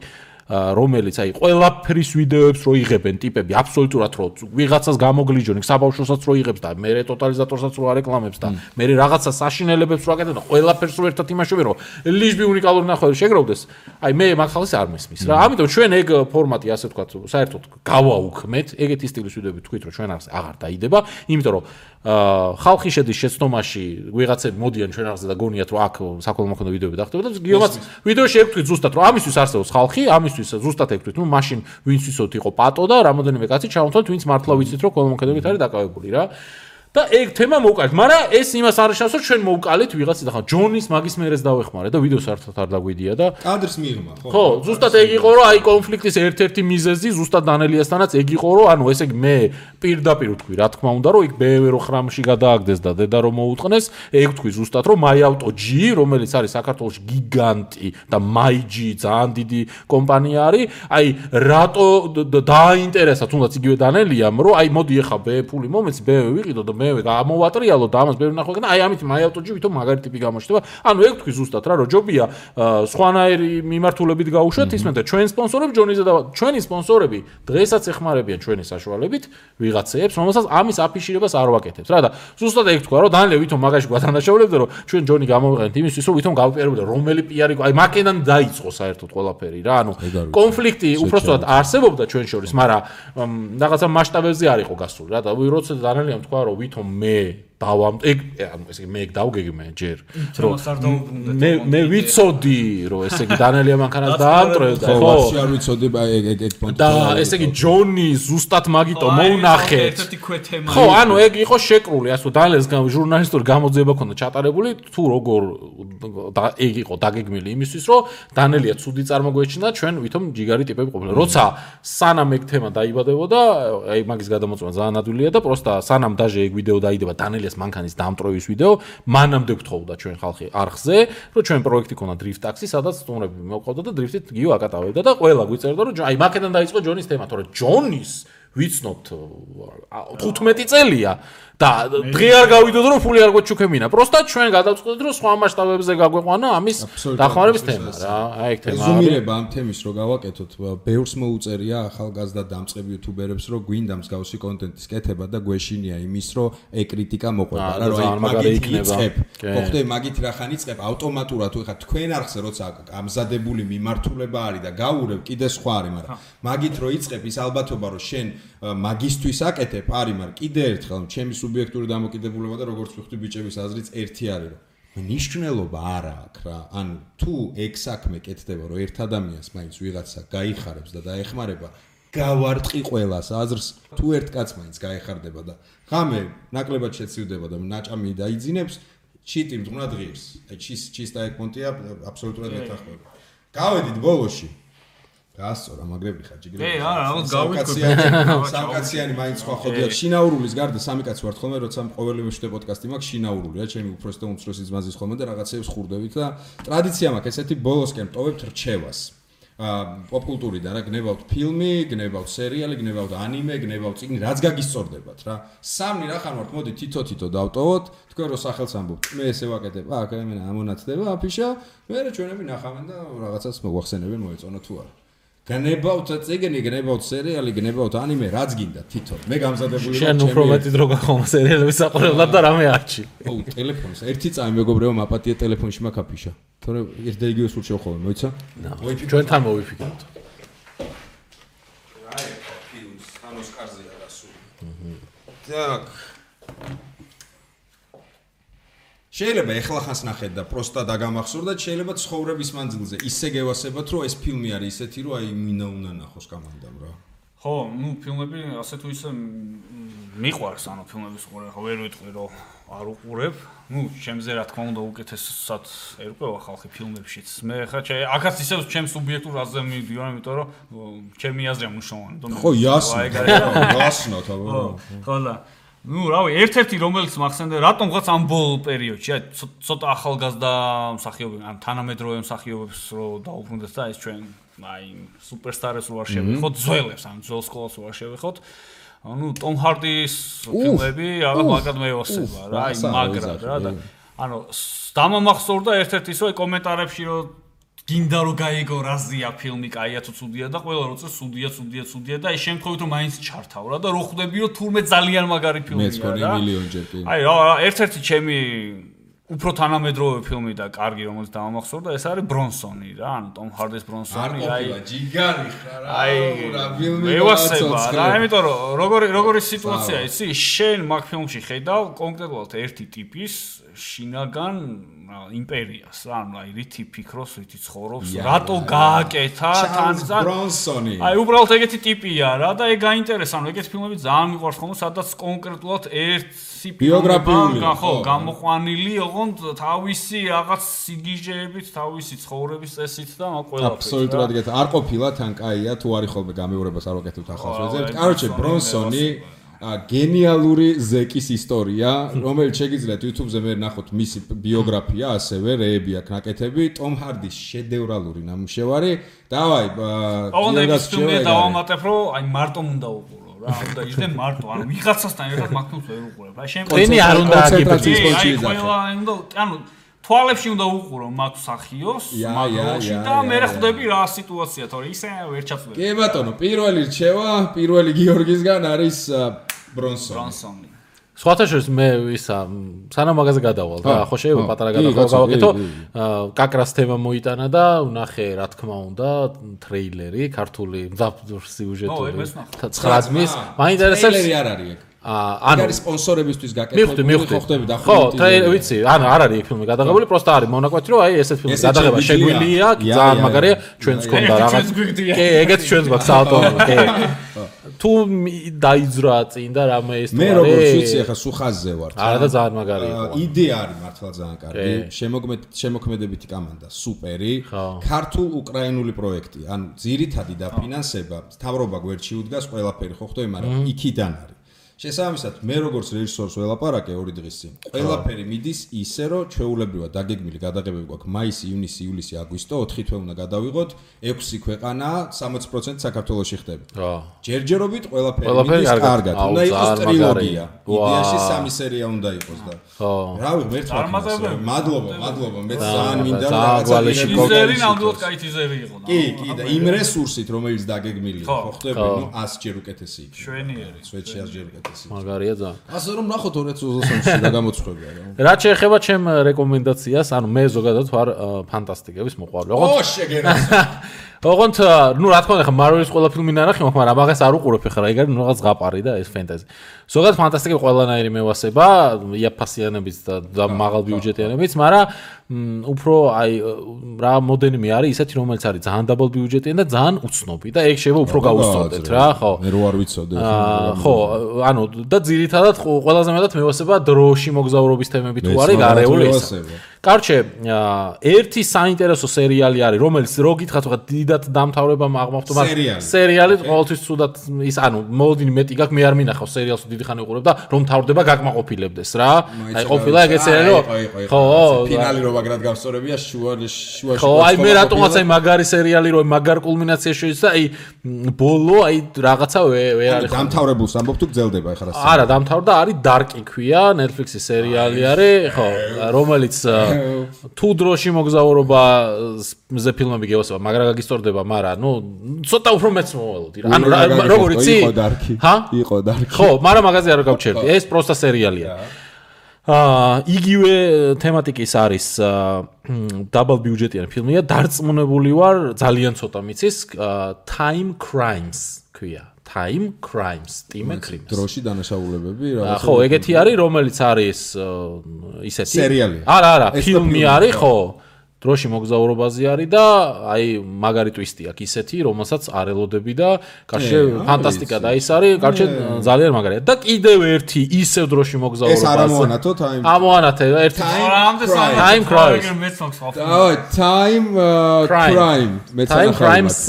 რომელიც აი ყველაფრის ვიდეოებს რო იღებენ ტიპები აბსოლუტურად რო ვიღაცას გამოგლიჯონ იქ საბავშვოსაც რო იღებს და მე ტოტალიზატორსაც რო არეკლამებს და მე რაღაცა საშინელებებს რო აკეთებ და ყველაფერს რო ერთად იმაშობენ რომ ლიჟბი უნიკალური ნახველი შეგროვდეს აი მე მაგ ხალხს არ მესმის რა ამიტომ ჩვენ ეგ ფორმატი ასე ვთქვათ საერთოდ გავაუქმეთ ეგეთი სტილის ვიდეოები თქვით რომ ჩვენ არს აღარ დაიდება იმიტომ რომ ხალხი შედის შეცდომაში ვიღაცები მოდიან ჩვენ არზე და გონიათ რომ აქ საქველმოქმედო ვიდეოები დახტება და გიომაც ვიდეოში ეკუთვით ზუსტად რომ ამისთვის არსებობს ხალხი ამისთვის ზუსტად ეკუთვით ნუ მაშინ ვინც ვისოთ იყო პატო და რამოდენიმე კაცი ჩავთვალთ ვინც მართლა ვიცით რომ ქველმოქმედებით არის დაკავებული რა და ეგ თემა მოვკალით მაგრამ ეს იმას არ შეშავს რომ ჩვენ მოვკალით ვიღაცი და ხა ჯონის მაგის მერეს დავეხმარე და ვიდეოს საერთოდ არ დაგვიდია და კადრს მიღმა ხო ზუსტად ეგ იყო რომ აი კონფლიქტის ერთ-ერთი მიზეზი ზუსტად დანელიასთანაც ეგ იყო რომ ანუ ესე იგი მე პირდაპირ ვთქვი რა თქმა უნდა რომ იქ ბევრი ხრამში გადააგდეს და დედა რომ მოუწყნეს ეგ ვთქვი ზუსტად რომ MyAuto G რომელიც არის საქართველოში გიგანტი და MyG ძალიან დიდი კომპანია არის აი რატო დააინტერესა თუნდაც იგივე დანელიამ რომ აი მოდი ეხა ფული მომეც ვიყიდო და მე გამოვატრიალო და ამას ბევრი ნახვა და აი ამით MyAuto-ში ვითომ მაგარი ტიპი გამოჩნდება. ანუ ეგ თქვი ზუსტად რა, რომ ჯობია სხვანაირი მიმართულებით გაუშვათ ისმენ და ჩვენ სპონსორები ჯონიზე და ჩვენი სპონსორები დღესაც ეხმარებიან ჩვენი საშუალებით ვიღაცებს, რომელსაც ამის აფიშირებას არ ვაკეთებთ რა და ზუსტად ეგ თქვა, რომ დანელე ვითომ მაგაში გვათანაშაულებდა, რომ ჩვენ ჯონი გამოვიყენეთ იმისთვის, რომ ვითომ გავპიარებდა რომელი პიარი, აი მაკედან დაიწყო საერთოდ ყველაფერი რა, ანუ კონფლიქტი უბრალოდ არსებობდა ჩვენ შორის, მაგრამ რაღაცა მასშტაბებზე არ იყო გასული რა და როცა დანელიამ თქვა, რომ ვითომ მე ეგ ანუ ესე იგი მე ეგ დავგეგმე ჯერ რომ მე ვიცოდი რომ ესე იგი დანელია მანქანას დაამტრევდა ხო ვაფშე არ ვიცოდი ეგ პონტი და ესე იგი ჯონი ზუსტად მაგიტო მოუნახეთ ხო ანუ ეგ იყო შეკრული ასე რომ დანელს ჟურნალისტური გამოძიება ქონდა ჩატარებული თუ როგორ ეგ იყო დაგეგმილი იმისთვის რომ დანელია ცუდი წარმოგვეჩინა ჩვენ ვითომ ჯიგარი ტიპები ყოფილა როცა სანამ ეგ თემა დაიბადებოდა აი მაგის გადამოწმა ძალიან ადვილია და პროსტა სანამ დაჟე ეგ ვიდეო დაიდება დანელია მანქანის დამტროვის ვიდეო მანამდე გთხოვდა ჩვენ ხალხი არხზე რომ ჩვენ პროექტი ქონდა დრიფტ ტაქსი სადაც სტუმრები მოყავდა და დრიფტით გიო აკატავებდა და ყველა გვიწერდა რომ აი მაკედან დაიწყო ჯონის თემა თორე ჯონის ვიცნობთ 15 წელია და დღე არ გავიდოდ რომ ფული არ გვეჩუქებინა პროსტა ჩვენ გადავწყვეტთ რომ სხვა მასშტაბებზე გაგვეყვანა ამის დახმარების თემა რა აი ეგ თემა ზუმირება ამ თემის რო გავაკეთოთ ბევრს მოუწერია ახალგაზრდა დამწყები იუთუბერებს რომ გვინდა მსგავსი კონტენტის კეთება და გვეშინია იმის რომ ეკრიტიკა მოყვება რა რომ მაგით იწყებ მოხდე მაგით რახან იწყებ ავტომატურად თუ ეხა თქვენ არხზე როცა ამზადებული მიმართულება არის და გაურებ კიდე სხვა არის მაგრამ მაგით რო იწყებ ის ალბათობა რომ შენ მაგისტვის აკეთებ არის მაგრამ კიდე ერთხელ ჩემი სუბიექტური დამოკიდებულება და როგორც ვხვდი ბიჭების აზრიც ერთი არის რომ მნიშვნელობა არ აქვს რა ანუ თუ ეგ საქმე კეთდება რომ ერთ ადამიანს მაინც ვიღაცა გაიხარებს და დაეხმარება გავარტყი ყველას აზრს თუ ერთ კაცს მაინც გაეხარდება და ღამე ნაკლებად შეცივდება და ნაჭამი დაიძინებს ჩიტი მძღვნად ღირს აი ჩისტა ეგ პონტია აბსოლუტურად მეთანხმება გავედით ბოლოში გასწორა მაგრები ხარ ჯიგრები კი არა რაღაც გავიქოთ სამკაციანი მაინც სხვა ხედავთ შინაურულის გარდა სამი კაცი ვართ ხოლმე როცა ყოველი მეშვიდე პოდკასტი მაქვს შინაურულია ჩემი უფროსი და უმცროსი ძმაზის ხოლმე და რაღაცეებს ხურდებით და ტრადიცია მაქვს ესეთი ბოლოსკენ ტოვებთ რჩევას პოპკულტურიდან რა გნებავთ ფილმი, გნებავთ სერიალი, გნებავთ ანიმე, გნებავთ წიგნი, რაც გაგისწორდებათ რა. სამნი რახან ვართ, მოდი თითო დავტოვოთ, თქვენ რო სახელს ამბობთ. მე ესე ვაკეთებ, აქ მე ამონაცდება აფიშა, მე ჩვენები ნახავენ და რაღაცას მოახსენებენ, მოეწონა თუ არა. გნებავთ წიგნი, გნებავთ სერიალი, გნებავთ ანიმე, რაც გინდა თითო. მე გამზადებული ვარ. შენ უფრო მეტი დრო გახომა სერიალების საყურებლად და რამე არჩი. ო, ტელეფონს. ერთი წამი მეგობრებო, მაპატია ტელეფონში მაქვს აფიშა. თორე ერთ და იგივეს ურჩევ ხოლმე, მოიცა? ჩვენთან მოვიფიქროთ. აი, ფილმს, ან ოსკარზე არასული. так. შეიძლება ეხლა ხანს ნახეთ და პროსტა დაგამახსოვრდათ, შეიძლება ცხოვრების მანძილზე ისე გევასებათ, რომ ეს ფილმი არის ისეთი, რომ აი მინა უნდა ნახოს კამანდამ რა. ხო, ნუ ფილმები ასე თუ ისე მიყვარს, ანუ ფილმების ყურე, ხო ვერ ვიტყვი რომ არ უყურებ. ნუ ჩემზე რა თქმა უნდა უკეთესად ერკვევა ხალხი ფილმებშიც. მე ხა აქაც ისევ ჩემს სუბიექტურ აზრზე მივდივარ, იმიტომ რომ ჩემი აზრია მნიშვნელოვანი. ხო, იასნა. იასნა თქო. ხო და ნუ რავი, ერთ-ერთი რომელიც მახსენდა, რატომღაც ამ ბოლო პერიოდში, აი ცოტა ახალგაზრდა მსახიობები, ან თანამედროვე მსახიობებს რო დაუბრუნდეს და ეს ჩვენ აი სუპერსტარებს რო არ შევეხოთ, ძველებს, ან ძველ სკოლას რო არ შევეხოთ. ანუ ტომ ჰარდის ფილმები რაღაც მაგრად მეოსება რა, აი მაგრად რა და ანუ დამამახსოვრდა ერთ-ერთი ისო კომენტარებში რომ გინდა რომ გაიგო რაზია ფილმი, კაია თუ ცუდია და ყველა როცა ცუდია და აი შემთხვევით რომ მაინც ჩართავ რა და რო ხვდები რომ თურმე ძალიან მაგარი ფილმია რა. მეც მგონი მილიონჯერ კი. აი რა, ერთ-ერთი ჩემი უფრო თანამედროვე ფილმი და კარგი რომელიც დამამახსოვრდა ეს არის ბრონსონი რა, ანუ ტომ ჰარდის ბრონსონი, აი ჯიგარი ხარ რა. აი რა ფილმი მეოსება რა, იმიტომ რომ როგორი სიტუაცია იცი, შენ მაგ ფილმში ხედავ კონკრეტულად ერთი ტიპის შინაგან იმპერიას რა, ანუ აი რითი ფიქრობს, რითი ცხოვრობს, რატო გააკეთა თან ბრონსონი. აი უბრალოდ ეგეთი ტიპია რა და ეგ გაინტერესა, ანუ ეგეთი ფილმები ძალიან მიყვარს ხოლმე, სადაც კონკრეტულად ერთი ბიოგრაფიული ხო, გამოყვანილი ოღონდ თავისი რაღაც სიგიჟეებით, თავისი ცხოვრების წესით და ყველაფერით. აბსოლუტურად გეთ არ ყოფილა თან კაია თუ არის ხოლმე გამეორებას არ ვაკეთებთ ახალს ვეძებთ. კაროჩე ბრონსონი გენიალური ზეკის ისტორია, რომელიც შეგიძლიათ YouTube-ზე მე ნახოთ მისი ბიოგრაფია, ასევე რეები აქვს ნაკეთები, ტომ ჰარდის შედევრალური ნამუშევარი. დავაი, ოღონდ ეს ფილმი დავამატებ, რომ აი მარტო უნდა უყურო რა, უნდა ისე მარტო, ანუ ვიღაცასთან ერთად მაგთუნს ვერ უყურებ. რა შენ ტენი არ უნდა კონცენტრაციის ფონში აი, ყველა უნდა, ანუ თვალებში უნდა უყურო მაგ სახიოს, მაგოში და მე ხვდები რა სიტუაცია, თორე ისე ვერ ჩაწვდები. კი ბატონო, პირველი რჩევა, პირველი გიორგისგან არის ბრონსონი. სხვათა შორის მე ისა სანამ მაგაზე გადავალ და ხო შეიძლება პატარა გადავალ გავაკეთო კაკრას თემა მოიტანა და ვნახე რა თქმა უნდა ტრეილერი ქართული სიუჟეტური 9 ძმის მაინტერესებს ტრეილერი არ არის ეგ ანუ არის სპონსორებისთვის გაკეთებული ხო ხდები და ხო ტრეილერი ვიცი ანუ არ არის ეგ ფილმი გადაღებული პროსტა არის მონაკვეთი რომ აი ესეთ ფილმის გადაღება შეგვიძლია ძალიან მაგარია ჩვენს კონდა რაღაც კი ეგეც ჩვენს გვაქვს საავტომობილო კი თუ დაიძრა წინ და რამე ის მე როგორც ვიცი ახლა სუხაზზე ვარ არა და ძალიან მაგარი იყო იდეა არის მართლა ძალიან კარგი შემოქმედებითი კომანდა სუპერი ქართულ უკრაინული პროექტი ანუ ძირითადი დაფინანსება მთავრობა გვერდში უდგას ყველაფერი ხო ხდები მაგრამ იქიდან არის შესაბამისად მე როგორც რეჟისორს ველაპარაკე 2 დღის წინ ყველაფერი მიდის ისე რომ ჩვეულებრივად დაგეგმილი გადაღებები გვაქვს მაისი, ივნისი, ივლისი, აგვისტო 4 თვე უნდა გადავიღოთ 6 ქვეყანა 60% საქართველოში ხდება. ჯერჯერობით ყველაფერი მიდის კარგად. უნდა იყოს ტრილოგია. იდეაში 3 სერია უნდა იყოს და. რავი, მერცხლა. მადლობა, მე ძალიან მინდა რაღაცა ტიზერი ნამდვილად კაი ტიზერი იყო. კი, და იმ რესურსით რომელიც დაგეგმილია, ხო ხდები, ნუ 100 ჯერ უკეთესი იქნება. შვენიერი. სვეტში 100 ჯერ მაგარია ძალიან. ასე რომ ნახოთ 2023-ში და გამოცხებია რა. რა შეეხება ჩემ რეკომენდაციას, ანუ მე ზოგადად ვარ ფანტასტიკების მოყვარული. ო, შეგერას. ოღონდ ნუ რა თქმა უნდა ხა მარველის ყველა ფილმი ნანახი მაქვს, მაგრამ მაგას არ უყურებ ხა რა, ეგ არის რაღაც ზღაპარი და ეს ფენტეზი. ზოგადად ფანტასტიკები ყველანაირი მევასება, იაფასიანებიც და მაღალ ბიუჯეტიანებიც, მაგრამ უფრო აი რა მოდენიმე არის ისეთი რომელიც არის ძალიან დაბალ ბიუჯეტიანი და ძალიან უცნობი და ეგ შეიძლება უფრო გაუსწორდეთ რა, ხო? მე რო არ ვიცოდე. ხო, ანუ და ძირითადად ყველაზე მეტად მევასება დროში მოგზაურობის თემები თუ არის გარეული ეს. კარჩე, ერთი საინტერესო სერიალი არის, რომელიც რო გითხრათ ხა დიდად დამთავრებამ აღმავთო, მაგრამ სერიალი ყოველთვის ცუდად ის ანუ მოლოდინი მეტი გაქვს, მე არ მინახავ სერიალს დიდი ხანი უყურებ და რომ თავდება გაკმაყოფილებდეს რა. აი ყოფილა ეგეც სერიალი რომ ხო, ფინალი რო მაგრად გავსწორებია შუაში. ხო, აი მე რატომაც აი მაგარი სერიალი რო მაგარ კულმინაციაში შეიძლება აი ბოლო აი რაღაცა ვერ არის. დამთავრებულს ამბობ თუ გძელდება ეხლა რა. არა, დამთავრდა არის Dark-ი ქვია, Netflix-ის სერიალი არის, ხო, რომელიც თუ დროში მოგზაურობაზე ფილმები გევასება, მაგრამ გაგისწორდება, მაგრამ ნუ ცოტა უფრო მეც მოვალოდი რა. ანუ როგორ იცი? იყო Dark-ი. ხო, მაგრამ მაგაზე არ გავჩერდი. ეს პროსტა სერიალია. იგივე თემატიკის არის დაბალ ბიუჯეტიანი ფილმია, დარწმუნებული ვარ, ძალიან ცოტა მიცის, Time Crimes ქვია. Time Crimes, Time Crimes. დროში დანაშაულებები რა. ხო, ეგეთი არის, რომელიც არის ისეთი. სერიალი. არა, ფილმი არის, ხო. დროში მოგზაურობაზე არის და აი მაგარი ტვისტი აქვს ისეთი, რომელსაც არ ელოდები და კარჩე ფანტასტიკა და ის არის, კარჩე ძალიან მაგარია. და კიდევ ერთი ისევ დროში მოგზაურობაზე. ეს არ ამოანათო Time. ამოანათე ერთი. Time Crimes. დავай, Time Crime. Time Crimes.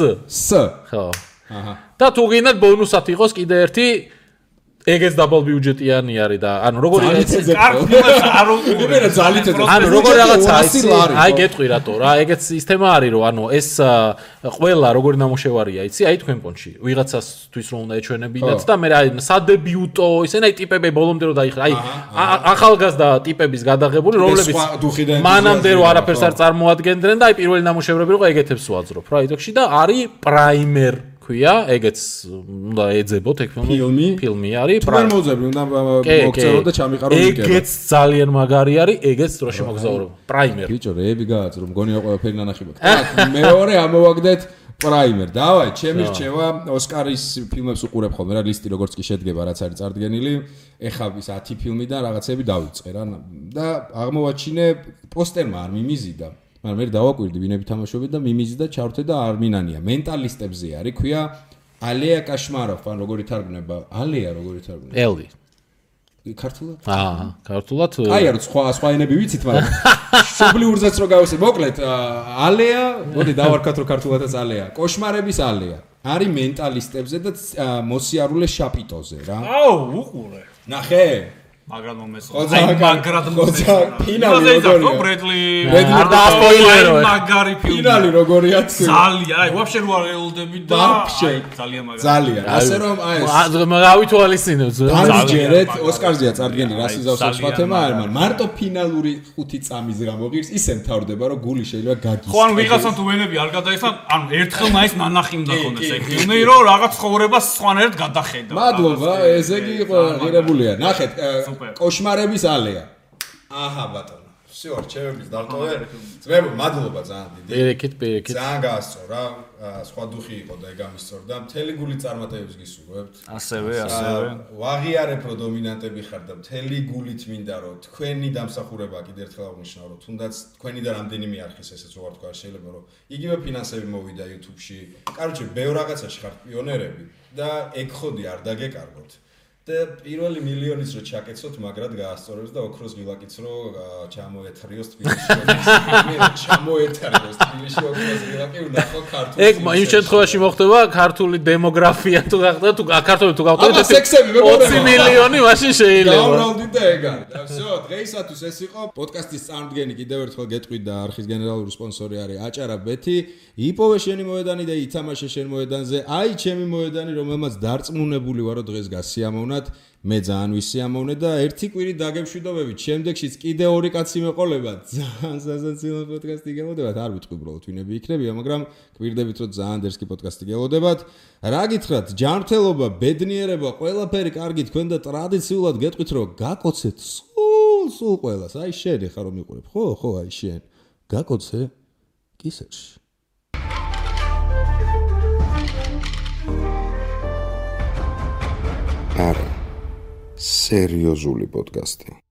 ხო. აჰა. და თუ გინდათ ბონუსად იყოს კიდე ერთი ეგეც დაბალ ბიუჯეტიანი არის და ანუ როგორი არ უყურებ ანუ როგორ რაღაცა აი გეტყვი რატო რა ეგეც ის თემა არის რომ ანუ ეს ყველა როგორი ნამუშევარია იცი აი თქვენ პონჩი ვიღაცასთვის რომ უნდა ეჩვენებინათ და მე აი სადებიუტო ისინი აი ტიპები ბოლომდე რომ დაიხრა აი ახალგაზრდა ტიპების გადაღებული რომლებიც მანამდე რომ არაფერს არ წარმოადგენდნენ და აი პირველი ნამუშევრები რომ ეგეთებს ვაძრობ რა იდოქში და არის პრაიმერ ქვია, ეგეც უნდა ეძებოთ ეგ ფილმი არის. თუ ვერ მოძებნი, უნდა მოგწერო და ჩამიყარო იქნება. ეგეც ძალიან მაგარი არის, ეგეც დროში მოგზაურობა. პრაიმერ. ბიჭო, რეები გააძრო, მგონია ყველაფერი ნანახი მაქვს. მეორე ამოვაგდეთ პრაიმერ. დავაი, ჩემი რჩევა ოსკარის ფილმებს უყურებ ხოლმე რა, ლისტი როგორც კი შედგება, რაც არის წარდგენილი. ეხლა ის 10 ფილმიდან რაღაცები დავიწყე რა და აღმოვაჩინე პოსტერმა არ მიმიზიდა. მაგრამ მე დავაკვირდი ვინები თამაშობენ და მიმიზიდა ჩავრთე და არ მინანია. მენტალისტებზე არის, ქვია ალეა კაშმაროვ, ან როგორი თარგმნება? ალეა როგორი თარგმნება? ელი. ქართულად? ქართულად. აი არ სხვა ენები ვიცით, მაგრამ შუბლიურზეც რო გავუსე. მოკლედ ალეა, მოდი დავარქათ რო ქართულადაც ალეა. კოშმარების ალეა. არის მენტალისტებზე და მოსიარულე შაპიტოზე რა. აუ, უყურე. ნახე? მაგრამ ფინალი როგორია? ბრედლი არ დაასპოილერო. მაგარი ფილმი. ფინალი როგორია თქვი? ძალიან, ვაფშე რო არ ელოდები და ძალიან მაგარი. ძალიან. ასე რომ ავითვალისწინებს. დამჯერეთ ოსკარზეა წარდგენილი რას იზავს სხვა თემა არ მაგრამ მარტო ფინალური 5 წამის გამოგირს ისე მთავრდება რომ გული შეიძლება გაგის. ხო ან ვიღაცამ თუ ვენები არ გადაიხსნა, ანუ ერთხელ მაინც ნანახი უნდა ქონდეს ეგ ფილმი რომ რაღაც ცხოვრებას სხვანაირად გადახედა. მადლობა, ესე იგი ღირებულია. ნახეთ, კოშმარების ალეა. აჰა ბატონო. всё, რჩევების დარტოვე. ძმებო, მადლობა ძალიან დიდი. პირიქით. ძალიან გაასწრო რა. სხვა დუხი იყო და ეგ ამისწორდა. მთელი გული წარმატებებს გისურვებთ. ასევე. ვაღიარებ რომ დომინანტები ხარ და მთელი გულით მინდა რომ თქვენი დამსახურება კიდევ ერთხელ აღნიშნავ რომ თუნდაც თქვენი და რამდენიმე არხის ესეც რო ვარ თქვა შეიძლება რომ იგივე ფინანსები მოვიდა YouTube-ში. კაროჩე, ბევრ რაღაცაში ხართ პიონერები და ეგ ხოდი არ დაგეკარგოთ. და პირველი მილიონის რო ჩაკეცოთ, მაგრად გაასწორებს და ოქროს გილაკიც რო ჩამოეთრიოს თბილისში. ჩამოეთრიოს თბილისში ოქროს გილაკი ვნახო ქართულში. ეგ იმ შემთხვევაში მოხდება ქართული დემოგრაფია თუ გახდა თუ ქართული თუ გავყიდეთ 20 მილიონი მაშინ შეიძლება. დავრალდით და ეგ არის. და всё, დღეისათვის ეს იყო პოდკასტის წარმდგენი კიდევ ერთხელ გეტყვით და არხის გენერალური სპონსორი არის აჭარა ბეთი. იპოვე შენი მოედანი და ითამაშე შენ მოედანზე. აი ჩემი მოედანი, რომელმაც დარწმუნებული ვარო დღეს გასიამოვნა. მე ძალიან ვისიამოვნე და ერთი კვირით დაგემშვიდობებით. შემდეგშიც კიდე 2 კაცი მეყოლებათ. ძალიან სასაცილო პოდკასტი გელოდებათ. არ ვიტყვი უბრალოდ ვინები იქნებია, მაგრამ კვირდებით რომ ძალიან დერსკი პოდკასტი გელოდებათ. რა გითხრათ? ჯანმრთელობა, ბედნიერება, ყველაფერი კარგი თქვენ და ტრადიციულად გეტყვით რომ გაკოცეთ სულ ყველას. აი შენ ხარ რომ მიყურებ. ხო, აი შენ. გაკოცე კისერში. არა სერიოზული პოდკასტი